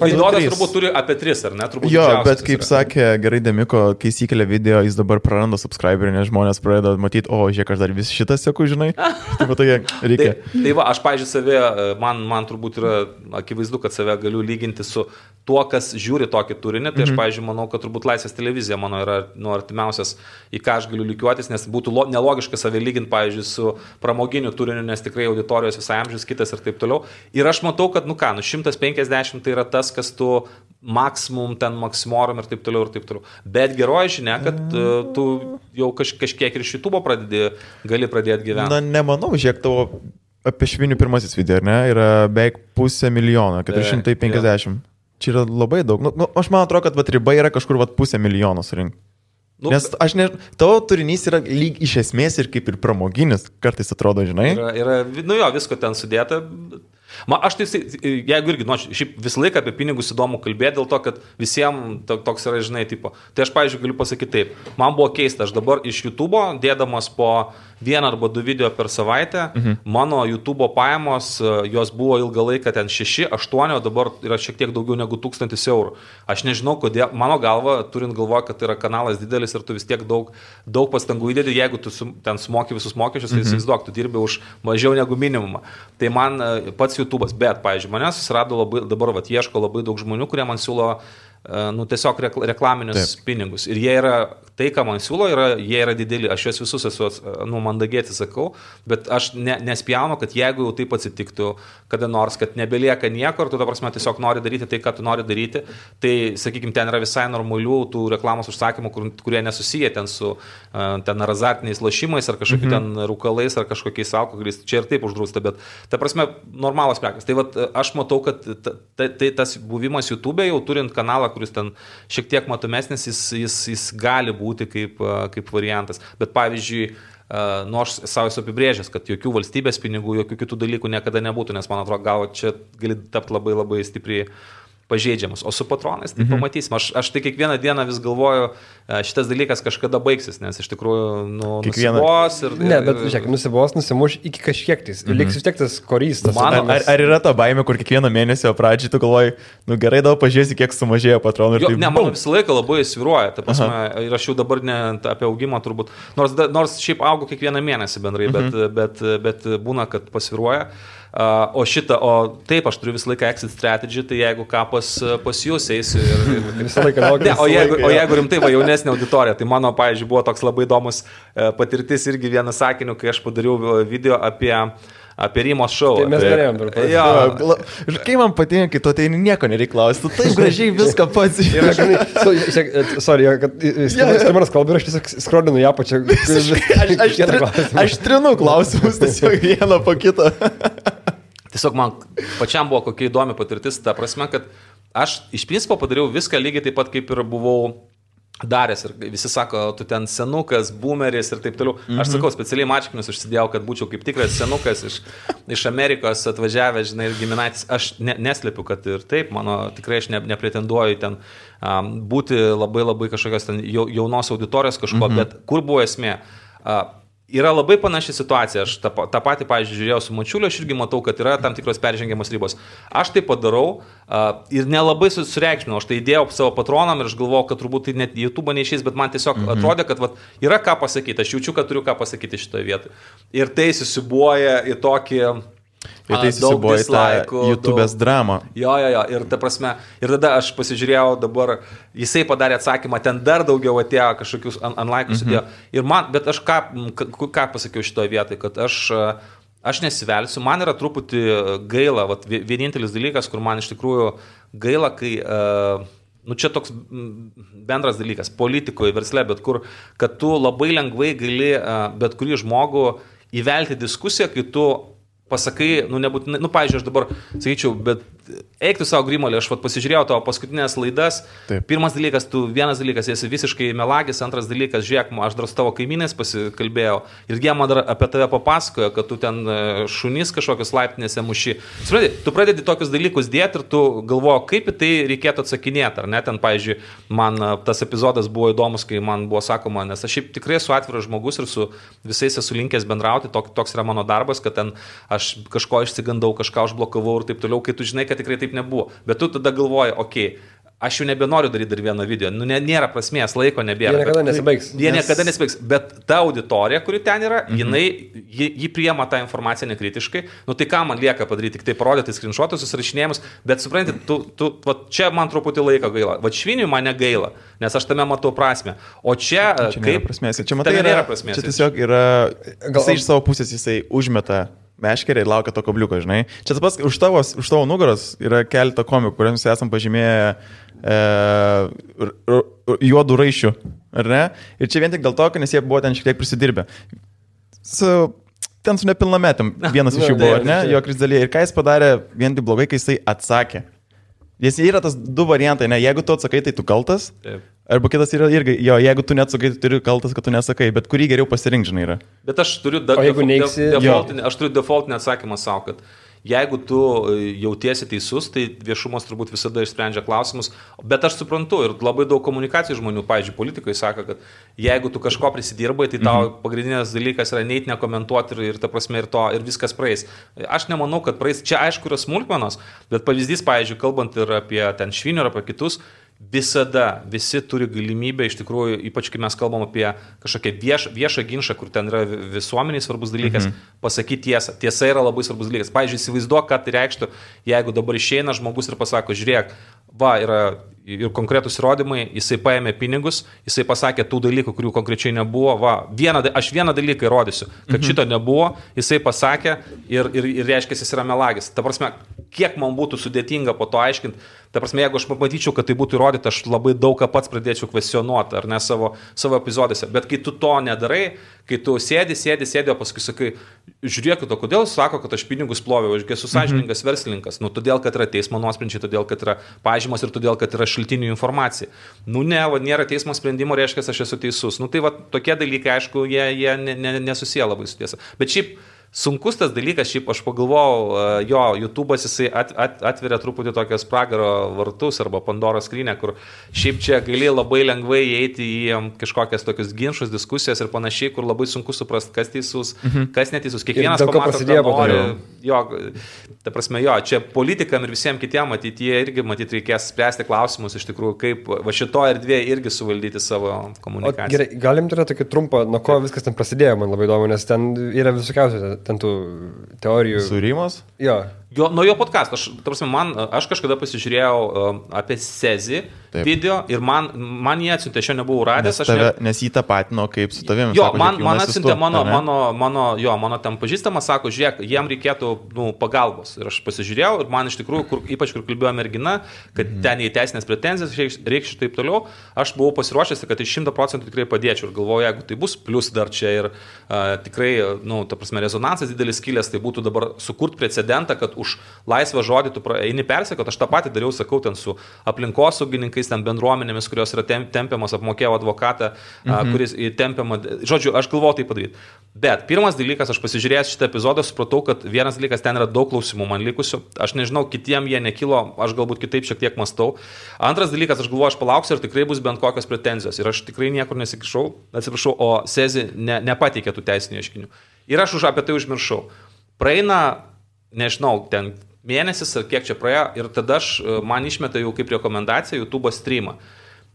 Vaidodas turbūt turi apie 3, ar ne? Turbūt jo, bet kaip sakė gerai Demiko, kai įsikelia video, jis dabar praranda subscriberį, nes žmonės pradeda matyti, žiūrėk, aš dar vis šitą seku, žinai. Taip pat reikia. Tai va, aš, pavyzdžiui, save, man turbūt yra akivaizdu, kad save galiu lyginti su tuo, kas žiūri tokį turinį. Tai aš, pavyzdžiui, manau, kad turbūt Laisvės televizija mano yra artimiausias, į ką aš galiu lygiuotis, nes būtų nelogiška save lyginti, pavyzdžiui, su pramoginiu turiniu, nes tikrai auditorijos visai amžius kitas ir taip toliau. Ir aš matau, kad, 150 tai yra tas, kas tu maksimum, ten maksimorum ir taip toliau ir taip toliau. Bet geroji žinia, kad tu jau kažkiek ir iš YouTube gali pradėti gyventi. Na, nemanau, žiūrėk, tavo apie švinių pirmasis video, ar ne, yra beveik 500 000, 450. Čia yra labai daug. Aš man atrodo, kad riba yra kažkur 500 000 surinkti. Nes tavo turinys yra lyg iš esmės ir kaip ir pramoginis, kartais atrodo, žinai. Yra visko ten sudėta. Aš tai, jeigu irgi, šiaip visą laiką apie pinigus įdomu kalbėti, dėl to, kad visiems toks yra, žinai, tipo. Tai aš, pavyzdžiui, galiu pasakyti taip. Man buvo keista, aš dabar iš YouTube dėdamas po 1 arba 2 video per savaitę, mano YouTube pajamos, jos buvo ilgą laiką ten 6, 8, o dabar yra šiek tiek daugiau negu 1000 eurų. Aš nežinau, kodėl, mano galva, turint galvoje, kad tai yra kanalas didelis ir tu vis tiek daug pastangų įdedi, jeigu tu ten sumoki visus mokesčius, tai įsivaizduok, tu dirbi už mažiau negu minimumą. Tai man pats YouTube'as, bet, pavyzdžiui, mane susirado dabar ieško labai daug žmonių, kurie man siūlo tiesiog reklaminius pinigus. Ir jie yra, tai, ką man siūlo, jie yra dideli. Aš juos visus esu mandagiai atsisakau, bet aš nespjaunu, kad jeigu jau taip atsitiktų, kada nors, kad nebelieka nieko ir tu, ta prasme, tiesiog nori daryti tai, ką tu nori daryti, tai, sakykime, ten yra visai normalių tų reklamos užsakymų, kurie nesusiję ten su ten azartiniais lošimais ar kažkokiu ten rūkalais ar kažkokiais alkoholiais. Čia ir taip uždrausta, bet, ta prasme, normalos prekės. Tai vat, aš matau, kad tas buvimas YouTube jau turint kanalą, kuris ten šiek tiek matomesnis, jis gali būti kaip variantas. Bet pavyzdžiui, aš savo esu apibrėžęs, kad jokių valstybės pinigų, jokių kitų dalykų niekada nebūtų, nes man atrodo, gal čia gali tapti labai labai stipriai pažeidžiamas. O su patronais, tai pamatysim. Aš tai kiekvieną dieną vis galvoju, šitas dalykas kažkada baigsis, nes iš tikrųjų nusibos ir... Ne, bet žiūrėk, nusimuš iki kažkiek tais. Liks vis tiek tas korys. Ar yra ta baimė, kur kiekvieną mėnesio pradžiai tu galvoji, gerai, daug pažiūrėsi, kiek sumažėjo patronų. Ne, man visą laiką labai svyruoja. Ta prasme, ir aš jau dabar ne apie augimą turbūt. Nors šiaip augu kiekvieną mėnesį bendrai, bet būna, kad pasvyruoja. O taip, aš turiu visą laiką exit strategy, tai jeigu ką pas jūs eisiu ir visą laiką laukiu. O jeigu rimtai, jaunesnė auditorija, tai mano, pavyzdžiui, buvo toks labai įdomus patirtis irgi vieną sakiniu, kai aš padariau video apie Rymos šou. Tai mes galėjom dar padaryti. Ir kai man patinka, kai tu ateini, nieko nereikia klausti, tu taip gražiai viską pats. Sorry, kad Skirmanas kalba ir aš tiesiog skrodinu ją pačią. Aš trinu klausimus tiesiog vieną po kitą. Tiesiog man pačiam buvo kokia įdomi patirtis, ta prasme, kad aš iš principo padariau viską lygiai taip pat, kaip ir buvau daręs ir visi sako, tu ten senukas, boomeris ir taip toliau. Aš sakau, specialiai mačkinius užsidėjau, kad būčiau kaip tikras senukas iš Amerikos atvažiavęs, žinai, ir giminaitis. Aš neslepiu, kad ir taip, tikrai aš nepretenduoju ten būti labai kažkokios ten jaunos auditorijos kažko, bet kur buvo esmė? Yra labai panaši situacija, aš tą patį, pavyzdžiui, žiūrėjau su Mačiuliu, aš irgi matau, kad yra tam tikros peržengiamos ribos. Aš tai padarau ir nelabai sureikšminau, aš tai įdėjau savo patronam ir aš galvojau, kad turbūt tai net YouTube neišeis, bet man tiesiog atrodė, kad yra ką pasakyti, aš jaučiu, kad turiu ką pasakyti šitoje vietoje. Ir tai susibuoja į tokį... Ir tai susibuoja į tą YouTube'ės dramą. Jo, ir ta prasme, ir tada aš pasižiūrėjau dabar, jisai padarė atsakymą, ten dar daugiau atėjo kažkokius unlike'us atėjo. Ir man, bet aš ką pasakiau šitoje vietoje, kad aš nesivelsiu, man yra truputį gaila, vienintelis dalykas, kur man iš tikrųjų gaila, kai... čia toks bendras dalykas, politikoje, versle, bet kur, kad tu labai lengvai gali bet kurį žmogų įvelti diskusiją, kai tu pasakai, nebūtinai, pavyzdžiui, aš dabar sakyčiau, bet eik tu savo Grimolį, aš pasižiūrėjau tavo paskutinės laidas. Taip. Vienas dalykas, esi visiškai melagis, antras dalykas, žiūrėk, aš dar su tavo kaimynais pasikalbėjau ir jie man dar apie tave papasakojo, kad tu ten šunys kažkokius laiptinėse muši. Tu pradedi tokius dalykus dėti ir tu galvoji, kaip į tai reikėtų atsakinėti, ar ne? Ten, pavyzdžiui, man tas epizodas buvo įdomus, kai man buvo sakoma, nes aš šiaip tikrai esu atviras žmogus ir su visais esu linkęs bendrauti, toks yra mano darbas, kad ten aš kažko išsigandau, kažką užblokavau ir taip toliau, kai tu žinai, kad tikrai taip nebuvo. Bet tu tada galvoji, aš jau nebenoriu daryti dar vieną video. Nėra prasmės, laiko nebėra. Jie niekada nesibaigs. Bet ta auditorija, kuri ten yra, ji priema tą informaciją nekritiškai. Tai ką man lieka padaryti? Tik tai parodyti screenshotus, susirašinėjimus. Bet supranti, čia man truputį laiko gaila. Šviniui man negaila, nes aš tame matau prasmę. O čia nėra prasmės. Čia nėra prasmės. Čia tiesiog yra... Jisai iš savo pusės jisai užmeta meškerį ir laukia to kabliuko, žinai. Čia tas pats, už tavo nugaros yra keletą komikų, kuriems esam pažymėję juodų raišių, ar ne? Ir čia vien tik dėl to, nes jie buvo ten šiek tiek prisidirbę. Ten su nepilnametėm vienas iš jų buvo, ar ne? Jo Krisdalė. Ir ką jis padarė vien tik blogai, kai jisai atsakė. Jis yra tas du variantai, ne? Jeigu tu atsakai, tai tu kaltas. Taip. Arba kitas yra irgi, jeigu tu neatsakai, tu turi kaltas, kad tu nesakai, bet kurį geriau pasirinkti, žinai, yra. Bet aš turiu defaultinį atsakymą savo, kad jeigu tu jautiesi teisus, tai viešumas turbūt visada išsprendžia klausimus, bet aš suprantu ir labai daug komunikacijų žmonių, pavyzdžiui, politikai sako, kad jeigu tu kažko prisidirbai, tai tau pagrindinės dalykas yra neit nekomentuoti ir ta prasme ir viskas praeis. Aš nemanau, kad praeis, čia aišku yra smulkmenos, bet pavyzdys, pavyzdžiui, kalbant ir apie ten Švinių ir apie kitus, visada visi turi galimybę, iš tikrųjų, ypač kai mes kalbam apie kažkokią viešą ginčą, kur ten yra visuomeniai svarbus dalykas, pasakyti tiesą. Tiesa yra labai svarbus dalykas. Pavyzdžiui, įsivaizduok, ką tai reikštų, jeigu dabar išeina žmogus ir pasako, žiūrėk, yra ir konkretus įrodymai, jisai paėmė pinigus, jisai pasakė tų dalykų, kurių konkrečiai nebuvo, aš vieną dalyką įrodysiu, kad šito nebuvo, jisai pasakė ir reiškia, jis yra melagis. Ta prasme, kiek man būtų sudėtinga po to aiškinti, ta prasme, jeigu aš matyčiau, kad tai būtų įrodyta, aš labai daug ką pats pradėčiau kvestionuoti, ar ne savo epizodėse, bet kai tu to nedarai, kai tu sėdi, o paskui sakai, žiūrėkit, o kodėl sako, kad aš pinigus ploviau, aš esu sąžiningas verslininkas, todėl, kad yra teismo nuosprendžiai, todėl, kad yra pažymos ir todėl, kad yra šaltinių informacija. Nėra teismo sprendimo, reiškia, aš esu teisus. Tai tokie dalykai, aišku, jie nesusiję labai su tiesa. Bet šiaip sunkus tas dalykas, šiaip aš pagalvojau, YouTube'as jisai atveria truputį tokias pragaro vartus arba Pandoros skrynią, kur šiaip čia gali labai lengvai įeiti į kažkokias tokius ginčus, diskusijas ir panašiai, kur labai sunku suprasti, kas teisus, kas neteisus. Kiekvienas pamato, ką nori. Ta prasme, čia politikam ir visiems kitiem ateityje irgi reikės spręsti klausimus iš tikrųjų, kaip šitoje erdvėje irgi suvaldyti savo komunikaciją. Gerai, galim turėti tokį trumpą, nuo ko viskas ten prasidėjo, man labai įdomu, nes ten yra visokiausių ten tų teorijų. Sūrimas? Nuo jo podcast. Aš kažkada pasižiūrėjau apie Sezi video ir man jie atsiuntė, aš jo nebuvau radęs. Nes jį tapatino kaip su tavimi. Man atsiuntė mano ten pažįstamas, sako, žiūrėk, jiem reikėtų pagalbos. Ir aš pasižiūrėjau ir man iš tikrųjų, ypač kur kalbėjo mergina, kad ten į teisinės pretenzijas reikš taip toliau, aš buvau pasiruošęs, kad 100% tikrai padėčiau ir galvoju, jeigu tai bus, plus dar čia ir tikrai, ta prasme, rezonansas didelis kilęs, tai būtų dabar sukurti precedentą, kad už laisvą žodį tu eini persekot, aš tą patį dariau, sakau, ten su aplinkosaugininkais, ten bendruomenėmis, kurios yra tempiamos, apmokėjau advokatą, kuris tempiama, žodžiu, aš galvoju tai padaryti. Bet pirmas dalykas, aš pasižiūrėjęs šitą epizodą, supratau, kad vienas dalykas, ten yra daug klausimų man likusių, aš nežinau, kitiem jie nekilo, aš galbūt kitaip šiek tiek mastau. Antras dalykas, aš galvoju, aš palauksiu ir tikrai bus bent kokios pretenzijos ir aš tikrai niekur nesikišau, atsiprašau, o Sezi nepateikė tų teisinių ieškinių. Ir aš apie tai užmiršau. Praeina, nežinau, ten mėnesis ar kiek čia praėjo ir tada man išmeta jau kaip rekomendacija YouTube streamą.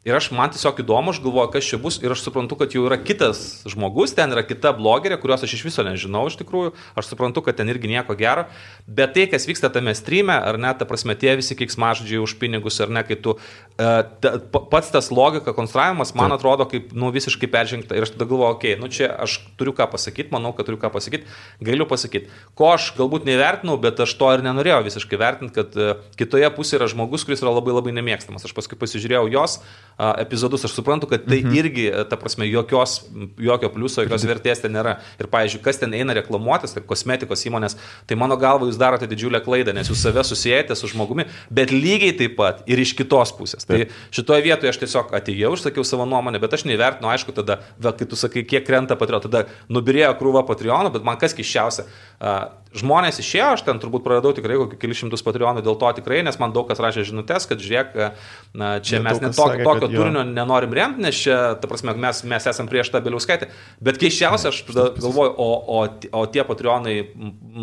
Ir man tiesiog įdomu, aš galvoju, kas čia bus ir aš suprantu, kad jau yra kitas žmogus, ten yra kita blogerė, kurios aš iš viso nežinau iš tikrųjų, aš suprantu, kad ten irgi nieko gero, bet tai, kas vyksta tame streame, ar ne, ta prasme, tie visi keiksmažodžiai už pinigus, ar ne, kai tu, pats tas logika, konstravimas, man atrodo, kaip, visiškai peržengta ir aš tada galvoju, okei, čia aš turiu ką pasakyti, manau, kad turiu ką pasakyti, galiu pasakyti, ko aš galbūt nevertinau, bet aš to ir nenorėjau visiškai vertinti, kad kitoje pusėje yra žmogus, kuris yra labai labai nemėgstamas. Aš paskui pasižiūrėjau jos epizodus, aš suprantu, kad tai irgi, ta prasme, jokio pliuso, jokios vertės ten nėra. Ir, pavyzdžiui, kas ten eina reklamuotis, tai kosmetikos įmonės, tai mano galva jūs darote didžiulę klaidą, nes jūs save susijęte su žmogumi, bet lygiai taip pat ir iš kitos pusės. Tai šitoje vietoje aš tiesiog atėjau, išsakiau savo nuomonę, bet aš neįvertinu, aišku, tada, kai tu sakai, kiek krenta Patreon, tada nubirėjo krūva Patreonų, bet man kas keisčiausia, žmonės išėjo, aš ten turbūt praradau tikrai kokį kelius šimtus Patreonų, dėl to tikrai, nes man daug kas rašė žinutės, kad žiūrėk, čia mes net tokio turinio nenorim remti, nes čia, ta prasme, mes esam prieš tą Bieliauskaitę. Bet keiščiausia, aš galvoju, o tie Patreonai,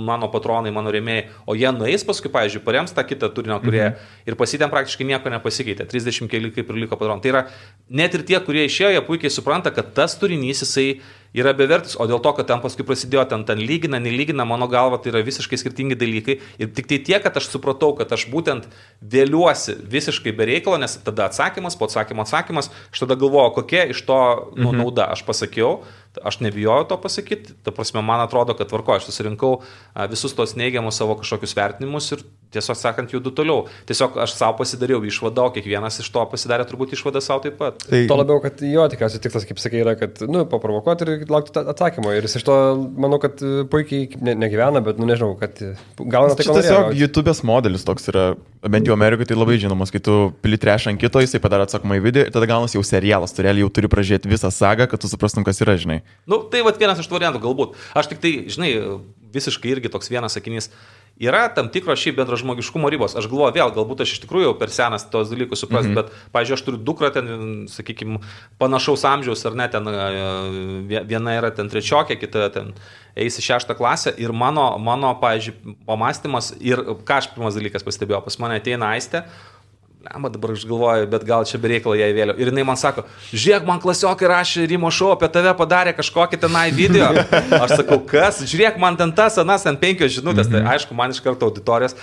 mano patronai, mano rėmėjai, o jie nueis paskui, pavyzdžiui, parems tą kitą turinio, kurie ir pasitėm praktiškai nieko nepasikeitė, 30 keli kaip ir liko Patreonai. Tai yra, net ir tie, kurie išėjo, jie puikiai supranta, kad tas turinys jisai yra bevertis, o dėl to, kad ten paskui prasidėjo, ten lygina, nelygina, mano galva, tai yra visiškai skirtingi dalykai. Ir tik tai tiek, kad aš supratau, kad aš būtent vėliuosi visiškai be reikalo, nes tada atsakymas, po atsakymo atsakymas, aš tada galvoju, kokia iš to nauda. Aš pasakiau, aš nebijojau to pasakyti, ta prasme, man atrodo, kad tvarko, aš susirinkau visus tos neigiamus savo kažkokius vertinimus ir tiesiog sakant, judu toliau. Tiesiog aš savo pasidariau išvadą, o kiekvienas iš to pasidarė turbūt išvadą savo taip pat. Tai... To labiau, kad jo tikriausiai tikslas, kaip sakai, yra, kad, paprovokuoti ir laukti atsakymo. Ir jis iš to, manau, kad puikiai negyvena, bet, nežinau, kad gauna tai, ko norėjo. Tiesiog YouTube'ės modelis toks yra, bent jau Amerikoje tai labai žinomas, kai tu pili trešą ant kito, jisai padaro atsakomą į video ir tada gaunas jau serialas, tu realiai jau turi pražiūrėti visą sagą, kad tu suprastum, kas yra, žinai. Tai vienas iš tų variantų galbūt. Aš tik tai, žinai, visiškai irgi toks vienas sakinys. Yra tam tikros šiaip bendražmogiškumo ribos. Aš galvoju, vėl, galbūt aš iš tikrųjų per senas tos dalykus suprasti, bet, pavyzdžiui, aš turiu dukrą ten, sakykime, panašaus amžiaus, ar ne, ten viena yra ten trečiokė, kita ten eis į 6 klasę ir mano, pavyzdžiui, pamastymas ir ką aš pirmas dalykas pastebėjau, pas mane ateina Aistė, dabar aš galvoju, bet gal čia bereikalo jai vėliau. Ir jinai man sako, žiūrėk, man klasiokai rašė Rimo šou, apie tave padarė kažkokį tenai video. Aš sakau, kas? Žiūrėk, man ten tas, anas, ten 5 žinutės. Tai aišku, man iš karto auditorijas.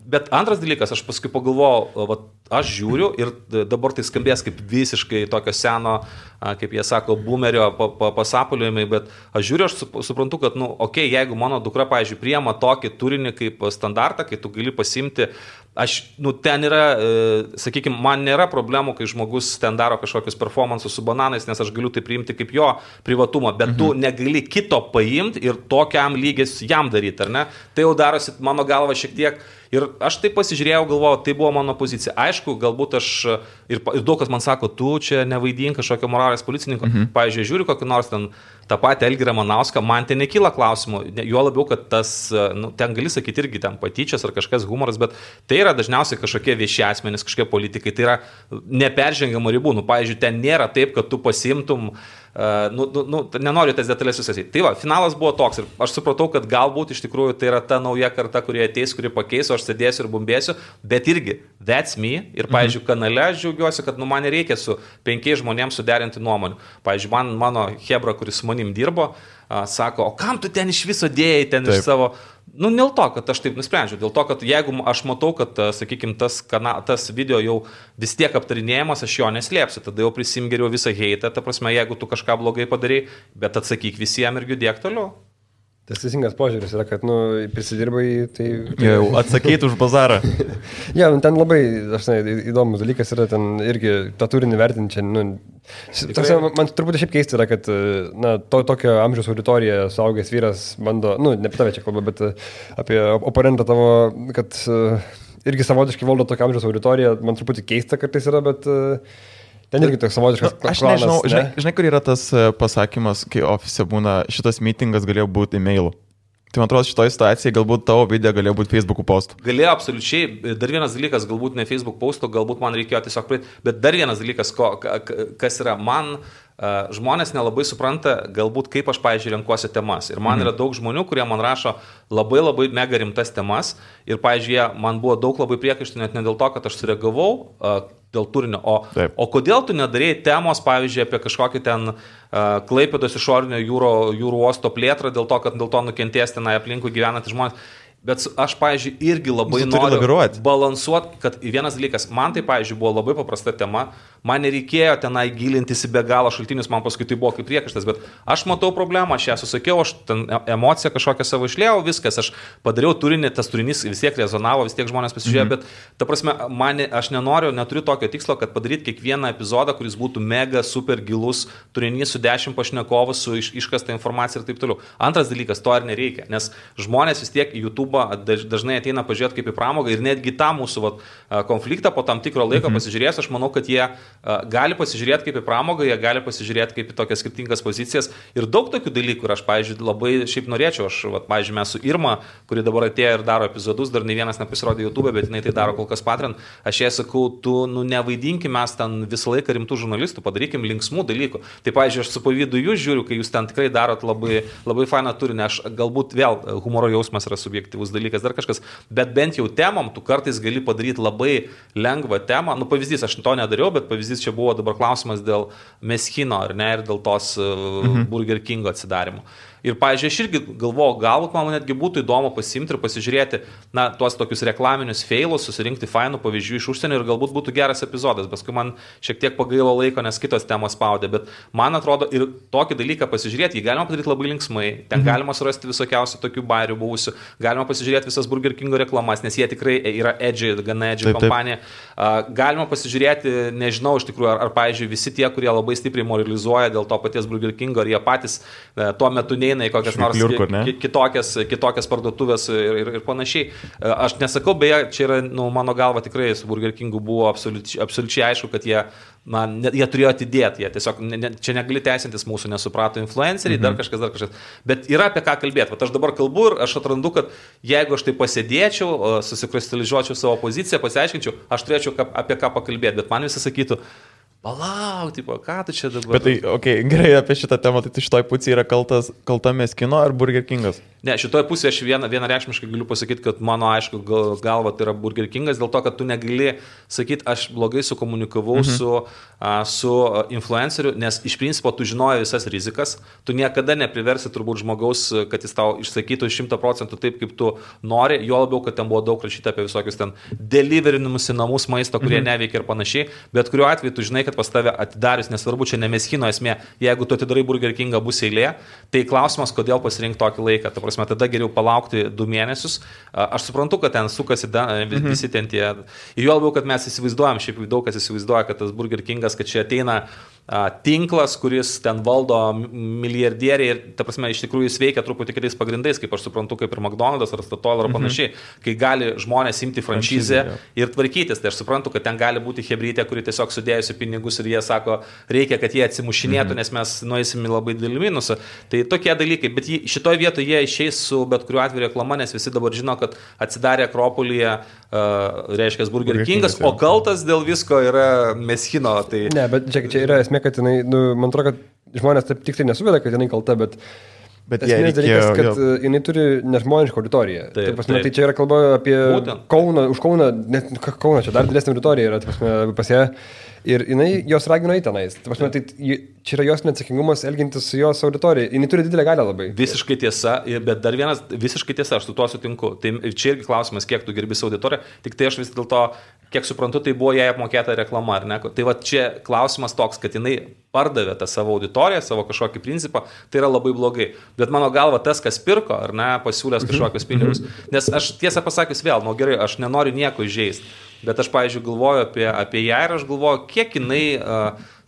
Bet antras dalykas, aš paskui pagalvojau, aš žiūriu ir dabar tai skambės kaip visiškai tokio seno, kaip jie sako, boomerio pasapaliojimai, bet aš žiūriu, aš suprantu, kad, okei, jeigu mano dukra, pavyzdžiui, priema tokį turinį kaip standartą, kai tu gali pasimti, ten yra, sakykime, man nėra problemų, kai žmogus ten daro kažkokius performansus su bananais, nes aš galiu tai priimti kaip jo privatumą, bet tu negali kito paimti ir tokiam lygis jam daryti, ar ne? Tai jau darosi mano galva šiek tiek. Ir aš taip pasižiūrėjau, galvojau, tai buvo mano pozicija. Aišku, galbūt aš, ir daug kas man sako, tu čia nevaidink kažkokio moralės policininko. Pavyzdžiui, žiūriu kokį nors ten tą patį Elgirą Manauską, man ten nekyla klausimų. Jo labiau, kad tas, ten gali sakyti irgi ten patyčias ar kažkas humoras, bet tai yra dažniausiai kažkokie vieši asmenys, kažkokie politikai. Tai yra neperžengiamų ribų. Pavyzdžiui, ten nėra taip, kad tu pasimtum, nenoriu tas detalės visas. Tai va, finalas buvo toks ir aš supratau, kad galbūt iš tikrųjų tai yra ta nauja karta, kurie ateis, kuri pakeis, aš sėdėsiu ir bumbėsiu, bet irgi, that's me. Ir, pavyzdžiui, kanale aš džiaugiuosi, kad man nereikia su 5 žmonėms suderinti nuomonių. Pavyzdžiui, mano hebra, kuris su manim dirbo, sako, o kam tu ten iš viso dėjai, ten iš savo... Dėl to, kad aš taip nusprendžiau, dėl to, kad jeigu aš matau, kad, sakykime, tas video jau vis tiek aptarinėjimas, aš jo neslėpsiu, tada jau prisim geriau visą heitą, ta prasme, jeigu tu kažką blogai padarai, bet atsakyk visiems ir judėk toliau. Tas teisingas požiūris yra, kad, prisidirbai, tai... Jau atsakyti už bazarą. Ja, ten labai, įdomus dalykas yra, ten irgi tą turinį vertinti čia, man turbūt šiaip keista yra, kad, tokio amžiaus auditorija, suaugęs vyras bando, ne apie tave čia kalba, bet apie oponentą tavo, kad irgi savotiškai valdo tokio amžiaus auditoriją, man truputį keista kartais yra, bet... Ten irgi toks savotiškas klanas. Aš nežinau, žinai, kur yra tas pasakymas, kai ofise būna, šitas meetingas galėjo būti e-mailu. Tai man atrodo, šitoje situacijoje galbūt tavo video galėjo būti Facebook'ų postų. Galėjo absoliučiai. Dar vienas dalykas, galbūt ne Facebook postų, galbūt man reikėjo tiesiog praeiti, bet dar vienas dalykas, kas yra man... Žmonės nelabai supranta, galbūt kaip aš, pavyzdžiui, renkuosi temas. Ir man yra daug žmonių, kurie man rašo labai mega rimtas temas. Ir, pavyzdžiui, man buvo daug labai priekaištų, net ne dėl to, kad aš sureagavau dėl turinio. O kodėl tu nedarėjai temos, pavyzdžiui, apie kažkokį ten Klaipėdos išorinio jūrų uosto plėtrą, dėl to, kad dėl to nukentės tenai aplinkui gyvenantys žmonės. Bet aš, pavyzdžiui, irgi labai noriu balansuoti, kad vienas dalykas, man tai, pavyzdžiui, buvo labai paprasta tema, man nereikėjo tenai gilintis į be galo šaltinius, man paskui tai buvo kaip priekaištas, bet aš matau problemą, aš ją susakiau, aš ten emociją kažkokią savo išliejau, viskas, aš padariau turinį, tas turinys vis tiek rezonavo, vis tiek žmonės pasižiūrėjo, bet ta prasme, aš neturiu tokio tikslo, kad padaryti kiekvieną epizodą, kuris būtų mega, super gilus turinys su 10 pašnekovų, su iškasta informacija ir taip toliau. Antras dalykas, to ir nereikia, nes žmonės vis tiek YouTube dažnai ateina pažiūrėti kaip į pramogą ir netgi tą mūsų konfliktą po tam tikro laiko pasižiūrės, aš manau, kad jie gali pasižiūrėti kaip į pramogą, jie gali pasižiūrėti kaip į tokias skirtingas pozicijas ir daug tokių dalykų ir aš, pavyzdžiui, labai šiaip norėčiau, pavyzdžiui, mes su Irma, kuri dabar atėjo ir daro epizodus, dar ne vienas nepasirodė YouTube, bet jinai tai daro kol kas Patreon, aš jai sakau, tu nevaidinkim mes ten visą laiką rimtų žurnalistų, padarykim linksmų dalykų. Tai, pavyzdžiui, aš su pavydu jūs žiūriu, kai jūs ten tikrai darot labai fainą turinį, aš galbūt vėl humoro jausmas yra subjektyvus dalykas, dar kažkas, bet bent jau temom tu kartais gali padaryti labai lengvą temą. Pavyzdys, aš to nedariau, bet pavyzdys čia buvo dabar klausimas dėl Meskino, ar ne, ir dėl tos Burger Kingo atsidarimo. Ir, pavyzdžiui, aš irgi galvoju, galbūt man netgi būtų įdomu pasimti ir pasižiūrėti, tuos tokius reklaminius failus, susirinkti fainų pavyzdžių iš užsienio ir galbūt būtų geras epizodas, paskui man šiek tiek pagailo laiko, nes kitos temos spaudė, bet man atrodo ir tokį dalyką pasižiūrėti, jį galima padaryti labai linksmai, ten galima surasti visokiausių tokių bairių buvusių, galima pasižiūrėti visas Burger Kingo reklamas, nes jie tikrai yra gana edgy kompanija, galima pasižiūrėti, nežinau, iš tikrųjų, ar pavyzdžiui, visi tie, kurie labai stipriai moralizuoja dėl to paties Burger Kingo, ar jie patys tuo metu neina į kokias nors kitokias parduotuvės ir panašiai. Aš nesakau, beje, čia yra, mano galva tikrai su Burger Kingu buvo absoliučiai aišku, kad jie turėjo atidėti, jie tiesiog, čia negali teisintis mūsų, nesuprato influenceriai, dar kažkas. Bet yra apie ką kalbėti. Vat aš dabar kalbu ir aš atrandu, kad jeigu aš tai pasėdėčiau, susikristalizuočiau savo poziciją, pasiaiškinčiau, aš turėčiau apie ką pakalbėti, bet man visi sakytų, palauk, ką tu čia dabar? Bet tai, gerai, apie šitą temą, tai šitoj pusėje yra kalta Meskino ar Burger Kingas? Ne, šitoje pusėje aš vienareikšmiškai galiu pasakyti, kad mano, aišku, galva tai yra Burger Kingas, dėl to, kad tu negali sakyti, aš blogai sukomunikavau su influenceriu, nes iš principo tu žinoji visas rizikas, tu niekada nepriversi turbūt žmogaus, kad jis tau išsakytų 100% taip, kaip tu nori, jo labiau, kad ten buvo daug rašyta apie visokius ten deliverinimus į namus maisto, kurie neveikia ir panašiai, bet kuriuo atveju tu žinai, kad pas tave atidarius, nesvarbu, čia ne Meskino esmė, jeigu tu atidarai Burger Kingą, bus eilė, tai klausimas, kodėl pasirinkti tokį laiką, ta prasme, tada geriau palaukti 2 mėnesius, aš suprantu, kad ten sukasi visi ten tie, ir jo labiau, kad mes įsivaizduojam, šiaip daug kas įsivaizduoja, kad tas Burger Kingas, kad čia ateina tinklas, kuris ten valdo milijardieriai ir, ta prasme, iš tikrųjų jis veikia truputį kitais pagrindais, kaip aš suprantu, kaip ir McDonald's ar Statoil ar panašiai, kai gali žmonės imti franšizę ir tvarkytis, tai aš suprantu, kad ten gali būti hebrytė, kuri tiesiog sudėjusi pinigus ir jie sako, reikia, kad jie atsimušinėtų, nes mes nueisim į labai didelį minusą. Tai tokie dalykai, bet šitoje vietoje jie išeis su bet kuriuo atveju reklama, nes visi dabar žino, kad atsidarė Akropolyje, reiškia Burger Kingas, o kaltas dėl visko yra Meskino. Tai... Ne, bet čia yra esmė, kad jinai, man atrodo, kad žmonės taip tiksliai nesuveda, kad jinai kalta, bet esmės dalykas, kad jinai turi nežmonišką auditoriją. Tai čia yra kalba apie Kauną, už Kauną, net Kauną, čia dar didesnė auditorija yra, pas ją. Ir jinai jos ragino į tenais. Tai čia yra jos neatsakingumas elgintis su jos auditorija. Jinai turi didelę galią labai. Visiškai tiesa, bet dar vienas, visiškai tiesa, aš su tuo sutinku. Tai čia irgi klausimas, kiek tu gerbi savo auditoriją, tik tai aš vis dėlto, kiek suprantu, tai buvo jai apmokėta reklama, ar ne? Tai va čia klausimas toks, kad jinai pardavė tą savo auditoriją, savo kažkokį principą, tai yra labai blogai. Bet mano galva tas, kas pirko, ar ne, pasiūlęs kažkokius pinigus. Nes aš tiesą pasakius vėl, gerai, aš nenoriu nieko įžeisti. Bet aš, pavyzdžiui, galvoju apie ją ir aš galvoju, kiek jinai,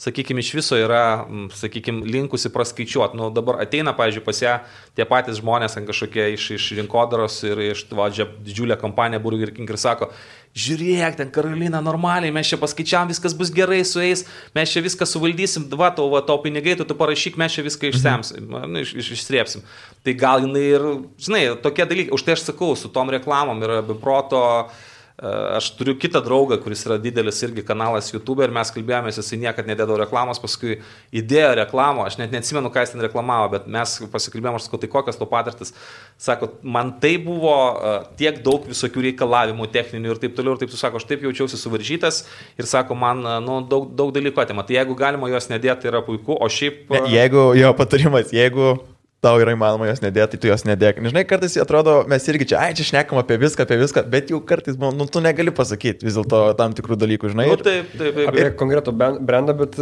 sakykime, iš viso yra, sakykime, linkusi praskaičiuoti. Nu, dabar ateina, pavyzdžiui, pas ją tie patys žmonės, kažkokie iš rinkodaros ir iš didžiulę kompaniją Burger King ir sako, žiūrėk, ten Karolina, normaliai, mes čia paskaičiavam, viskas bus gerai su jais, mes čia viską suvaldysim, tau pinigai, tu parašyk, mes čia viską išsemsim, išsrėpsim. Tai gal jinai ir, žinai, tokie dalykai, už tai aš sakau, su tom reklamom yra be proto. Aš turiu kitą draugą, kuris yra didelis irgi kanalas YouTube ir mes kalbėjomės, jisai niekad nedėdavo reklamos, paskui įdėjo reklamą, aš net neatsimenu, ką jis ten reklamavo, bet mes pasikalbėjom, aš sakau, tai kokios to patirtis. Sako, man tai buvo tiek daug visokių reikalavimų techninių ir taip toliau, ir taip tu sako, aš taip jaučiausi suvaržytas ir sako, man daug dalykų atima. Tai jeigu galima jos nedėti, tai yra puiku, o šiaip... Jeigu jo patarimas, jeigu tau yra įmanoma jos nedėti, tai tu jos nedėk. Nežinai, kartais atrodo, mes irgi čia šnekam apie viską, bet jau kartais, tu negali pasakyti vis dėlto tam tikrų dalykų, žinai. Taip. Apie konkretų brandą, bet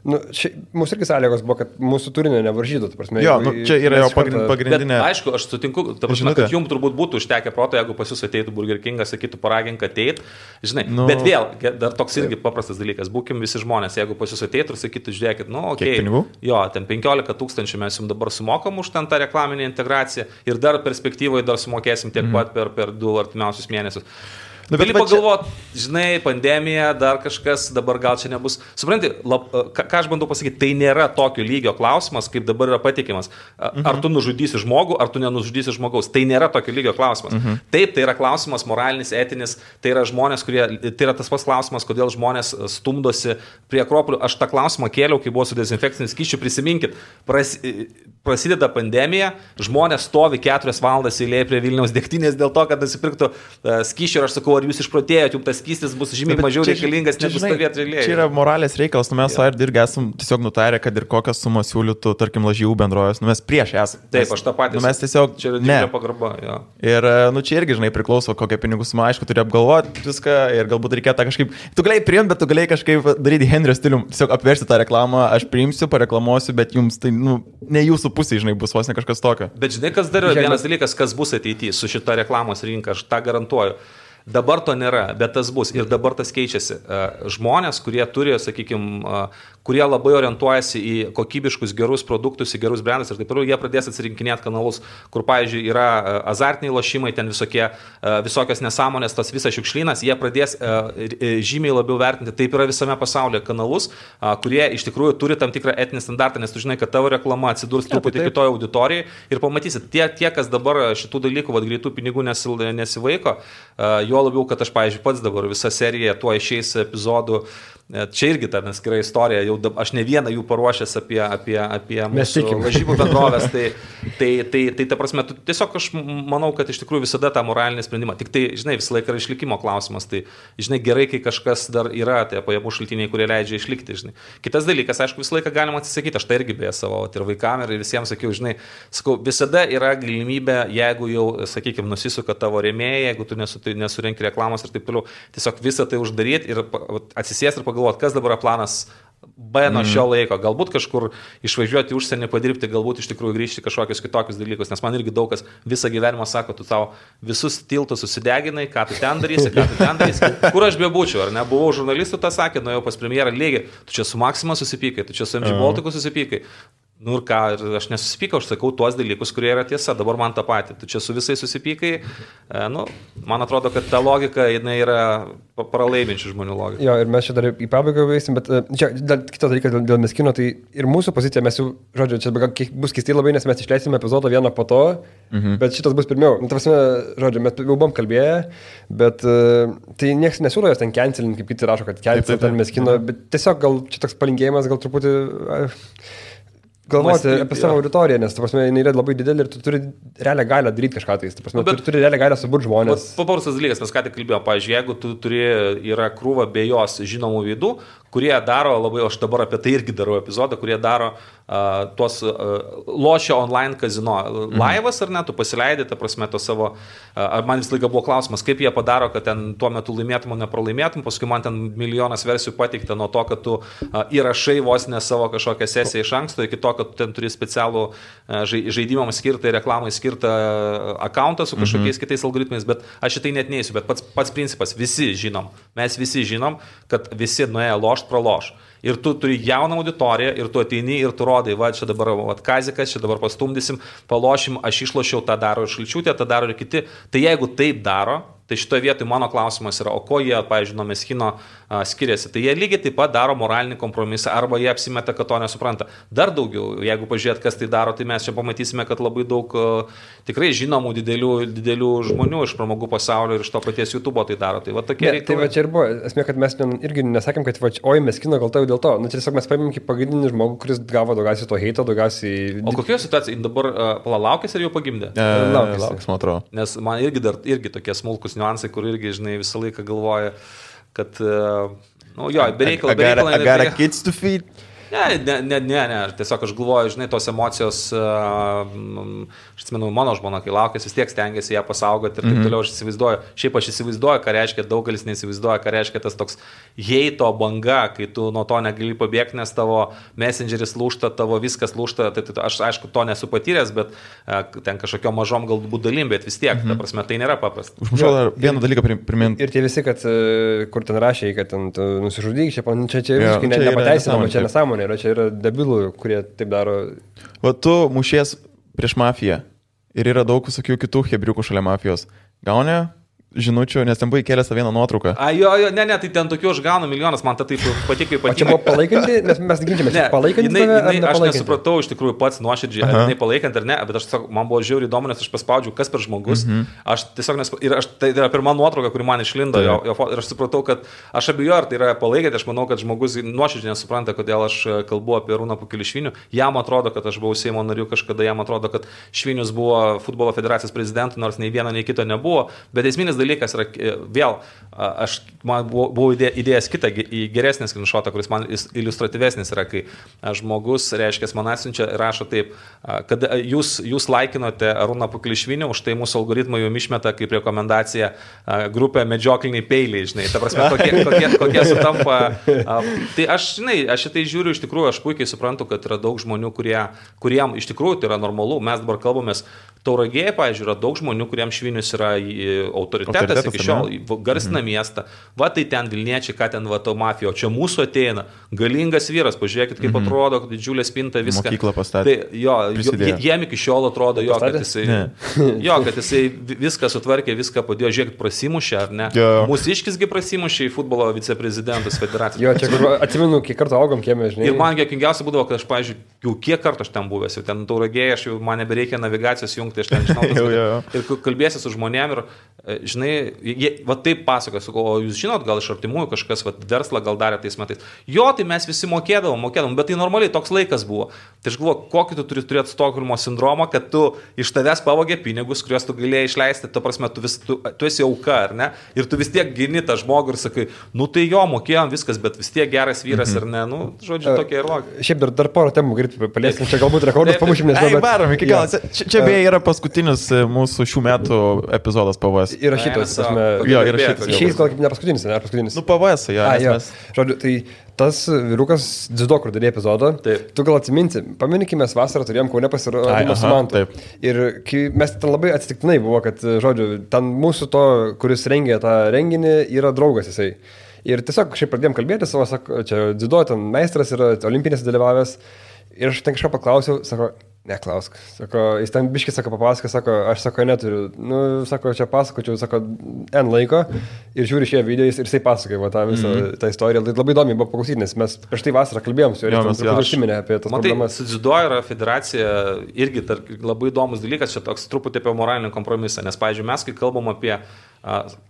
mūsų irgi sąlygos buvo, kad mūsų turinio nevaržytų. Jo, čia yra jo pagrindinė. Bet, aišku, aš sutinku, kad jums turbūt būtų užtekę proto, jeigu pas jūs ateitų Burger Kingas, sakytų, paragink ateit, žinai. Bet vėl, dar toks irgi paprastas dalykas, būkim visi žmonės, jeigu pas jūs ateitų ir sakytų, žiūrėkit, okei, jo, ten 15 000 mes jums dabar sumokam už ten tą reklaminę integraciją ir dar perspektyvoje dar sumokėsim tiek pat per 2 artimiausius mėnesius. Gali pagalvoti, žinai, pandemija, dar kažkas, dabar gal čia nebus. Supranti, ką aš bandau pasakyti, tai nėra tokio lygio klausimas, kaip dabar yra patikimas. Ar tu nužudysi žmogų, ar tu nenužudysi žmogaus. Tai nėra tokio lygio klausimas. Taip, tai yra klausimas moralinis, etinis, tai yra žmonės, tai yra tas pats klausimas, kodėl žmonės stumdosi prie Akropolių. Aš tą klausimą kėliau, kai buvo su dezinfekciniu skysčiu, prisiminkit, prasideda pandemija, žmonės stovi 4 valandas eilėje prie Vilniaus degtinės dėl to, kad nusipirktų skysčių ir aš sakau, ar jūs išprotėjote, jums tas skystis bus žymiai mažiau reikalingas, negu stovėti eilėje. Čia yra moralės reikalas, mes irgi esam tiesiog nutarę, kad ir kokias sumas siūlytų, tarkim, lažybų bendrovės, mes prieš esame. Taip, aš tą patį. Mes tiesiog čia yra didelė pagarba. Jo. Ir čia irgi, žinai, priklauso, kokią pinigų sumą, aišku, turi apgalvoti viską ir galbūt reikėtų kažkaip, tu galėjai priimti, bet tu galėjai kažkaip daryti Henrio stilium, tiesiog apversti tą reklamą, aš priimsiu, pareklamuosiu, bet jums tai, ne jūsų pusė, žinai, bus vos ne kažkas tokio. Bet žinai, kas dar yra vienas dalykas, kas bus ateityje su šita reklamos rinka, aš tą garantuoju. Dabar to nėra, bet tas bus ir dabar tas keičiasi. Žmonės, kurie turi, sakykime, kurie labai orientuojasi į kokybiškus gerus produktus, į gerus brandus ir taip toliau, jie pradės atsirinkinėti kanalus, kur, pavyzdžiui, yra azartiniai lošimai, ten visokios nesąmonės, tas visas šiukšlynas, jie pradės žymiai labiau vertinti, taip yra visame pasaulyje kanalus, kurie iš tikrųjų turi tam tikrą etinį standartą, nes tu žinai, kad tavo reklama atsidurs truputį kitoje auditorijoje ir pamatysit, tie, kas dabar šitų dalykų, greitų pinigų nesivaiko, jo labiau, kad aš, pavyzdžiui, pats dabar visą seriją tuo išeis epizodų. Čia irgi ta neskira istorija, jau aš ne vieną jų paruošęs apie mūsų lažybų bendrovės, tai ta prasme, tiesiog aš manau, kad iš tikrųjų visada tą moralinį sprendimą, tik tai, žinai, visą laiką yra išlikimo klausimas, tai, žinai, gerai, kai kažkas dar yra, tai pajamų šaltiniai, kurie leidžia išlikti, žinai. Kitas dalykas, aišku, visą laiką galima atsisakyti, aš tai irgi beje savo ir vaikam ir visiems sakiau, žinai, sakau, visada yra galimybė, jeigu jau, sakykime, nusisuka tavo rėmėjai, jeigu tu nesurenki reklamos ir taip toliau, tiesiog visą tai uždaryti ir atsisės ir pagalvoti, kas dabar planas B nuo šio laiko. Galbūt kažkur išvažiuoti į užsienį padirbti, galbūt iš tikrųjų grįžti kažkokius kitokius dalykus, nes man irgi daug kas visą gyvenimą sako, tu tau visus tiltus susideginai, ką tu ten darysi, kur aš bebūčiau, ar ne, buvau žurnalistų, tą sakė, nuėjau pas premjerą lygiai, tu čia su Maxima susipykai, tu čia su MG Baltiku susipykai. Nu ir ką, aš nesusipykau, aš sakau tuos dalykus, kurie yra tiesa, dabar man tą patį. Tu čia su visais susipykai, man atrodo, kad ta logika, jinai yra pralaiminčių žmonių logika. Jo, ir mes čia dar į pabaigą veisim, bet čia kitas dalykas dėl Meskino, tai ir mūsų pozicija, mes jau, žodžiu, čia bus keistai labai, nes mes išleisime epizodą vieną po to, bet šitas bus pirmiau. Nu, ta prasme, žodžiu, mes jau buvom kalbėję, bet tai niekas nesiūlo jos ten cancelinti, kaip kiti rašo, kad cancelint ten Meskino, bet tiesiog gal čia toks palinkėjimas, gal truputį... galvoti apie savo auditoriją, nes, ta prasme, jinai yra labai didelė ir tu turi realią galią daryti kažką tai. Ta prasme, tu turi realią galią suburti žmonės. Paprastas dalykas, mes ką tik kalbėjome, pavyzdžiui, jeigu tu yra krūva be jos žinomų veidų, kurie daro labai, aš dabar apie tai irgi darau epizodą, kurie daro tuos lošio online kazino laivas, ar ne, tu pasileidai, ta prasme, to savo, man vis laiką buvo klausimas, kaip jie padaro, kad ten tuo metu laimėtum, o nepralaimėtum, paskui man ten milijonas versijų pateikta nuo to, kad tu įrašai vos ne savo kažkokią sesiją iš anksto, iki to, kad tu ten turi specialų žaidimams skirtą ir reklamai skirtą akauntą su kažkokiais kitais algoritmais, bet aš šitai net neįsiu, bet pats principas, mes visi žinom, kad visi nuėję lošt praloš. Ir tu turi jauną auditoriją, ir tu ateini, ir tu rodai, va, čia dabar Kazikas, čia dabar pastumdysim, palošim, aš išlošiau, tą daro ir Šalčiūtė, tą daro ir kiti. Tai jeigu taip daro, tai šitoje vietoje mano klausimas yra, o ko jie, pavyzdžiui, nuo Meskino skiriasi. Tai jie lygiai taip pat daro moralinį kompromisą, arba jie apsimeta, kad to nesupranta. Dar daugiau, jeigu pažiūrėt, kas tai daro, tai mes čia pamatysime, kad labai daug tikrai žinomų didelių žmonių iš pramogų pasaulio ir iš to paties YouTube tai daro. Tai va tokie reikalai. Tai va čia ir buvo, esmė, kad mes irgi nesakėm, kad va, oi, Meskino kalta dėl to. Nu, tiesiog mes paėmėm kaip pagrindinį žmogų, kuris gavo daugiausiai to heito, daugiausiai... O kokioje situacijoje dabar palaukęs ar jau pagimdė? Laukęs, man atrodo. Nes man irgi tokie smulkus niuansai, kur irgi, žinai, visą laiką galvoja, kad, nu jo, bereikalą. I got a kids to feed. Ne, tiesiog aš galvoju, žinai, tos emocijos, aš atsimenu, mano žmona, kai laukės, vis tiek stengiasi ją pasaugoti ir taip toliau, aš įsivaizduoju, ką reiškia, daugelis neįsivaizduoja, ką reiškia tas toks heito banga, kai tu nuo to negali pabėgti, nes tavo messengeris lūžta, tavo viskas lūžta, tai aš aišku to nesu patyręs, bet ten kažkokio mažom galbūt dalim, bet vis tiek, ta prasme, tai nėra paprasta. Užmušau dar vieną dalyką priminti. Ir tie visi, kad kur ten rašė, kad ten nusižudyk, čia visiškai nepateisinama, čia nesąmonė. Čia yra debilų, kurie taip daro. Va tu mušies prieš mafiją ir yra daug visokių kitų hebriukų šalia mafijos. Gauni žinučių, nes ten buvo įkėlęs tą vieną nuotrauką. Ne, tai ten tokių aš gaunu milijonas, man tai taip patiko ypatingai. O čia buvo palaikanti, nes mes ginčiamės, palaikanti aš nesupratau iš tikrųjų pats nuoširdžiai, ar jinai palaikant ar ne, bet aš tiesiog, man buvo žiauriai įdomu, nes aš paspaudžiau, kas per žmogus. Aš tiesiog, tai yra pirma nuotrauka, kuri man išlindo, ir aš supratau, kad aš abejoju, ar tai yra palaikanti, aš manau, kad žmogus nuoširdžiai nesupranta, kodėl aš kalbu apie Arūną Pukelišvinių. Jam atrodo, kad aš buvau Seimo nariu kažkada, jam atrodo, kad Švinius buvo futbolo federacijos prezidentu, nors nei vieno, nei kito nebuvo, bet esminis dalykas yra vėl, man buvo idėjas kitą geresnį skrinšotą, kuris man iliustratyvesnis yra, kai žmogus, reiškia, man atsiunčia ir rašo taip, kad jūs laikinote Arūną Pukelišvinį, už tai mūsų algoritmai jums išmeta kaip rekomendacija grupę medžiokliniai peiliai, žinai, ta prasme, kokie sutampa. Tai aš šitai žiūriu, iš tikrųjų, aš puikiai suprantu, kad yra daug žmonių, kuriem iš tikrųjų tai yra normalu, mes dabar kalbamės. Tauragėje, pavyzdžiui, yra daug žmonių, kuriems Švinius yra autoritetas iki šiol, garsina miestą. Va tai ten Vilniečiai, ką ten va to mafija, o čia mūsų ateina, galingas vyras, pažiūrėkit, kaip atrodo, didžiulė spinta, viską. Mokyklą pastatė. Tai jiem iki šiol atrodo, kad jisai viską sutvarkė, viską padėjo, žiūrėkit, prasimušė, ar ne? Mūsiškisgi prasimušė į futbolo viceprezidentus federacijos. Jo, čia atsimenu, kiek kartų augom kieme, žinai. Ir man juokingiausia būdavo, kad aš, pavyzdžiui, jau kiek kartų aš ten buvęs, jau ten Tauragėje, aš jau man nebereikia navigacijos jungti. Tai aš ten žinau, ir kalbėsi su žmonėm ir, žinai, va taip pasakoja, o jūs žinot, gal iš artimųjų kažkas verslą gal darė tais metais. Jo, tai mes visi mokėdavom, bet tai normaliai toks laikas buvo. Tai aš galvoju, kokį tu turi turėti Stokholmo sindromą, kad tu iš tavęs pavogė pinigus, kuriuos tu galėjai išleisti, to prasme, tu esi auka, ar ne? Ir tu vis tiek gini tą žmogų ir sakai, nu tai jo, mokėjom viskas, bet vis tiek geras vyras, ar ne? Nu, žodžiu, tokia ir logika. Šiaip dar porą temų greitai paliesim, čia galbūt rekordas pamušim, nes varom iki galo. Čia beje yra paskutinis mūsų šių metų epizodas PVS. Įrašytas, išeis gal kaip ne paskutinis, ne paskutinis. Nu, PVS, jo. Žodžiu, tai tas vyrukas dziudo, kur darė epizodą, tu gal atsiminti, pamėnykime, mes vasarą turėjom Kaune pasirodymą su Mantu. Ir mes ten labai atsitiktinai buvo, kad, žodžiu, ten mūsų to, kuris rengė tą renginį, yra draugas jisai. Ir tiesiog šiaip pradėjom kalbėti, sako, čia dziudo, ten meistras yra olimpinėse dalyvavęs. Ir aš ten kažką paklausiau, sako, neklausk. Sako, jis ten biškis, sako, papasako, sako, aš sako, neturiu. Nu, sako, čia pasakočiau, sako, N laiko. Ir žiūri šie video ir jisai pasakoja tą visą tą istoriją. Tai labai įdomi buvo paklausyti, nes mes prieš tai vasarą kalbėjom su juo ir užsiminė apie tas problemas. Su dziudo yra federacija irgi labai įdomus dalykas, čia toks truputį apie moralinį kompromisą. Nes, pavyzdžiui, mes, kai kalbam apie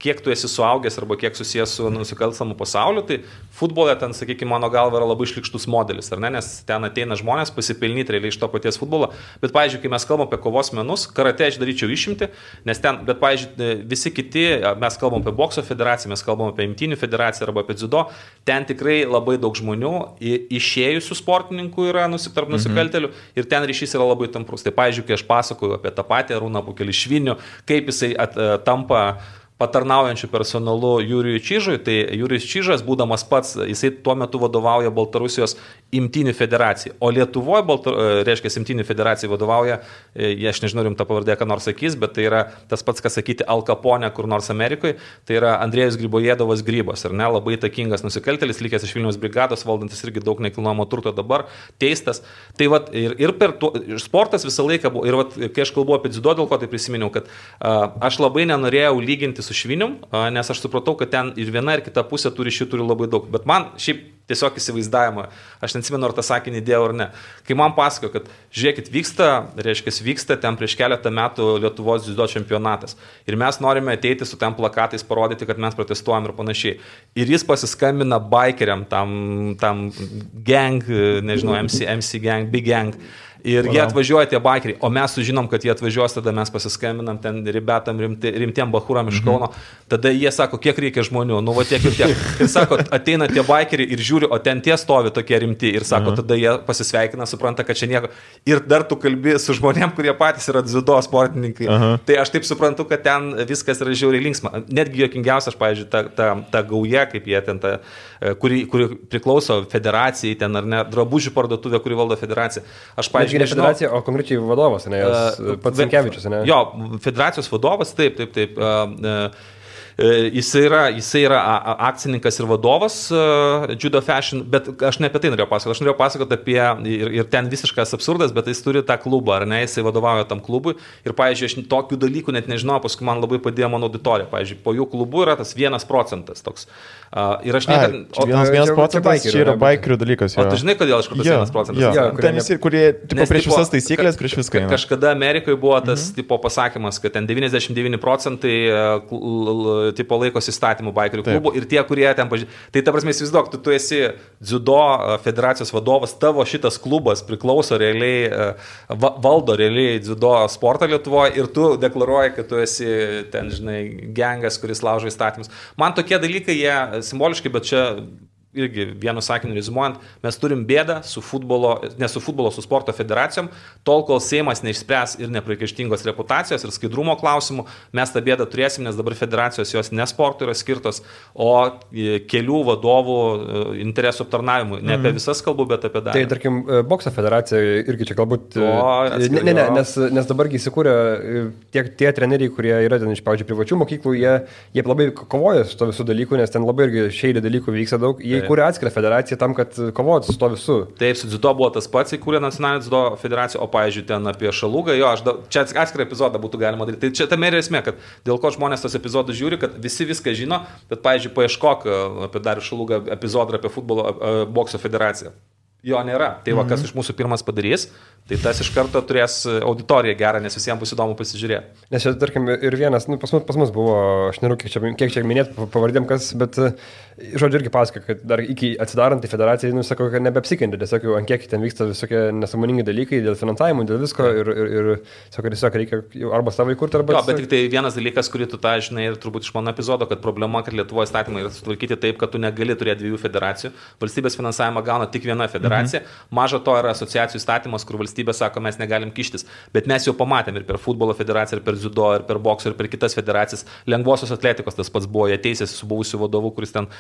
kiek tu esi suaugęs arba kiek susijęs su nusikalstamu pasauliu, tai futbole ten, sakykime, mano galva yra labai šlikštus modelis, ar ne, nes ten ateina žmonės pasipelnyti realiai iš to paties futbolo, bet, pavyzdžiui, kai mes kalbam apie kovos menus, karate aš daryčiau išimti, nes ten, bet, pavyzdžiui, visi kiti, mes kalbam apie bokso federaciją, mes kalbam apie imtynių federaciją arba apie dziudo, ten tikrai labai daug žmonių išėjusių sportininkų yra tarp nusikaltelių ir ten ryšys yra labai tamprus. Tai, pavyzdžiui, kai aš pasakoju apie tą patį Arūną Pukelišvinių, kaip jisai tampa patarnaujančių personalu Jurijui Čižui, tai Jurijus Čižas, būdamas pats, jisai tuo metu vadovauja Baltarusijos imtynių federacijai, o Lietuvoje, reiškia, imtynių federacijai vadovauja, aš nežinau, rimta pavardė, ką nors sakys, bet tai yra tas pats, kas sakyti Al Capone kur nors Amerikoje, tai yra Andrėjus Grybojėdovas Grybas, ar ne, labai įtakingas nusikaltėlis, likęs iš Vilniaus brigados, valdantis irgi daug nekilnojamo turto dabar, teistas. Tai vat, ir per sportas visą laiką buvo, ir vat, kai aš kalbu apie dziudo, dėl ko tai prisiminiau, kad aš labai nenorėjau lyginti su Švinium, nes aš supratau, kad ten ir viena ir kita pusė turi labai daug, bet man šiaip tiesiog įsivaizdavimą, aš neatsimenu, ar tą sakinį dėjau ar ne. Kai man pasakojo, kad žiūrėkit, vyksta ten prieš keletą metų Lietuvos dziudo čempionatas ir mes norime ateiti su ten plakatais, parodyti, kad mes protestuojam ir panašiai. Ir jis pasiskambina bikeriam, tam gang, nežinau, MC gang, big gang. Ir jie atvažiuoja tie bikeriai, o mes sužinom, kad jie atvažiuos, tada mes pasiskambinam ten ribetam, rimtiem bachuram iš Kauno, tada jie sako, kiek reikia žmonių, nu va tiek ir tiek. Ir sako, ateina tie bikeriai ir žiūri, o ten tie stovi tokie rimti ir sako, tada jie pasisveikina, supranta, kad čia nieko. Ir dar tu kalbi su žmonėm, kurie patys yra dziudo sportininkai. Tai aš taip suprantu, kad ten viskas yra žiauriai linksma. Netgi juokingiausia, aš, pavyzdžiui, ta gauja, kaip jie ten, kuri priklauso federacijai, ten ar ne, drabužių parduotuvė, kuri valdo federaciją. Aš, pavyzdžiui, ne federacija, o konkrečiai vadovas, ne, pats Sankevičius, ne? Jo, federacijos vadovas, taip. Jisai yra akcininkas ir vadovas Judo Fashion, bet aš ne apie tai norėjau pasakoti. Aš norėjau pasakoti apie, ir ten visiškas absurdas, bet jis turi tą klubą, ar ne, jisai vadovauja tam klubui. Ir, pavyzdžiui, aš tokių dalykų net nežinau, paskui man labai padėjo mano auditorija. Pavyzdžiui, po jų klubų yra tas 1% toks. Ir aš net... 1% čia yra bikerių dalykas. O tu žinai, kodėl aš kur tas 1%? Ten visi, kurie prieš visas taisyklės, prieš viską. Kažkada Amerikoje buvo tas tipo pasakymas, kad ten 99% tipo laikosi įstatymų bikerių klubų ir tie, kurie ten pažiūrė. Tai ta prasme, įsivaizduok, tu esi dziudo federacijos vadovas, tavo šitas klubas priklauso realiai, valdo realiai dziudo sportą Lietuvoje ir tu deklaruoji, kad tu esi ten, žinai, gengas, kuris laužo įstatymus. Man tokie dalykai, jie simboliškai, bet čia irgi vienu sakiniu rezimuojant, mes turim bėdą su sporto federacijom, tol kol Seimas neišspręs ir nepriekaištingos reputacijos ir skaidrumo klausimų, mes tą bėdą turėsim, nes dabar federacijos jos ne sportui yra skirtos, o kelių vadovų interesų aptarnavimui. Ne apie visas kalbu, bet apie dalį. Tai, tarkim, bokso federacija irgi čia galbūt... Nes dabargi įsikūrė tie treneriai, kurie yra ten iš, pavyzdžiui, privačių mokyklų, jie labai kovoja su to visų dalykų, nes ten labai irgi šeidė dalykų vyksta daug. Jie įkūrė atskirą federaciją tam, kad kovotų su to visų. Taip, su dziudo buvo tas pats, įkūrė nacionalinė dziudo federacija, o, pavyzdžiui, ten apie Šalugą, čia atskirą epizodą būtų galima daryti. Tai čia tame ir esmė, kad dėl ko žmonės tos epizodus žiūri, kad visi viską žino, bet, pavyzdžiui, paieškok apie Darių Šalugą epizodą apie futbolo bokso federaciją. Jo nėra. Tai va, kas iš mūsų pirmas padarys, tai tas iš karto turės auditoriją gerą, nes visiems bus įdomu pasižiūrėti. Nes čia, tarkim, ir vienas, pas mus buvo, aš nežinau, kiek čia minėti pavardėm kas, bet, žodžiu, irgi pasako, kad dar iki atsidarant į federaciją, sako, kad nebeapsikentė, tiesiog jau ant kiek ten vyksta visokie nesąmoningi dalykai dėl finansavimo, dėl visko ir sako, tiesiog reikia arba savo įkurti, arba... Jo, bet tik tai vienas dalykas, kurį tu tą žinai ir turbūt iš mano epizodo, kad problema, kad Lietuvoje įstatymai yra sutvarkyti taip, kad tu negali turėti dviejų federacijų. Valstybės finansavimą gauna tik viena federacija. Maža to yra asociacijų įstatymas, kur valstybė sako, mes negalim kištis. Bet mes jau pamatėm ir per futbolo federaciją, ir per dziudo, ir per bokso, ir per kitas federacijas. Lengvosios atletikos tas pats buvo, jie teisėsi su buvusiu vadovu, kuris ten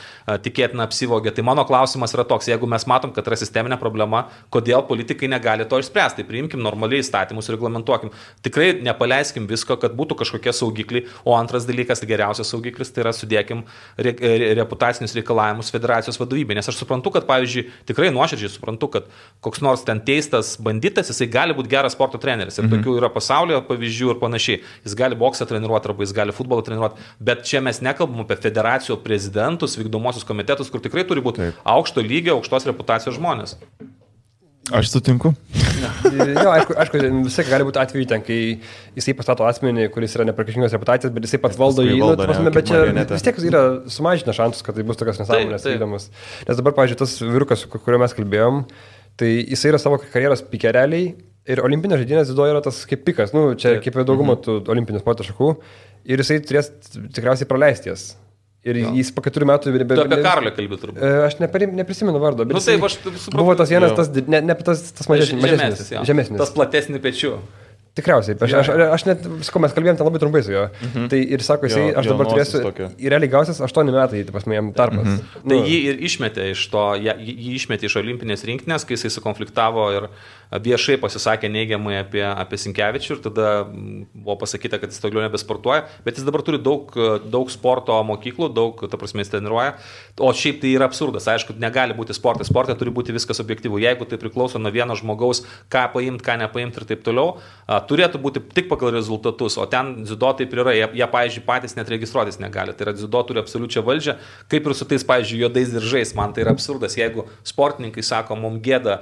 tikėtina apsivogė. Tai mano klausimas yra toks, jeigu mes matom, kad yra sisteminė problema, kodėl politikai negali to išspręsti. Tai priimkim normaliai įstatymus, reglamentuokim. Tikrai nepaleiskim visko, kad būtų kažkokie saugikliai. O antras dalykas, geriausias saugiklis, tai yra sudėkim reputacinius reikalavimus federacijos vadovybė. Nes aš suprantu, kad, pavyzdžiui, tikrai nuoširdžiai suprantu, kad koks nors ten teistas banditas, jisai gali būti geras sporto treneris. Ir tokių yra pasaulyje pavyzdžių ir panašiai. Jis gali boksą treniruoti arba jis gali futbolą treniruoti. Bet čia mes nekalbam apie federacijų prezidentus, vykdomosius komitetus, kur tikrai turi būti aukšto lygio, aukštos reputacijos žmonės. Aš sutinku. Jo, aišku, visai gali būti atveju ten, kai jisai pastato asmenį, kuris yra nepriekaištingos reputacijos, bet jisai pats valdo jį, bet čia vis tiek yra sumažina šansus, kad tai bus tokios nesąmonės įdomus. Nes dabar, pavyzdžiui, tas vyrukas, kurio mes kalbėjom, tai jisai yra savo karjeros pikereliai ir olimpinės žaidynės dziudo yra tas kaip pikas, čia kaip dauguma tų olimpinių sporto šakų ir jisai turės tikriausiai praleisti jas. Ir jis po 4 metų... Tu apie Karolį kalbį turbūt. Aš neprisimenu vardo, bet taip, aš supratau. Buvo tas vienas, tas žemesnis. Tas platesnis pečių. Tikriausiai, aš net, mes kalbėjom ten labai trumpai su juo. Tai ir sako, jisai, aš dabar turėsiu, ir realiai gausias 8 metai, tai pas mane jam tarpas. Tai jį ir išmetė iš to, jį išmetė iš olimpinės rinktinės, kai jisai sukonfliktavo ir viešai pasisakė neigiamai apie Sinkevičių ir tada buvo pasakyta, kad jis toliau nebesportuoja, bet jis dabar turi daug sporto mokyklų, ta prasme jis treniruoja, o šiaip tai yra absurdas, aišku, negali būti sportas, sporte turi būti viskas objektyvu, jeigu tai priklauso nuo vieno žmogaus, ką paimti, ką nepaimti ir taip toliau, turėtų būti tik pagal rezultatus, o ten dziudo taip yra, jie pavyzdžiui, patys net registruotis negali, tai yra dziudo turi absoliučią valdžią, kaip ir su tais, pavyzdžiui, juodais diržais, man tai yra absurdas, jeigu sportininkai sako, mums gėda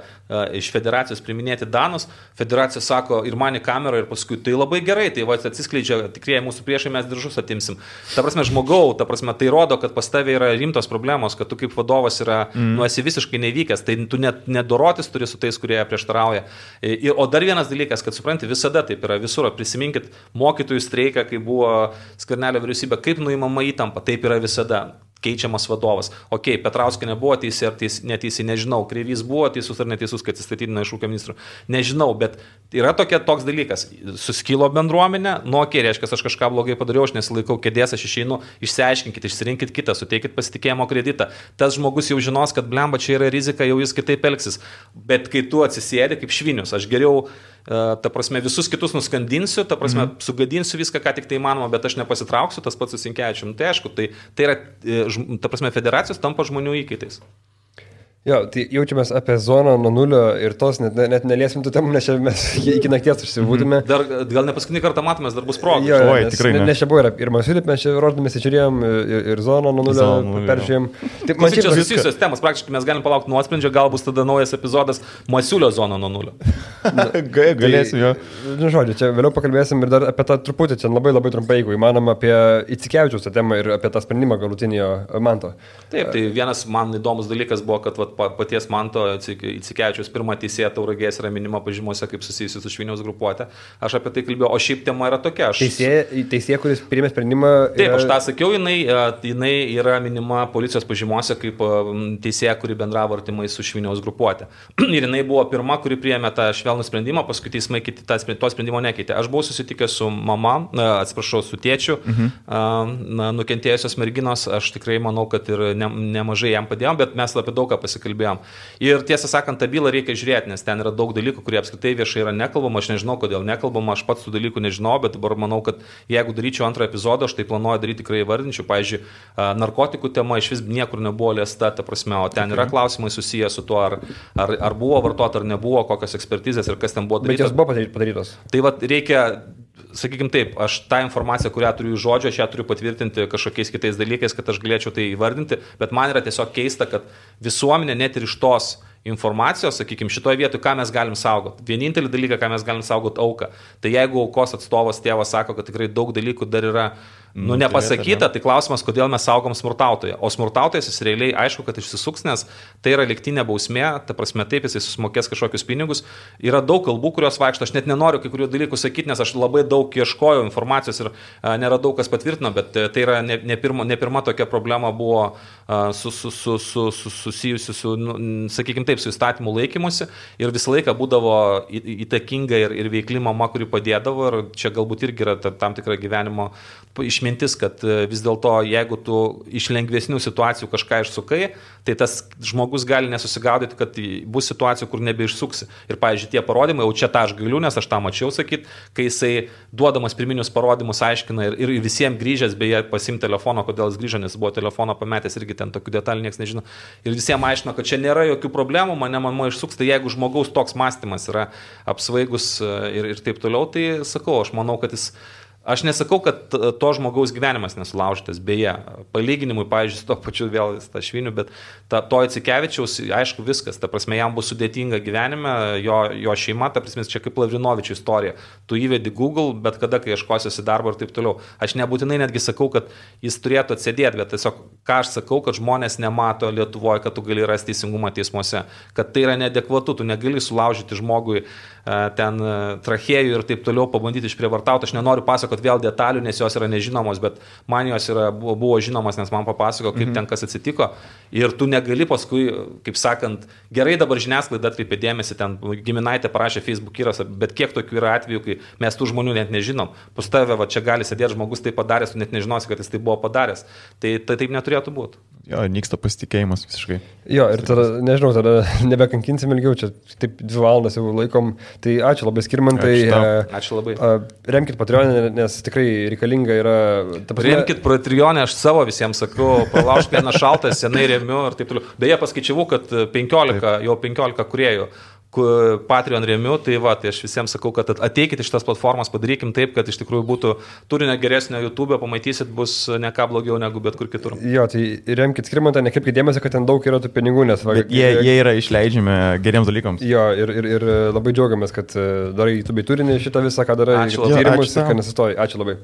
iš federacijos priminėti danus, federacija sako ir man į kamerą ir paskui tai labai gerai, tai va atsiskleidžia tikrieji mūsų priešai, mes diržus atimsim. Ta prasme, žmogau, tai rodo, kad pas tavai yra rimtos problemos, kad tu kaip vadovas esi visiškai nevykęs, tai tu net nedorotis turi su tais, kurie prieštarauja. O dar vienas dalykas, kad supranti, visada taip yra visur, prisiminkit mokytojų streiką, kai buvo Skvernelio vyriausybė, kaip nuimama įtampa, taip yra visada. Keičiamas vadovas. Ok, Petrauskė nebuvo teisė ar neteisė, nežinau. Kreivys buvo teisus ar neteisus, kad atsistatydino iš ūkio ministrų. Nežinau, bet yra toks dalykas. Suskilo bendruomenė, reiškia, aš kažką blogai padariau, aš nesilaikau kėdės, aš išeinu, išsiaiškinkit, išsirinkit kitą, suteikit pasitikėjimo kreditą. Tas žmogus jau žinos, kad blemba čia yra rizika, jau jis kitaip elgsis. Bet kai tu atsisėdi kaip švinius, aš geriau ta prasme, visus kitus nuskandinsiu, ta prasme, sugadinsiu viską, ką tik tai įmanoma, bet aš nepasitrauksiu, tas pats su Sinkevičiumi. Tai aišku, tai yra, ta prasme, federacijos tampa žmonių įkaitais. Jo, tai jaučiamės apie zoną nuo nulio ir tos net neliesim tų temų, nes čia mes iki nakties užsibūtume. Dar gal ne paskutinį kartą matomės, dar bus proga. Jo, tikrai. Nes čia buvo ir Masiulį, mes čia rodėmės, žiūrėjom ir zoną nuo nulio peržiūrėjom. Taip, man čia susijusios temos, praktiškai mes galim palaukti nuosprendžio, gal bus tada naujas epizodas Masiulio zona nuo nulio. Galėsim jo. Žodžiu, čia vėliau pakalbėsim ir dar apie tą truputį, čia labai labai trumpai, jeigu įmanoma, apie Icikevičiaus temą ir apie tą sprendimą galutinio Manto. Taip, tai vienas man įdomus dalykas buvo, kad paties Manto Icikevičiaus pirmą teisėją Tauragės yra minima pažymose kaip susijusi su Šviniaus grupuotė. Aš apie tai kalbėjau, o šiaip tema yra tokia. Teisėja, kuris priėmė sprendimą. Taip, aš tą sakiau, jinai yra minima policijos pažymose kaip teisėja, kuri bendravo artimai su Šviniaus grupuotė. Ir jinai buvo pirma, kuri priėmė tą švelnų sprendimą, paskui teismai to sprendimo nekeitė. Aš buvau susitikęs su mama, su tėčiu, nukentėjusios merginos, aš tikrai manau, kad ir nemažai jam padėjom, bet mes apie daug ką pasikalbėjom. Ir tiesą sakant, tą bylą reikia žiūrėti, nes ten yra daug dalykų, kurie apskritai viešai yra nekalbama, aš nežinau, kodėl nekalbama, aš pats tų dalykų nežinau, bet dabar manau, kad jeigu daryčiau antrą epizodą, aš tai planuoju daryti tikrai įvardinčiau, pavyzdžiui, narkotikų tema iš vis niekur nebuvo liesta, ta prasme, o ten yra klausimai susiję su tuo, ar buvo vartota, ar nebuvo, kokios ekspertizės ir kas ten buvo daryta. Bet jos buvo padarytos. Tai va, reikia, sakykime taip, aš tą informaciją, kurią turiu iš žodžio, aš ją turiu patvirtinti kažkokiais kitais dalykais, kad aš galėčiau tai įvardinti, bet man yra tiesiog keista, kad visuomenė net ir iš tos informacijos, sakykime, šitoje vietoje, ką mes galim saugoti. Vienintelį dalyką, ką mes galim saugoti, auką. Tai jeigu aukos atstovas tėvas sako, kad tikrai daug dalykų dar yra nepasakyta, tai klausimas, kodėl mes saugom smurtautoją. O smurtautojas jis realiai aišku, kad išsisuks, nes tai yra lygtinė bausmė, ta prasme taip, jis susimokės kažkokius pinigus. Yra daug kalbų, kurios vaikšto, aš net nenoriu kai kurių dalykų sakyti, nes aš labai daug ieškojau informacijos ir nėra daug kas patvirtino, bet tai yra ne pirma tokia problema buvo susijusi su, sakykime taip, su įstatymų laikymusi ir visą laiką būdavo įtakinga ir veikli mama, kuri padėdavo ir čia galbūt irgi yra tam tikra gyvenimo išmintis, kad vis dėlto, jeigu tu iš lengvesnių situacijų kažką išsukai, tai tas žmogus gali nesusigaudyti, kad bus situacijų, kur nebeišsuksi. Ir, pavyzdžiui, tie parodymai, jau čia tą aš galiu, nes aš tą mačiau sakyti, kai jisai duodamas pirminius parodymus aiškina ir visiems grįžęs, beje, pasim telefono, kodėl jis grįžo, nes buvo telefono pametęs, irgi ten tokių detalių niekas nežino. Ir visiems aiškino, kad čia nėra jokių problemų, mane išsuks, tai jeigu žmogaus toks mąstymas yra apsvaigus ir taip toliau, tai sakau, aš manau, kad jis Aš nesakau, kad to žmogaus gyvenimas nesulaužytas, beje, palyginimui, pavyzdžiui, su to pačiu vėl Stašviniu, bet to Icikevičiaus, aišku, viskas, ta prasme, jam bus sudėtinga gyvenime, jo šeima, ta prasme, čia kaip Lavrinovičių istorija. Tu įvedi Google, bet kada, kai ieškosiuosi darbo ir taip toliau. Aš nebūtinai netgi sakau, kad jis turėtų atsėdėti, bet tiesiog, ką aš sakau, kad žmonės nemato Lietuvoje, kad tu gali rasti teisingumą teismuose, kad tai yra neadekvatu, tu negali sulaužyti žmogui ten trachėjų ir taip toliau, pabandyti išprievartauti. Aš nenoriu pasakoti vėl detalių, nes jos yra nežinomos, bet man jos buvo žinomas, nes man papasako, kaip ten kas atsitiko. Ir tu negali paskui, kaip sakant, gerai dabar žiniasklaida atkreipė dėmesį, ten giminaitė parašė Facebook įrašą, bet kiek tokių yra atvejų, kai mes tų žmonių net nežinom. Pas tave va, čia gali sėdėti žmogus tai padaręs, tu net nežinosi, kad jis tai buvo padaręs. Tai taip neturėtų būti. Jo, nyksta pasitikėjimas visiškai. Jo, ir tada, nežinau, tada nebekankinsim ilgiau, čia taip 2 valandas jau laikom. Tai ačiū labai, Skirmantai. Ačiū labai. Remkit Patreon'e, nes tikrai reikalinga yra... Remkit Patreon'e, aš savo visiems sakau, pralaužk vieną šaltą, senai remiu ir taip toliau. Beje, paskaičiavau, kad 15 kuriejų Patreon remiu, tai aš visiems sakau, kad ateikit iš tas platformas, padarykim taip, kad iš tikrųjų būtų turinio geresnio YouTube, pamatysit, bus ne ką blogiau negu bet kur kitur. Jo, tai remkit Skirmantą, nekreipkit dėmesio, kad ten daug yra tų pinigų, nes... Jie yra išleidžiami geriems dalykams. Jo, ir labai džiaugiamės, kad darai YouTube turinį šitą visą, ką darai, tyrimus, kad nesistoji. Ačiū labai.